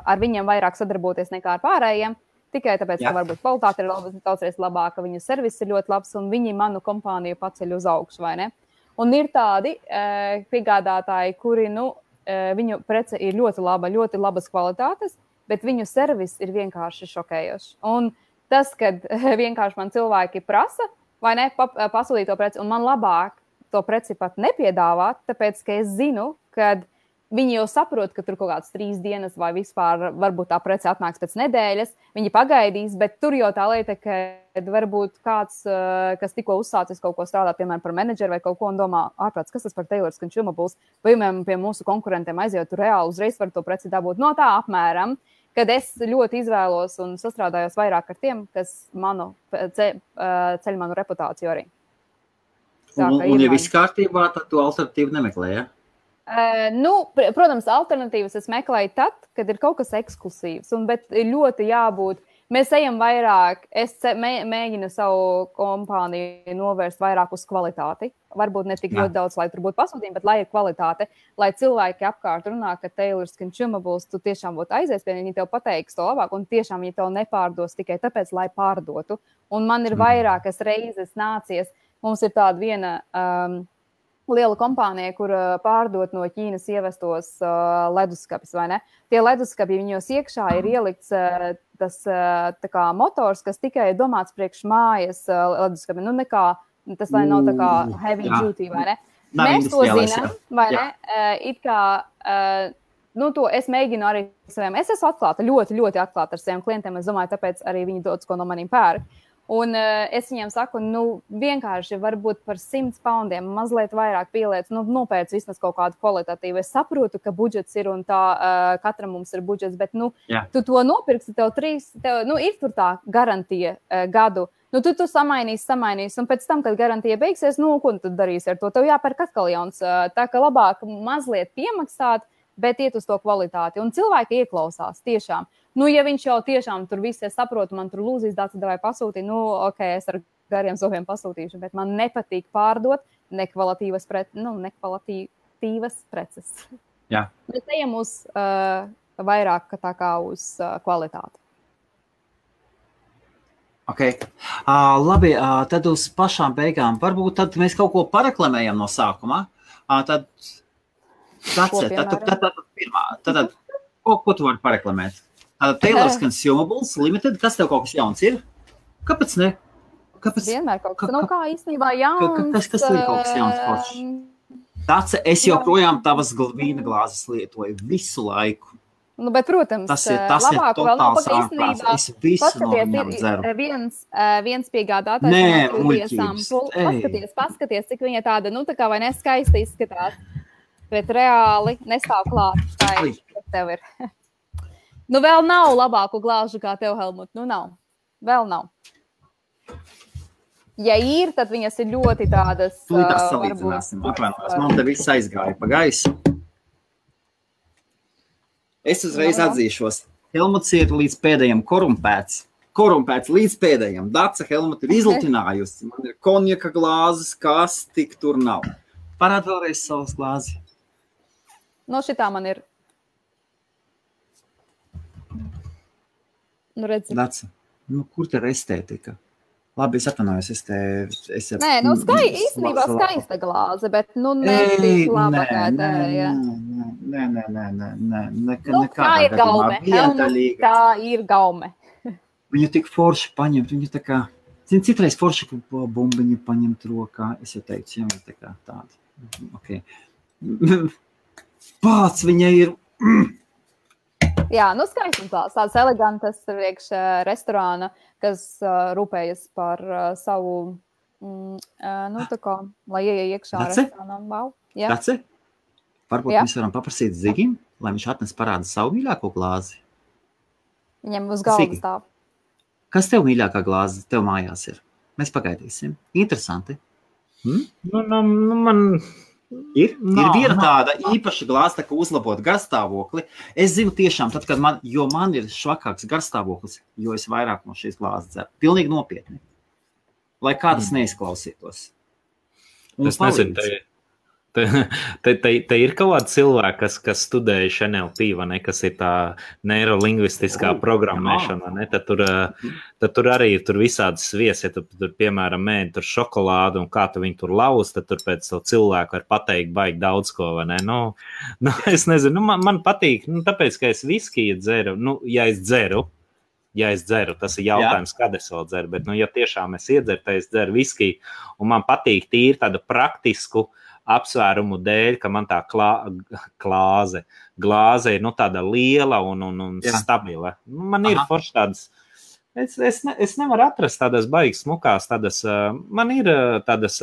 Speaker 2: ar viņiem vairāk sadarboties nekā ar pārējiem, tikai tāpēc, ka varbūt kvalitāte ir daudzreiz labāka, viņu servis ir ļoti labs un viņi manu kompāniju paceļ uz augšu, vai ne? Un ir tādi piegādātāji, kuri, viņu prece ir ļoti labas kvalitātes, bet viņu servis ir vienkārši šokējošs. Un tas, kad vienkārši man cilvēki prasa, vai ne, pasūtīt to preci, un man labāk to preci pat nepiedāvāt, tāpēc, ka es zinu, ka viņi jau saprot, ka tur kaut kāds 3 dienas vai vispār varbūt tā prece atnāks pēc nedēļas, viņi pagaidīs, bet tur jau tā lieta, ka varbūt kāds, kas tikko uzsācis kaut ko strādāt, piemēram, par menedžeru vai kaut ko un domā, ārprāts, kas tas par Taylors Consumables, vai pie mūsu konkurentiem aiziet, tur reāli uzreiz var to preci dabūt. No tā apmēram, kad es ļoti izvēlos un sastrādājos vairāk ar tiem, kas ceļ manu reputāciju arī.
Speaker 1: Un ja viss kārtībā, tad tu alternatīvu nemeklē, ja?
Speaker 2: Protams, alternatīvas es meklēju tad, kad ir kaut kas eksklusīvs, bet ir ļoti jābūt. Mēs ejam vairāk, es mēģinu savu kompāniju novērst vairāk uz kvalitāti. Varbūt ne tik ļoti daudz, lai tur būtu pasūtījumi, bet lai ir kvalitāte, lai cilvēki apkārt runā, ka Taylors Consumables tu tiešām būtu aizies pie viņi tev pateiks to labāk, un tiešām viņi tev nepārdos tikai tāpēc, lai pārdotu. Un man ir vairākas reizes nācies. Mums ir tāda viena liela kompānija, kur pārdot no Ķīnas ievestos leduskapis, vai ne? Tie leduskapi, viņos iekšā ir ielikts tas tā kā motors, kas tikai ir domāts priekš mājas leduskapi. Tas lai nav tā kā heavy duty, vai ne? Mēs to zinām, vai ne? It kā, to es mēģinu arī saviem. Es esmu atklāta, ļoti, ļoti atklāta ar saviem klientiem. Es domāju, tāpēc arī viņi daudz ko no maniem pērk. Un es viņiem saku, vienkārši varbūt par 100 poundiem mazliet vairāk pieliec, nopēc vismaz kaut kādu kvalitatīvu. Es saprotu, ka budžets ir un tā, katram mums ir budžets, bet, tu to nopirksi, tev ir tur tā garantija gadu. Tu samainīsi, un pēc tam, kad garantija beigsies, ko tu darīsi ar to? Tev jāpērk atkal jauns. Tā ka labāk mazliet piemaksāt, bet iet uz to kvalitāti. Un cilvēki ieklausās tiešām. Ja viņš jau tiešām tur viss saprotu, man tur lūzīs dāci, vai pasūtīt, ok, es ar gariem zobiem pasūtīšu, bet man nepatīk pārdot nekvalitīvas preces.
Speaker 1: Jā.
Speaker 2: Mēs ejam uz vairāk tā kā uz kvalitāti.
Speaker 1: Ok. Labi, tad uz pašām beigām. Varbūt tad mēs kaut ko pareklamējam no sākumā. Tad ko tu vari pareklamēt? Taylor's Consumables Limited, kas tev kaut kas jauns ir? Kāpēc ne?
Speaker 2: Vienmēr kaut kas, kā īstenībā jauns.
Speaker 1: Kas ir kaut kas jauns foršs? Dace, es joprojām tavas vīna glāzes lietoju visu laiku.
Speaker 2: Bet, protams,
Speaker 1: tas ir totāls ārprāts. Es visu no viņām dzeru.
Speaker 2: Viens piegādātājs. Paskaties, cik viņa tāda, tā kā vai neskaista izskatās. Bet reāli nestāv klāt. Kas tev ir? Vēl nav labāku glāžu kā tev, Helmut. Nav. Vēl nav. Ja ir, tad viņas ir ļoti tādas...
Speaker 1: Tūlītās salīdzināsim. Apvainojos. Man te viss aizgāja pa gaisu. Es uzreiz atzīšos. Helmuts ir līdz pēdējiem korumpēts. Korumpēts līdz pēdējiem. Dace Helmut ir izlutinājusi. Man ir konjaka glāzes, kas tik tur nav. Parād vēlreiz savas glāzi.
Speaker 2: Šitā man ir. Redzi.
Speaker 1: Dace, kur te ir estētika? Labi, es atvainojos,
Speaker 2: Nē, īstenībā skaista glāze, bet, netik laba kā tēja.
Speaker 1: Nē.
Speaker 2: Tā ir gaume. Tā ir gaume.
Speaker 1: Viņu tik forši paņemt, viņu tā kā, citreiz forši bumbiņu paņemt rokā, es jau teicu, jā, tā kā tāda. Ok. Pāc, viņa ir...
Speaker 2: Jā, skaistums tāds elegantas priekš restorāna, kas rūpējas par savu, tā kā, lai ieej iekšā restorānam. Wow.
Speaker 1: Dace, varbūt mēs varam paprasīt Zigim, lai viņš atnes parāda savu mīļāko glāzi.
Speaker 2: Viņam uz galvas stāv.
Speaker 1: Kas tev mīļākā glāze tev mājās ir? Mēs pagaidīsim. Interesanti.
Speaker 3: Man...
Speaker 1: Ir viena tāda īpaša glāze, kā uzlabot garstāvokli. Es zinu tiešām, tad, kad man ir švakāks garstāvoklis, jo es vairāk no šīs glāzes dzeru. Pilnīgi nopietni. Lai kādas neizklausītos.
Speaker 3: Es nezinu, te ir kaut kāda cilvēka, kas studējuši NLP, vai ne, kas ir tā neirolingvistiskā programmēšana, ne? Tad tur arī tur visādas svies, ja tur piemēram mēģi tur šokolādu un kā tu viņu tur lauz, tad tur pēc to cilvēku var pateikt baigi daudz ko, vai ne? Es nezinu, man patīk, tāpēc, ka es viskiju dzeru, ja es dzeru, tas ir jautājums, kad es vēl dzeru, bet, ja tiešām es iedzeru, tad es dzeru viskiju, un man patīk tīri tādu praktisku apsvērumu dēļ, ka man tā glāze ir tāda liela un stabila. Man ir forši tādas, es nevaru atrast tādas baigas smukās, man ir tādas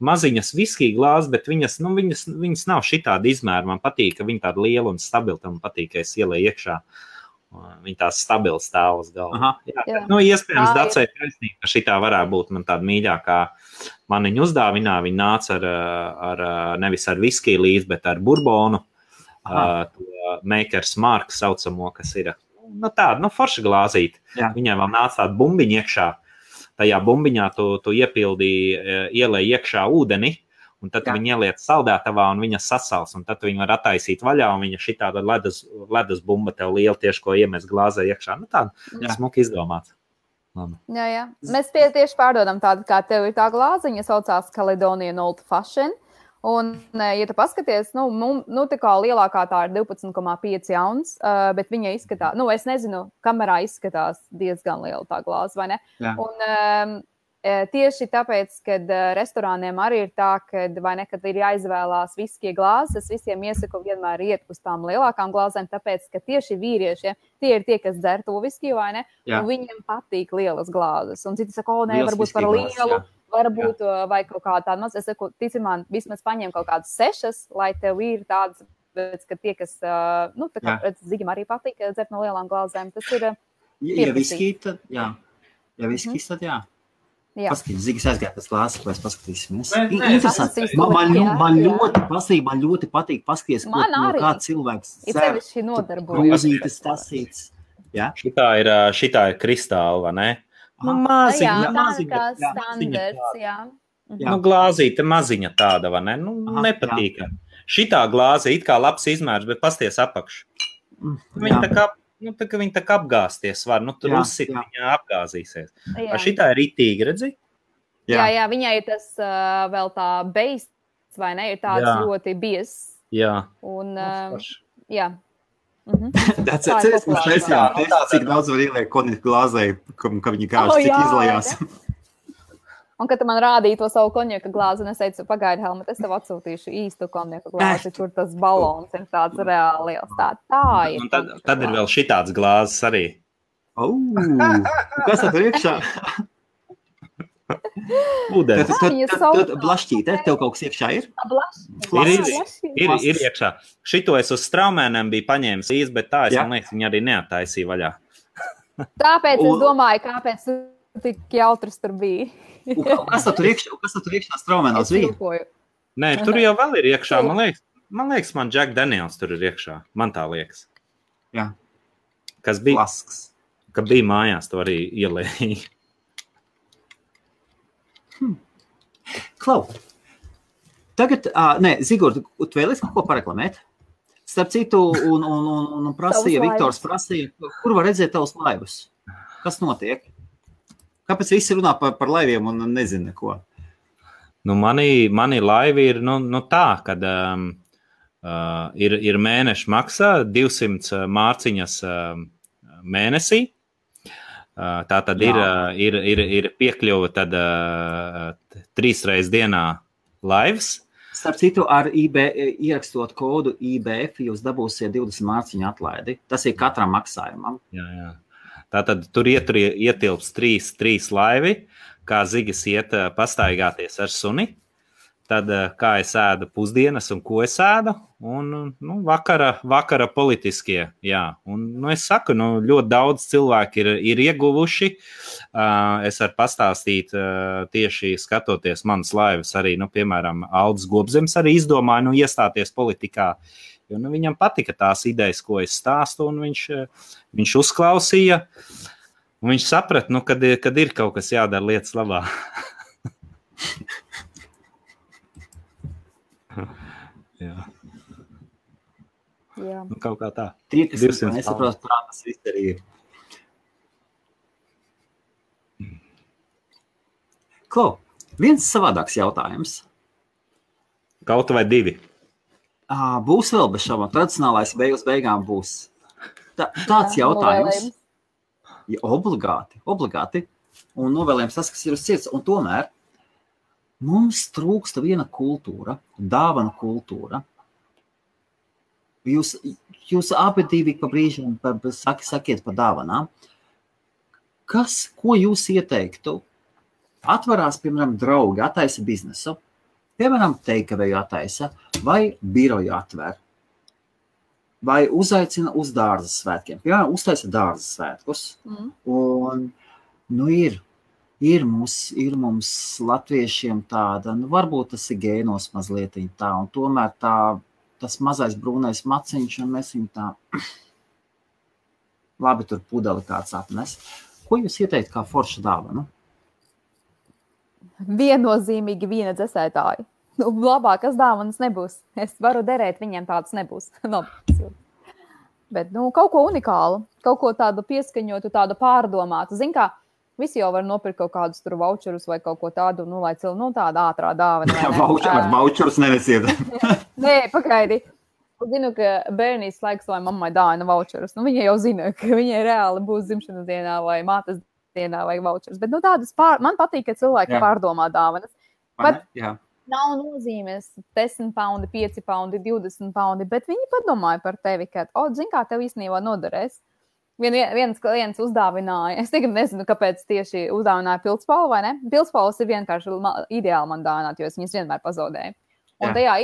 Speaker 3: maziņas viskija glāzes, bet viņas nav šitāda izmēra. Man patīk, ka viņa tāda liela un stabila, man patīk, ka es ielēju iekšā. Viņa tās stabils stāv uz galva. Iespējams, Dacei taisnība, ka šitā varētu būt man tāda mīļākā maniņa uzdāvinā. Viņa nāca nevis ar viskiju līdz, bet ar burbonu, to Maker's Mark saucamo, kas ir tāda, forša glāzīt. Viņai vēl nāca tāda bumbiņa iekšā. Tajā bumbiņā tu ielēji iekšā ūdeni, un tad viņi ieliec saldētavā un viņa sasals, un tad viņi var attaisīt vaļā, un viņa šitāda ledus bumba tev liela tieši, ko iemest glāzē iekšā. Tāda smuki izdomāts.
Speaker 2: Jā. Mēs tieši pārdodam tādu, kā tev ir tā glāziņa, saucās Caledonian Old Fashion, un, ja tu paskaties, tā kā lielākā tā ir 12,5 ounces, bet viņa izskatās, es nezinu, kamerā izskatās diezgan liela tā glāze, vai ne?
Speaker 1: Jā.
Speaker 2: Un tieši tāpēc, kad restorāniem arī ir tā, kad ir jāizvēlās viskie glāzes, visiem iesaku vienmēr iet uz tām lielākām glāzēm, tāpēc, ka tieši vīriešiem tie ir tie, kas dzer to viskiju, vai ne? Un viņiem patīk lielas glāzes. Un citi saka, varbūt par lielu, varbūt vai kaut kā tāda maz. Es saku, tici man, vismaz paņem kaut kādas 6, lai tev ir tādas, ka tie, kas, Zigim arī patīk dzert no lielām glāzēm, tas ir
Speaker 1: Ja viskī, tad jā. Ja viskī, tad jā. Paskatīt, Zigis aizgāja pēc glāzes, lai paskatīsimies. Interesanti. Man ļoti patīk paskatīties, ko kā cilvēks
Speaker 2: dzer.
Speaker 1: Grūzītes tasīts.
Speaker 3: Šitā ir kristāla, vai ne?
Speaker 2: Maziņa. Standards, jā.
Speaker 3: Glāzīte maziņa tāda, vai ne? Nepatīk. Šitā glāze it kā labs izmērs, bet pasties apakšu. Viņa tā kā apgāsties var, tur uzsit viņa apgāzīsies. Šitā ir ritīgi, redzi?
Speaker 2: Jā, viņai ir tas vēl tā beists, vai ne? Ir tāds ļoti bies.
Speaker 3: Jā.
Speaker 2: Un, jā.
Speaker 1: Tas ir cik daudz var ieliek konjaka glāzē, ka viņi kāž, cik izlajās.
Speaker 2: Un, kad tu man rādīji to savu konjaka glāzi, un es teicu, pagaidi, Helmut, es tev atsūtīšu īstu konjaka glāzi, kur tas balons ir tāds reāli liels. Tā ir.
Speaker 3: Un tad ir vēl šitāds glāzes arī.
Speaker 1: Kas tad ir iekšā?
Speaker 3: Ūdens.
Speaker 1: Blašķīte, tev kaut kas iekšā ir?
Speaker 3: Ir iekšā. Šito es uz straumēniem biju paņēmis īsti, bet tā es, man liekas, viņi arī neattaisīja vaļā.
Speaker 2: Tāpēc es domāju, kāpēc tu tik jautrs tur bija.
Speaker 1: Kas tur iekšā straumēnos bija?
Speaker 3: Nē, tur jau vēl ir iekšā. Man liekas, man Jack Daniels tur ir iekšā. Man tā liekas.
Speaker 1: Jā.
Speaker 3: Kas bija?
Speaker 1: Flasks.
Speaker 3: Ka bija mājās, to arī ielēja.
Speaker 1: Klau. Tagad, Zigurd, tu vēlies kaut ko pareklamēt? Starp citu, un prasīja, Viktors prasīja, kur var redzēt tavus laivus? Kas notiek? Kāpēc visi runā par laiviem un nezina neko?
Speaker 3: Mani laivi ir tā, kad ir mēneša maksā 200 mārciņas mēnesī. Tā tad ir piekļuva tad 3 reizes dienā laivs.
Speaker 1: Starp citu, ar ierakstot kodu IBF, jūs dabūsiet 20 mārciņu atlaidi. Tas ir katram maksājumam.
Speaker 3: Jā. Tātad tur ietilps 3 laivi, kā Zigis iet pastaigāties ar suni. Tad kā es ēdu pusdienas un ko es ēdu. Un vakara politiskie. Jā. Un es saku, ļoti daudz cilvēki ir ieguvuši. Es varu pastāstīt tieši skatoties manas laivas arī, piemēram, Aldis Gobzems arī izdomāja iestāties politikā. Jo viņam patika tās idejas, ko es stāstu, un viņš uzklausīja. Un viņš saprata, kad ir kaut kas jādara lietas labā. Jā. Kaut kā tā.
Speaker 1: Tie, kas nesaprot, kā tas viss arī ir. Klau, viens savādāks jautājums.
Speaker 3: Kaut vai 2.
Speaker 1: Būs vēl bez šaubām. Tradicionālais beigām būs. Tāds jautājums. Ja, obligāti. Un novēlējums tas, kas ir uz sirds. Un tomēr mums trūksta viena kultūra, dāvana kultūra. Jūs abi divi pa brīžam sakiet par dāvanām. Ko jūs ieteiktu? Atvarās, piemēram, draugi, attaisa biznesu. Piemēram, teikavēju attaisa vai biroju atver. Vai uzaicina uz dārzas svētkiem. Piemēram, uztaisa dārzas svētkus. Un, ir mums latviešiem tāda, varbūt tas ir gēnos mazliet tā, un tomēr tas mazais brūnais maciņš, un mēs viņu tā labi tur pudeli kāds apnes. Ko jūs ieteikt kā forša dāvanu?
Speaker 2: Viennozīmīgi vīna dzesētāji. Labākas dāvanas nebūs. Es varu derēt, viņiem tādas nebūs. Bet kaut ko unikālu, kaut ko tādu pieskaņotu, tādu pārdomātu. Zin kā, visi jau var nopirkt kaut kādus tur voucherus vai kaut ko tādu, lai tāda ātrā dāvana.
Speaker 1: Voucherus nenesiet.
Speaker 2: Nē, pagaidi. Zinu, ka bērnīs laiks, lai mammai dāvina voucherus. Viņa jau zina, ka viņai reāli būs dzimšanas dienā vai mātes dienā vajag vouchers. Bet tādas man patīk, ka cilvēki pārdomā dāvanas. Bet nav nozīmes 10 paundi, 5 paundi, 20 paundi, bet viņi padomāja par tevi, ka, zin kā, tev īstenībā noderēs. Viens klients uzdāvināja, es tagad nezinu, kāpēc tieši uzdāvināja pildspalvu, vai ne? Pildspalvas ir vienkārši ideāli man dāvināt, jo es viņas vienmēr pazaudēju. Un tajā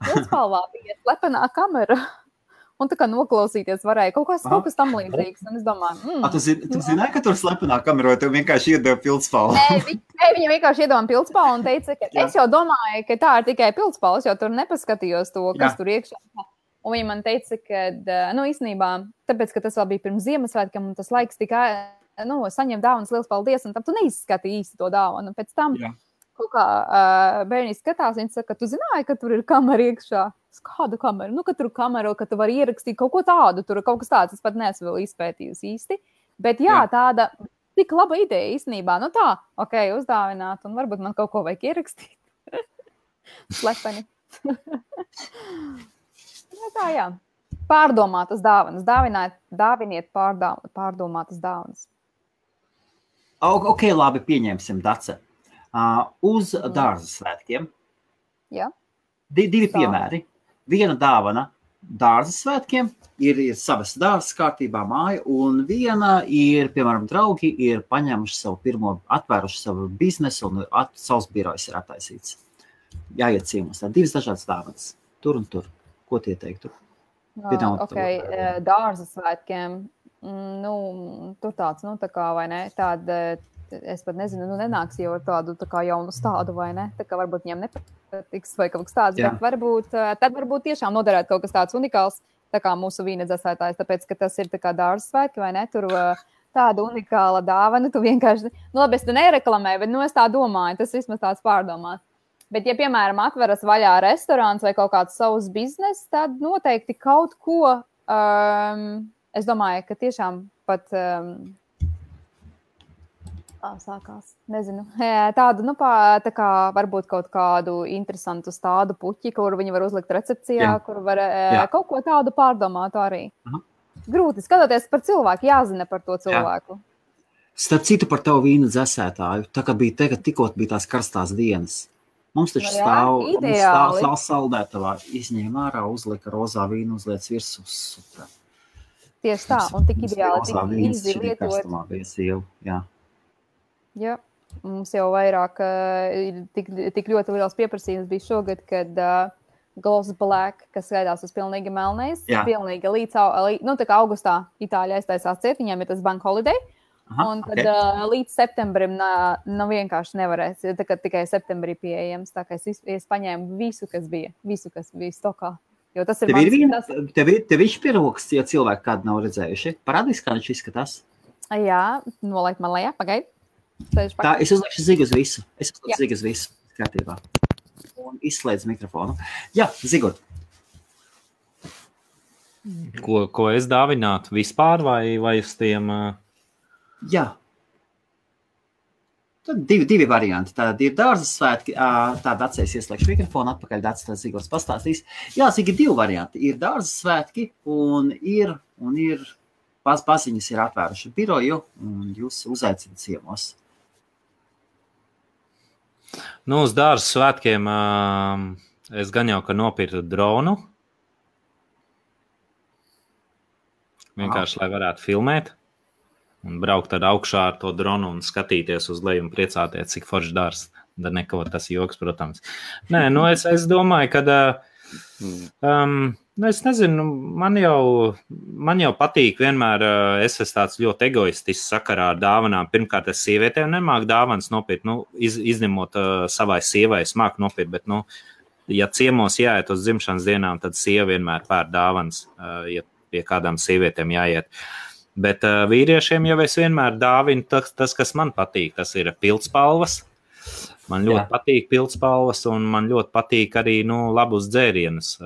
Speaker 2: pildspalvā bija slepenā kamera. Un tā kā noklausīties varēja kaut kas tam līdzīgs. Un es domāju,
Speaker 1: Tu zināji, ka tur slepenā kamera, vai tev vienkārši iedeva pildspalvu?
Speaker 2: Nē, viņa vienkārši iedeva pildspalvu un teica, ka es jau domāju, ka tā ir tikai pildspalvas, jo tur nepaskatījos to, kas tur iekšā. Un viņa man teica, ka, īstenībā, tāpēc, ka tas vēl bija pirms Ziemassvētkiem, un tas laiks tikai, saņem dāvanas, liels paldies, un tam tu neizskatīji īsti to dāvanu. Un pēc tam, kaut kā bērni skatās, viņi saka, ka tu zināji, ka tur ir kamera iekšā. Kādu kameru? Ka tur kameru, ka tu vari ierakstīt kaut ko tādu, tur kaut kas tāds, es pat neesmu vēl izpētījusi īsti. Bet tāda tik laba ideja īstenībā, uzdāvināt, un varbūt man kaut ko vajag ierakstīt. Slepeni. Pārdomātas dāvanas. Dāviniet pārdomātas dāvanas.
Speaker 1: Ok, labi, pieņemsim, Dace. Uz dārza svētkiem.
Speaker 2: Jā.
Speaker 1: Divi piemēri. Viena dāvana dārza svētkiem ir savas dārzas kārtībā māja, un viena ir, piemēram, draugi ir paņēmuši savu pirmo, atvēruši savu biznesu, un savs birojs ir attaisīts. Jāiet ciemos. Tā divas dažādas dāvanas. Tur un tur. Ko tie teiktu?
Speaker 2: Dārza svētkiem. Tur tāds, tā kā, vai ne? Tāda, es pat nezinu, nenāks jau ar tādu tā kā jaunu stādu, vai ne? Tā kā varbūt viņam nepatiks vai kaut kas tāds, bet tad varbūt tiešām noderētu kaut kas tāds unikāls, tā kā mūsu vīna dzēsētājs, tāpēc, ka tas ir tā kā dārza svētki, vai ne? Tur tāda unikāla dāvana, tu vienkārši, labi, es tu nereklamēju, bet es tā domāju, tas vismaz tāds pārdomās. Bet, ja, piemēram, atveras vaļā restorāns vai kaut kāds savs biznes, tad noteikti kaut ko, es domāju, ka tiešām pat, sākās, nezinu, tādu, tā kā varbūt kaut kādu interesantu stādu puķi, kur viņi var uzlikt recepcijā, kur var kaut ko tādu pārdomāt arī. Grūti skatoties par cilvēku, jāzina par to cilvēku.
Speaker 1: Starp citu par tavu vīnu dzēsētāju, tā kā bija tikko bija tās karstās dienas. Mums taču stāv saldētavā, izņēma ārā, uzlika rozā vīnu, uzliec virsū. Super.
Speaker 2: Tieši tā, un tik ideāli, tik īsti lietot. Jā, mums jau vairāk tik ļoti liels pieprasījums bija šogad, kad Gloss Black, kas skaidās uz pilnīgi melnais, pilnīgi līdz, tā kā augustā Itāļa aiztaisās ciet, viņiem ir tas bank holiday. Un tad līdz septembrim vienkārši nevarēs, tā kā tikai septembrī pieejams, tā kā es paņēmu visu, kas bija stokā. Jo tas ir
Speaker 1: tev ir piroks, ja cilvēki kādu nav redzējuši. Parādīs, kā viņš izskatās?
Speaker 2: Jā, nolaik man lejā, pagaid.
Speaker 1: Tā, es uzliekšu zigu uz visu. Kārtībā. Un izslēdz mikrofonu. Jā, Zigot.
Speaker 3: Ko es dāvinātu vispār vai uz tiem...
Speaker 1: Jā. Tad divi varianti. Tātad ir dārzas svētki, tāda atceļas ieslēgšu mikrofonu, atpakaļ Dats Zigots pastāstīs. Jā, Zigi, divi varianti. Ir dārzas svētki un ir paziņas ir atvēruši biroju un jūs uzaicināt ciemos.
Speaker 3: Uz dārzas svētkiem es gan jau, ka nopirku dronu. Vienkārši, lai varētu filmēt. Un braukt ar augšā ar to dronu un skatīties uz leju un priecāties, cik forši dārs. Da neko, tas joks, protams. Nē, es domāju, ka, es nezinu, man jau patīk vienmēr, es esmu tāds ļoti egoistisks sakarā ar dāvanām. Pirmkārt, es sievietēm nemāku dāvanas nopirkt, izņemot savai sievai, es māku nopirkt, bet, ja ciemos jāiet uz dzimšanas dienām, tad sieva vienmēr pēr dāvanas, ja pie kādām sievietēm jāiet. Bet vīriešiem jau es vienmēr dāvinu tas, kas man patīk. Tas ir pildspalvas. Man ļoti patīk pildspalvas, un man ļoti patīk arī labus dzērienus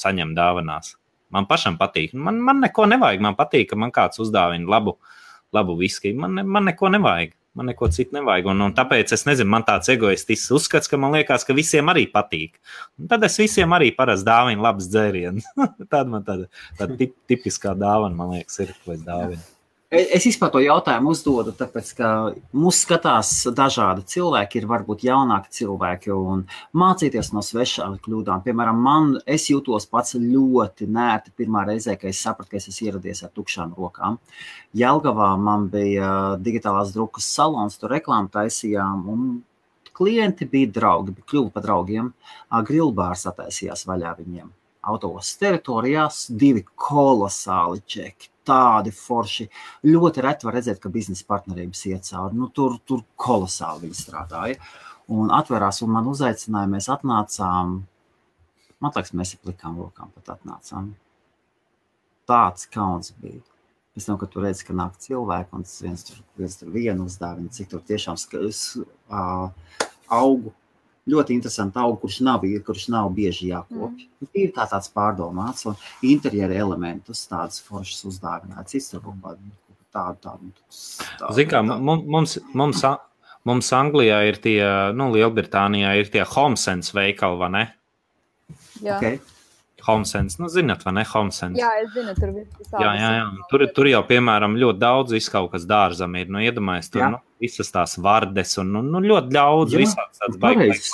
Speaker 3: saņemt dāvanās. Man pašam patīk. Man neko nevajag. Man patīk, ka man kāds uzdāvina labu viskiju. Man neko nevajag. Man neko citu nevajag. Un tāpēc es nezinu, man tāds egoistisks uzskats, ka man liekas, ka visiem arī patīk. Un tad es visiem arī parasti dāvinu labas dzērienus. Tāda man tāda tipiskā dāvana, man liekas, ir, ko es dāvinu.
Speaker 1: Es vispār to jautājumu uzdodu, tāpēc, ka mūs skatās dažādi cilvēki, ir varbūt jaunāki cilvēki un mācīties no svešām kļūdām. Piemēram, es jūtos pats ļoti nērti pirmā reizē, kad es sapratu, ka es esmu ieradies ar tukšām rokām. Jelgavā man bija digitālās drukas salons, tur reklāmu taisījām un klienti bija draugi, kļuva par draugiem. Grillbārs attaisījās vaļā viņiem. Autosas teritorijās 2 kolosāli čeki. Tādi forši. Ļoti reti var redzēt, ka biznesa partnerības iet cauri. Nu, tur kolosāli viņi strādāja. Un atverās un man uzaicināja, mēs atnācām. Man liekas, mēs ar plikām rokām pat atnācām. Tāds kauns bija. Pēc tam, kad tu redzi, ka nāk cilvēki un viens tur vienu uzdāvina, cik tur tiešām augu. Ļoti interesanti augu, kurš nav bieži jākopja. Ir tāds pārdomāts un interjera elementus tādas foršas uzdāvināts. Tādu.
Speaker 3: Zin kā, mums Anglijā ir tie, Lielbritānijā ir tie HomeSense veikali, vai ne?
Speaker 2: Jā.
Speaker 1: Okay.
Speaker 3: HomeSense, zināt, vai ne? HomeSense.
Speaker 2: Jā, es zinu, tur visādi.
Speaker 3: Jā. Tur jau, piemēram, ļoti daudz viskaut kas dārzam ir. Iedomājies, tur visas tās vardes un ļoti daudz visāds tāds baigs.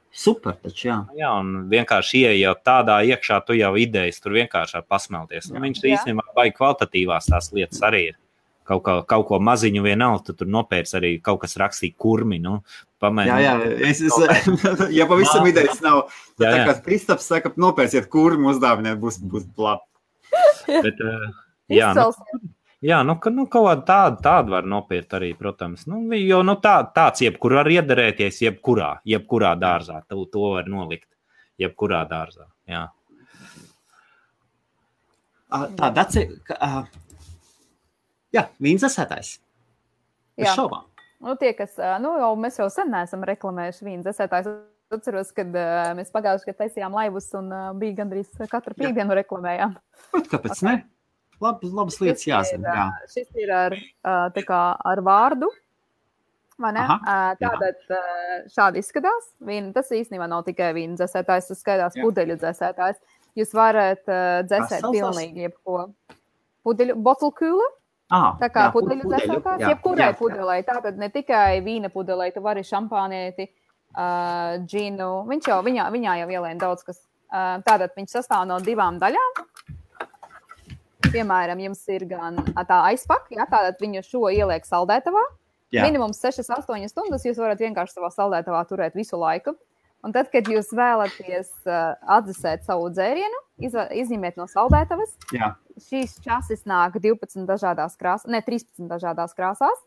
Speaker 1: Super taču, jā.
Speaker 3: Jā, un vienkārši ieejot tādā iekšā, tu jau idejas tur vienkārši var pasmelties. Un viņš īstenībā baigi kvalitatīvās tās lietas arī ir. Kaut ko maziņu vienalga, tu tur nopērc arī kaut kas rakstīt kurmi, pamēģināt.
Speaker 1: Jā, ja pavisam idejas nav, tad tā kā Kristaps saka, nopērciet kurmi, uzdāvināt, būs labi.
Speaker 3: Bet, kaut tādu var nopirkt arī, protams. Jo tāds jebkur var iederēties jebkurā dārzā. To var nolikt jebkurā dārzā, jā.
Speaker 1: Jā, vīndzesētājs. Es šaubām.
Speaker 2: Mēs jau sen neesam reklamējuši vīndzesētājs. Atceros, kad mēs pagājuši, kad taisījām laivus un bija gandrīz katru pīkdienu reklamējām.
Speaker 1: Kāpēc ne? Labas lietas jāzina.
Speaker 2: Šis ir ar vārdu. Vai ne? Tātad šādi izskatās. Tas īstenībā nav tikai vīna dzesētājs, tas skaidās pudeļu dzesētājs. Jūs varat dzesēt pilnīgi jebko. Pudeļu, bottle cooler. Tā kā pudeļu dzesētājs, jebkurai pudelei. Tātad ne tikai vīna pudelei, tu vari šampānieti, džinu. Viņā jau ielēna daudz kas. Tātad viņš sastāv no 2 daļām. Piemēram, jums ir gan tā aizpaka, tātad viņu šo ieliek saldētavā. Minimums 6-8 stundas jūs varat vienkārši savā saldētavā turēt visu laiku. Un tad, kad jūs vēlaties atdzesēt savu dzērienu, izņemiet no saldētavas. Šīs časis nāk 13 dažādās krāsās.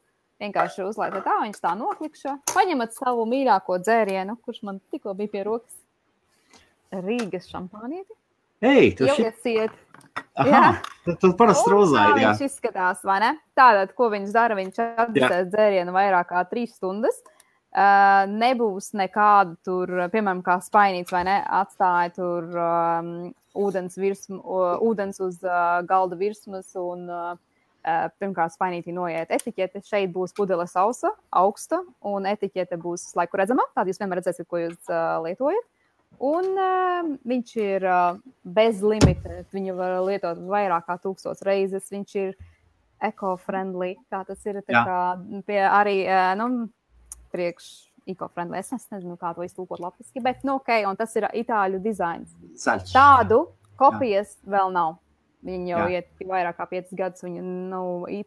Speaker 2: Vienkārši uzlaikat tā, viņš tā noklikšo. Paņemat savu mīļāko dzērienu, kurš man tikko bija pie rokas. Rīgas šampānieti. Ielieciet.
Speaker 1: Tu parasti rozāji, jā.
Speaker 2: Viņš izskatās, vai ne? Tātad, ko viņš dara, viņš atdzesēt dzērienu vairāk kā 3 stundas. Nebūs nekādu tur, piemēram, kā spainīts, vai ne, atstāja tur ūdens uz galda virsmas un pirmkārt spainītī noiet etiķete. Šeit būs pudele sausa, augsta un etiķete būs laiku redzama. Tātad jūs vienmēr redzēsiet, ko jūs lietojat. Un viņš ir bez limita. Viņu var lietot vairāk kā 1000 reizes. Viņš ir eco-friendly. Tā tas ir tā kā pie arī, priekš eco-friendly. Es nezinu, kā to iztulkot latviski, bet un tas ir itāļu dizains.
Speaker 1: Zaļš.
Speaker 2: Tādu kopijas vēl nav. Viņi jau iet vairāk kā 5 gadus. Viņi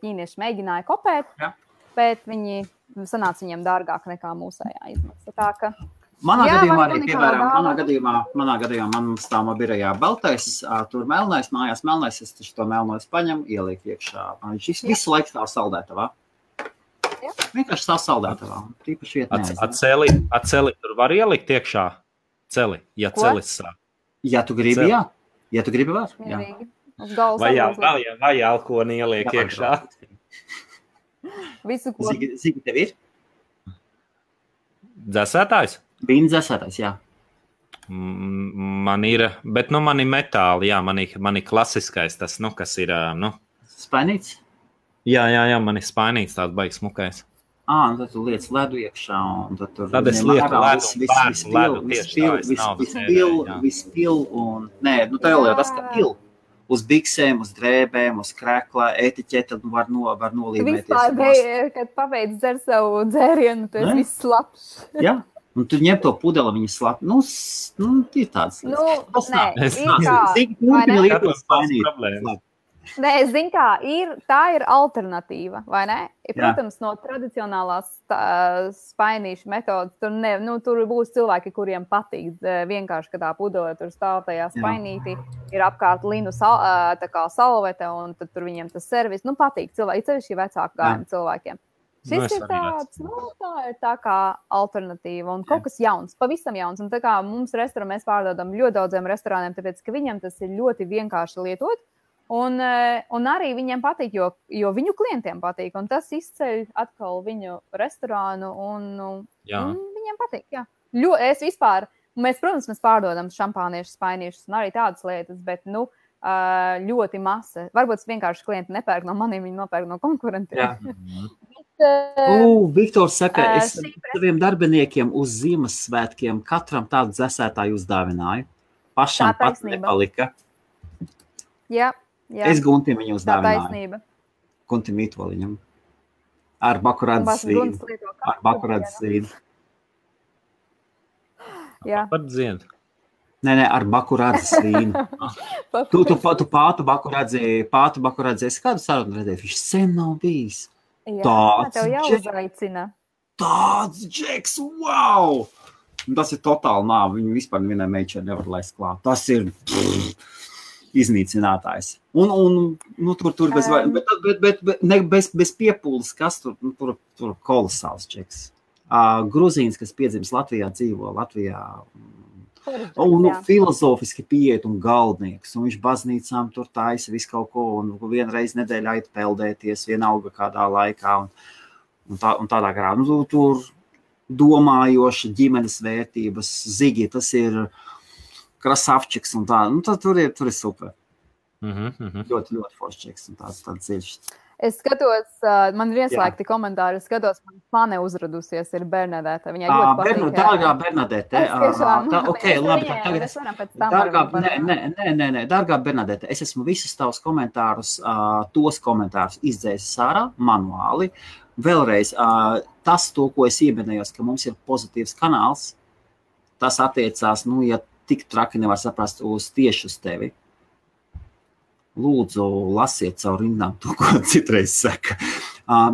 Speaker 2: ķīnieši mēģināja kopēt, bet viņi sanāca viņiem dārgāk nekā mūsējā izmaksa. Tā ka
Speaker 1: manā gadījumā arī, piemēram, manā gadījumā man stāv birajā baltais, tur melnais, mājās melnais, es taču to melnojas paņem, ieliek iekšā. Viņš visu laiku stāv saldētavā. Vienkārši stāv saldētavā. Tīpaši viet neaizina.
Speaker 3: Celi tur var ielikt iekšā? Celi, ja celis sāk.
Speaker 1: Ja tu gribi, jā. Ja tu gribi, var.
Speaker 3: Vai alkoni ieliek iekšā?
Speaker 2: Visu, ko.
Speaker 1: Zigi tev ir?
Speaker 3: Dzesētājs?
Speaker 1: Vīna dzesētājs, jā.
Speaker 3: Man ir, bet man ir metāli, jā, man ir klasiskais tas, kas ir,
Speaker 1: Spainīts?
Speaker 3: Jā, man ir spainīts tāds baigs smukais.
Speaker 1: Tad tu liec ledu iekšā, un tad tur...
Speaker 3: Tad es lieku ledu,
Speaker 1: vispil, un... Nē, tev jau tas, ka pil. uz biksēm, uz drēbēm, uz krēklā, etiķeta var nolīmēties.
Speaker 2: Vispār, kad pabeidz dzer savu dzērienu, tu esi viss labs.
Speaker 1: Jā. Un tu ņem to pudeli, viņa slap. Ir tāds.
Speaker 2: Nē, es zinu, tā ir alternatīva, vai ne? Protams, no tradicionālās spainīšu metodas, tur būs cilvēki, kuriem patīk vienkārši, ka tā pudele tur stāv tajā spainītī, ir apkārt linu tā kā salvete, un tad tur viņiem tas servis, patīk cilvēki, cevišķi vecāku gājumu cilvēkiem. Šis ir tāds, tā ir tā kā alternatīva un kaut kas jauns, pavisam jauns. Un tā kā mums restorānā mēs pārdodam ļoti daudziem restorāniem, tāpēc, ka viņiem tas ir ļoti vienkārši lietot. Un arī viņiem patīk, jo viņu klientiem patīk. Un tas izceļ atkal viņu restorānu un viņiem patīk, jā. Es vispār, protams, mēs pārdodam šampāniešus, spainīšus un arī tādas lietas, bet, ļoti masa. Varbūt vienkārši klienti nepērk no maniem, viņi nopērk no konkurentiem.
Speaker 1: Viktors saka, es saviem darbiniekiem uz Ziemassvētkiem katram tādu dzesētāju uzdāvināju. Pašam pat nepalika.
Speaker 2: Jā.
Speaker 1: Es Guntim viņu uzdāvināju.
Speaker 2: Tā taisnība.
Speaker 1: Guntim Mītoliņam. Ar bakurādzes vīnu. Ar bakurādzes vīnu.
Speaker 2: Jā.
Speaker 3: Par dzienu.
Speaker 1: Nē, ar bakurādzes vīnu. Tu pātu bakurādzes. Es kādu sarunu redzēju? Viņš sen nav bijis.
Speaker 2: Jā, tev jau uzaicina.
Speaker 1: Tāds džeks, wow! Tas ir totāli nāvi. Viņu vispār nevienai meičai nevar laist klāt. Tas ir iznīcinātājs. Un tur bez piepūles, kas tur kolosāls džeks. Gruzīns, kas piedzimis Latvijā, dzīvo Latvijā. Un filozofiski pieiet un galdnieks, un viņš baznīcām tur taisa visu kaut ko, un vienreiz nedēļā ait peldēties, vienalga kādā laikā, un tādā garā. Tur domājoša ģimenes vērtības, Zigi, tas ir krasavčiks un tā, tur ir super. Ļoti, ļoti forščiks un tāds dziļš.
Speaker 2: Es skatos, man ir ieslēgti komentāri, es skatos, man fane uzradusies ir Bernadete. Viņai ļoti patīk.
Speaker 1: Dārgā Bernadete. Dārgā Bernadete, es esmu visus tavus komentārus, tos komentārus izdzēsis ārā manuāli. Vēlreiz, tas, ko es ieminējos, ka mums ir pozitīvs kanāls, tas attiecās, ja tik traki nevar saprast tieši uz tevi. Lūdzu, lasiet caur rindām to, ko citreiz saka.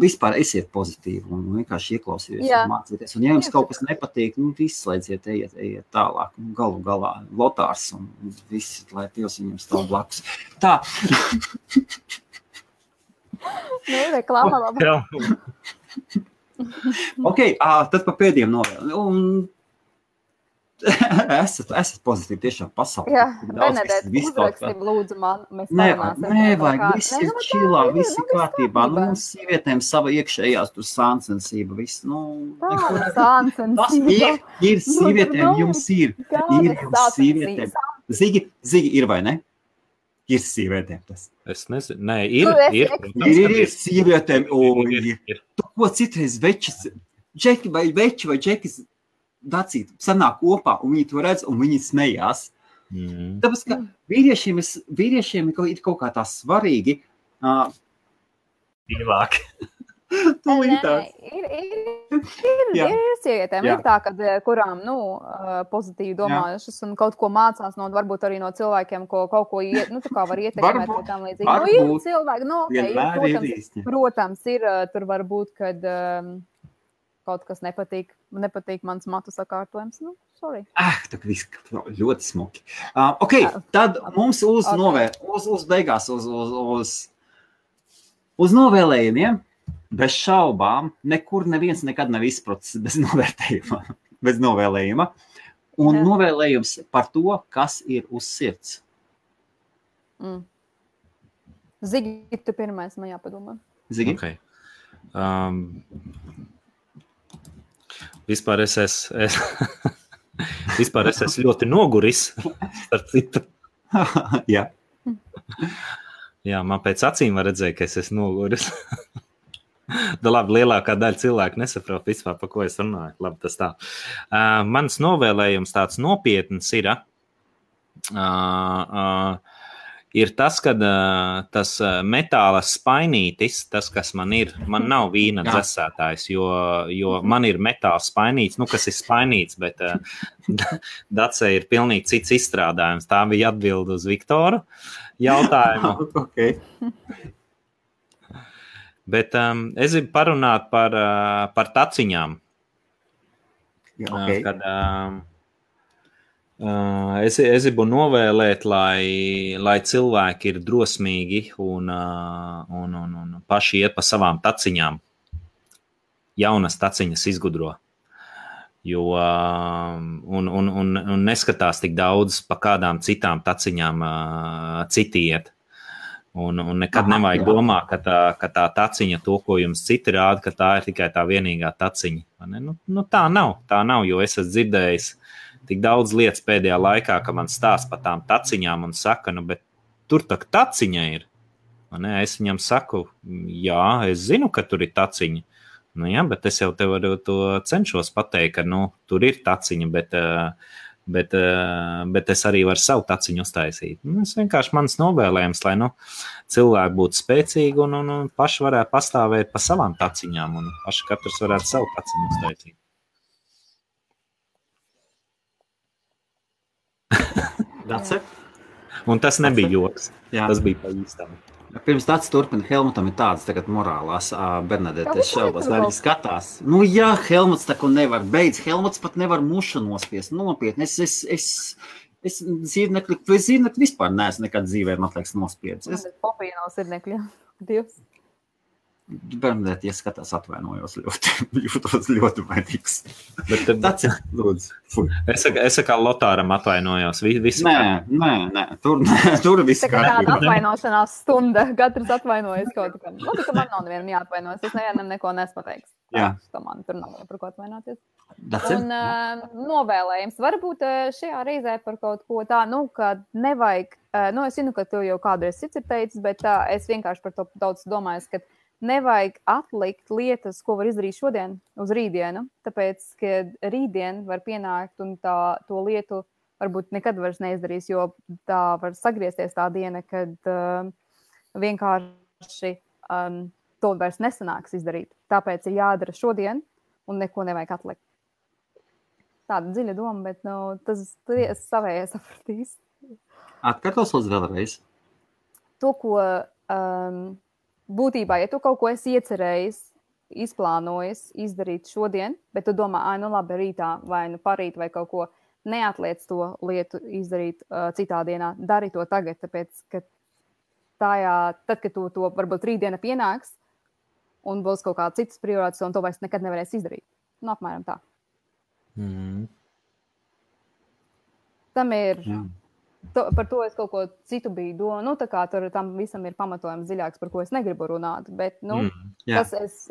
Speaker 1: Vispār esiet pozitīvi un vienkārši ieklausieties un mācieties. Un ja jums kaut kas nepatīk, izslēdziet, ejiet tālāk. Galu galā Lotārs un visi, lai Dievs viņam stāv blakus. Tā.
Speaker 2: Reklāma labā.
Speaker 1: Ok, tad pa pēdējiem novēl. Esat pozitīvi tiešām pasaulē.
Speaker 2: Jā, Benedēt, uzrakstīm lūdzu man, mēs parunāsim.
Speaker 1: Nevajag, viss ir čilā, viss ir kārtībā. Mums sievietēm sava iekšējās tur sāncensība, viss,
Speaker 2: sāncensība.
Speaker 1: Ir sievietēm, jums ir. Ir jums sievietēm. Zigi, ir vai ne? Ir sievietēm tas.
Speaker 3: Es nezinu, nē, ir.
Speaker 1: Ir sievietēm, ir. Tu ko citreiz džeki vai džekis Dacīt, sanāk kopā, un viņi to redz, un viņi smējās. Tāpēc, ka vīriešiem ir kaut kā tā svarīgi.
Speaker 3: Ilāk.
Speaker 2: Ir sievietēm, ir tā, kad, kurām, pozitīvi domājušas un kaut ko mācās varbūt arī no cilvēkiem, ko kaut ko tā kā var ietekmēt vai tam līdzīgi. Ir cilvēki, protams, ir, tur var būt, kad kaut kas nepatīk mans matu sakārtojums. Sorry.
Speaker 1: Tā viss ļoti smuki. Ok, tad mums uz beigās, uz novēlējumiem, bez šaubām, nekur neviens nekad nav izprocis bez novēlējuma. Un novēlējums par to, kas ir uz sirds.
Speaker 2: Zigi, tu pirmais man jāpadomā.
Speaker 1: Zigi?
Speaker 3: Okay. Vispār es esmu ļoti noguris, starp citu.
Speaker 1: Jā.
Speaker 3: Jā, man pēc acīm var redzēt, ka es esmu noguris. Labi, lielākā daļa cilvēku nesaprot vispār, pa ko es runāju. Labi, tas tā. Mans novēlējums tāds nopietns ir, ir tas, ka tas metāla spainītis, tas, kas man ir, man nav vīna dzesētājs, jo man ir metāla spainītis, kas ir spainīts, bet Dacei ir pilnīgi cits izstrādājums. Tā bija atbilde uz Viktoru jautājumu.
Speaker 1: Okay.
Speaker 3: Bet es gribu parunāt par taciņām.
Speaker 1: Okay.
Speaker 3: Kad es gribu novēlēt, lai cilvēki ir drosmīgi un paši iet pa savām taciņām. Jaunas taciņas izgudro. Un neskatās tik daudz pa kādām citām taciņām citi iet. Un nekad nevajag domāt, ka tā taciņa, to, ko jums citi rāda, ka tā ir tikai tā vienīgā taciņa. Tā nav, jo es esmu dzirdējis tik daudz lietas pēdējā laikā, ka man stāsta par tām taciņām un saka, bet tur tā taciņa ir. Es viņam saku, jā, es zinu, ka tur ir taciņa. Jā, bet es jau tev to cenšos pateikt, ka tur ir taciņa, bet es arī varu savu taciņu uztaisīt. Es vienkārši mans novēlējums, lai cilvēki būtu spēcīgi un paši varētu pastāvēt pa savām taciņām un paši katrs varētu savu taciņu uztaisīt. Un tas nebija joks. Jā. Tas bija pa īstam.
Speaker 1: Pirms tāds turpina, Helmutam ir tādas tagad morālās, Bernadette, es šaubos, vai viņi skatās. Jā, Helmuts tā, ko nevar, Helmuts pat nevar mušu nospiest, nopietni. Es zīrnekļu vispār neesmu nekad dzīvē, man liekas, nospiedis.
Speaker 2: Es popīju nav zīrnekļu, Dievs.
Speaker 1: Bernadette, ja skatās, atvainojos jūtos ļoti vainīgs. Tāds ir, lūdzu.
Speaker 3: Es kā Lotāram atvainojos.
Speaker 1: Nē, tur viss
Speaker 2: kārtībā. Tā kā tāda atvainošanās stunda, katrs atvainojas kaut kā. Tā man nav nevienam jāatvainojas, es nevienam neko nepateiks. Tā man tur nav par ko atvainoties. Un novēlējums varbūt šajā reizē par kaut ko tā, ka nevajag, es zinu, ka tu jau kādreiz cits ir teicis, bet es vienkārši par to daudz domāju, ka nevajag atlikt lietas, ko var izdarīt šodien uz rītdienu, tāpēc, ka rītdien var pienākt un to lietu varbūt nekad vairs neizdarīs, jo tā var sagriezties tā diena, kad vienkārši to vairs nesanāks izdarīt. Tāpēc ir jādara šodien un neko nevajag atlikt. Tāda dziļa doma, bet tas savējai sapratīs.
Speaker 1: Atkārtos lūdzu vēlreiz.
Speaker 2: To, ko būtībā, ja tu kaut ko esi iecerējis, izplānojis izdarīt šodien, bet tu domā, labi, rītā vai parīt vai kaut ko, neatliec to lietu izdarīt citā dienā, dari to tagad, tāpēc, ka tad, kad tu to varbūt rītdiena pienāks un būs kaut kāds cits prioritāts un to vairs nekad nevarēs izdarīt. Apmēram tā. Tam ir... Jā. Par to es kaut ko citu biju domāju, tā kā tam visam ir pamatojums dziļāks, par ko es negribu runāt, bet, tas es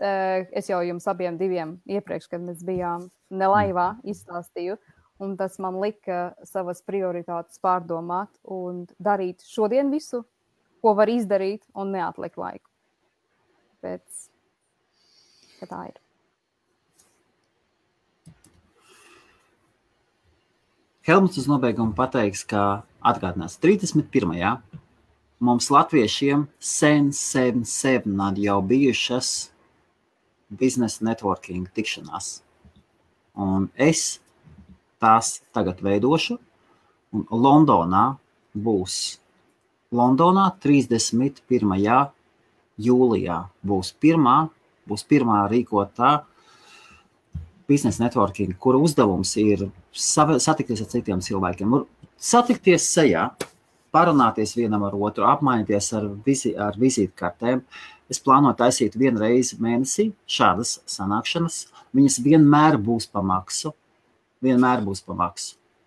Speaker 2: jau jums abiem diviem iepriekš, kad mēs bijām nelaivā, izstāstīju, un tas man lika savas prioritātes pārdomāt un darīt šodien visu, ko var izdarīt un neatlikt laiku. Pēc, ka tā ir.
Speaker 1: Helmuts uz nobeigumu pateiks, ka atgādinās 31. Mums latviešiem sen jau bijušas biznesa networking tikšanās. Un es tās tagad veidošu. Un Londonā 31. jūlijā būs pirmā rīkotā biznesa networking, kura uzdevums ir satikties ar citiem cilvēkiem. Satikties sejā, parunāties vienam ar otru, apmainīties ar vizītkartēm. Es plānoju taisīt vienu reizi mēnesī šādas sanākšanas. Viņas vienmēr būs pa maksu.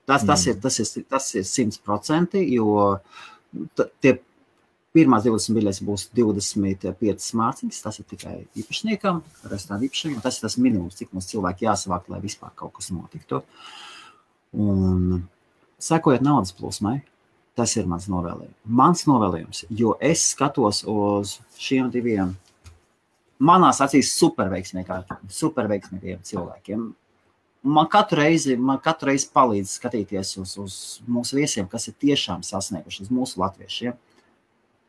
Speaker 1: Tas ir 100%, jo tie pirmās 20 biļetes būs 25 mārciņas. Tas ir tikai īpašniekam, restorāna īpašniekam. Tas ir tas minimums, cik mums cilvēki jāsavāk, lai vispār kaut kas notiktu. Un sekojot naudas plūsmai, tas ir mans novēlējums. Jo es skatos uz šiem diviem, manās acīs superveiksmīgiem cilvēkiem. Man katru reizi palīdz skatīties uz mūsu viesiem, kas ir tiešām sasnieguši, uz mūsu latviešiem.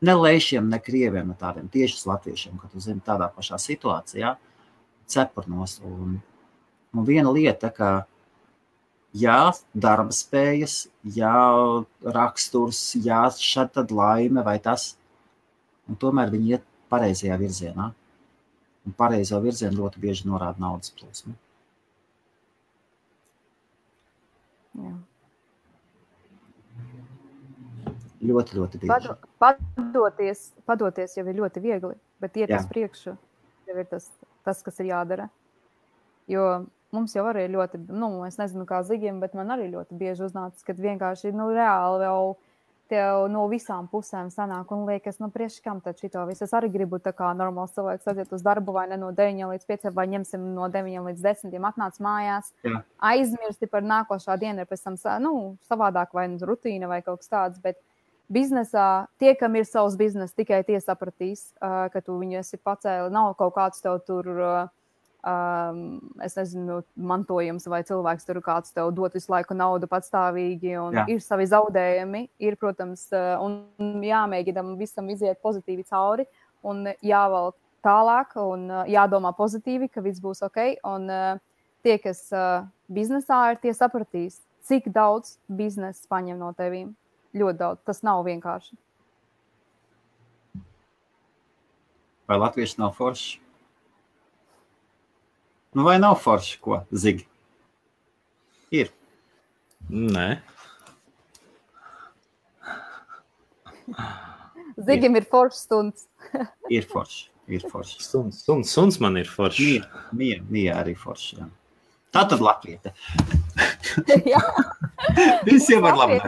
Speaker 1: ne lēšiem, ne krieviem, ne tādiem tiešas latviešiem, kad tu zini tādā pašā situācijā, cepurnos. Un viena lieta, ka jā, darba spējas, jā, raksturs, jā, šad tad laime vai tas, un tomēr viņi iet pareizajā virzienā. Un pareizo virzienu ļoti bieži norāda naudas plūsmu.
Speaker 2: Jā.
Speaker 1: Ļoti, ļoti bieži.
Speaker 2: Padoties jau ir ļoti viegli, bet iet uz priekšu jau ir tas, kas ir jādara. Jo mums jau arī ļoti, es nezinu kā Zigim, bet man arī ļoti bieži uznācis, kad vienkārši, reāli jau tev no visām pusēm sanāk un liekas, priekškam tad šito visu. Es arī gribu tā kā normāls cilvēks aiziet uz darbu vai ne no 9 līdz 5, vai ņemsim no 9 līdz 10, atnāc mājās, aizmirsti par nākošā dienu, ir pēc tam, savādāk vai rutīna vai kaut kas tāds, bet biznesā tie, kam ir savs biznes, tikai tie sapratīs, ka tu viņu esi pacēli, nav kaut kāds tev tur, es nezinu, mantojums vai cilvēks tur kāds tev dot visu laiku naudu patstāvīgi un ir savi zaudējumi, ir, protams, un jāmēģinam visam iziet pozitīvi cauri un jāvalk tālāk un jādomā pozitīvi, ka viss būs ok, un tie, kas biznesā ir, tie sapratīs, cik daudz biznesa paņem no tevīm. Ļoti daudz. Tas nav vienkārši.
Speaker 1: Vai latvieši nav forši? Vai nav forši, ko, Zigi? Ir.
Speaker 3: Nē.
Speaker 2: Zigim ir forši stunds.
Speaker 1: Ir forši.
Speaker 3: Suns man ir forši.
Speaker 1: Mija arī forši, jā. Tā tad latviete.
Speaker 2: Jā.
Speaker 1: Visiem var labi.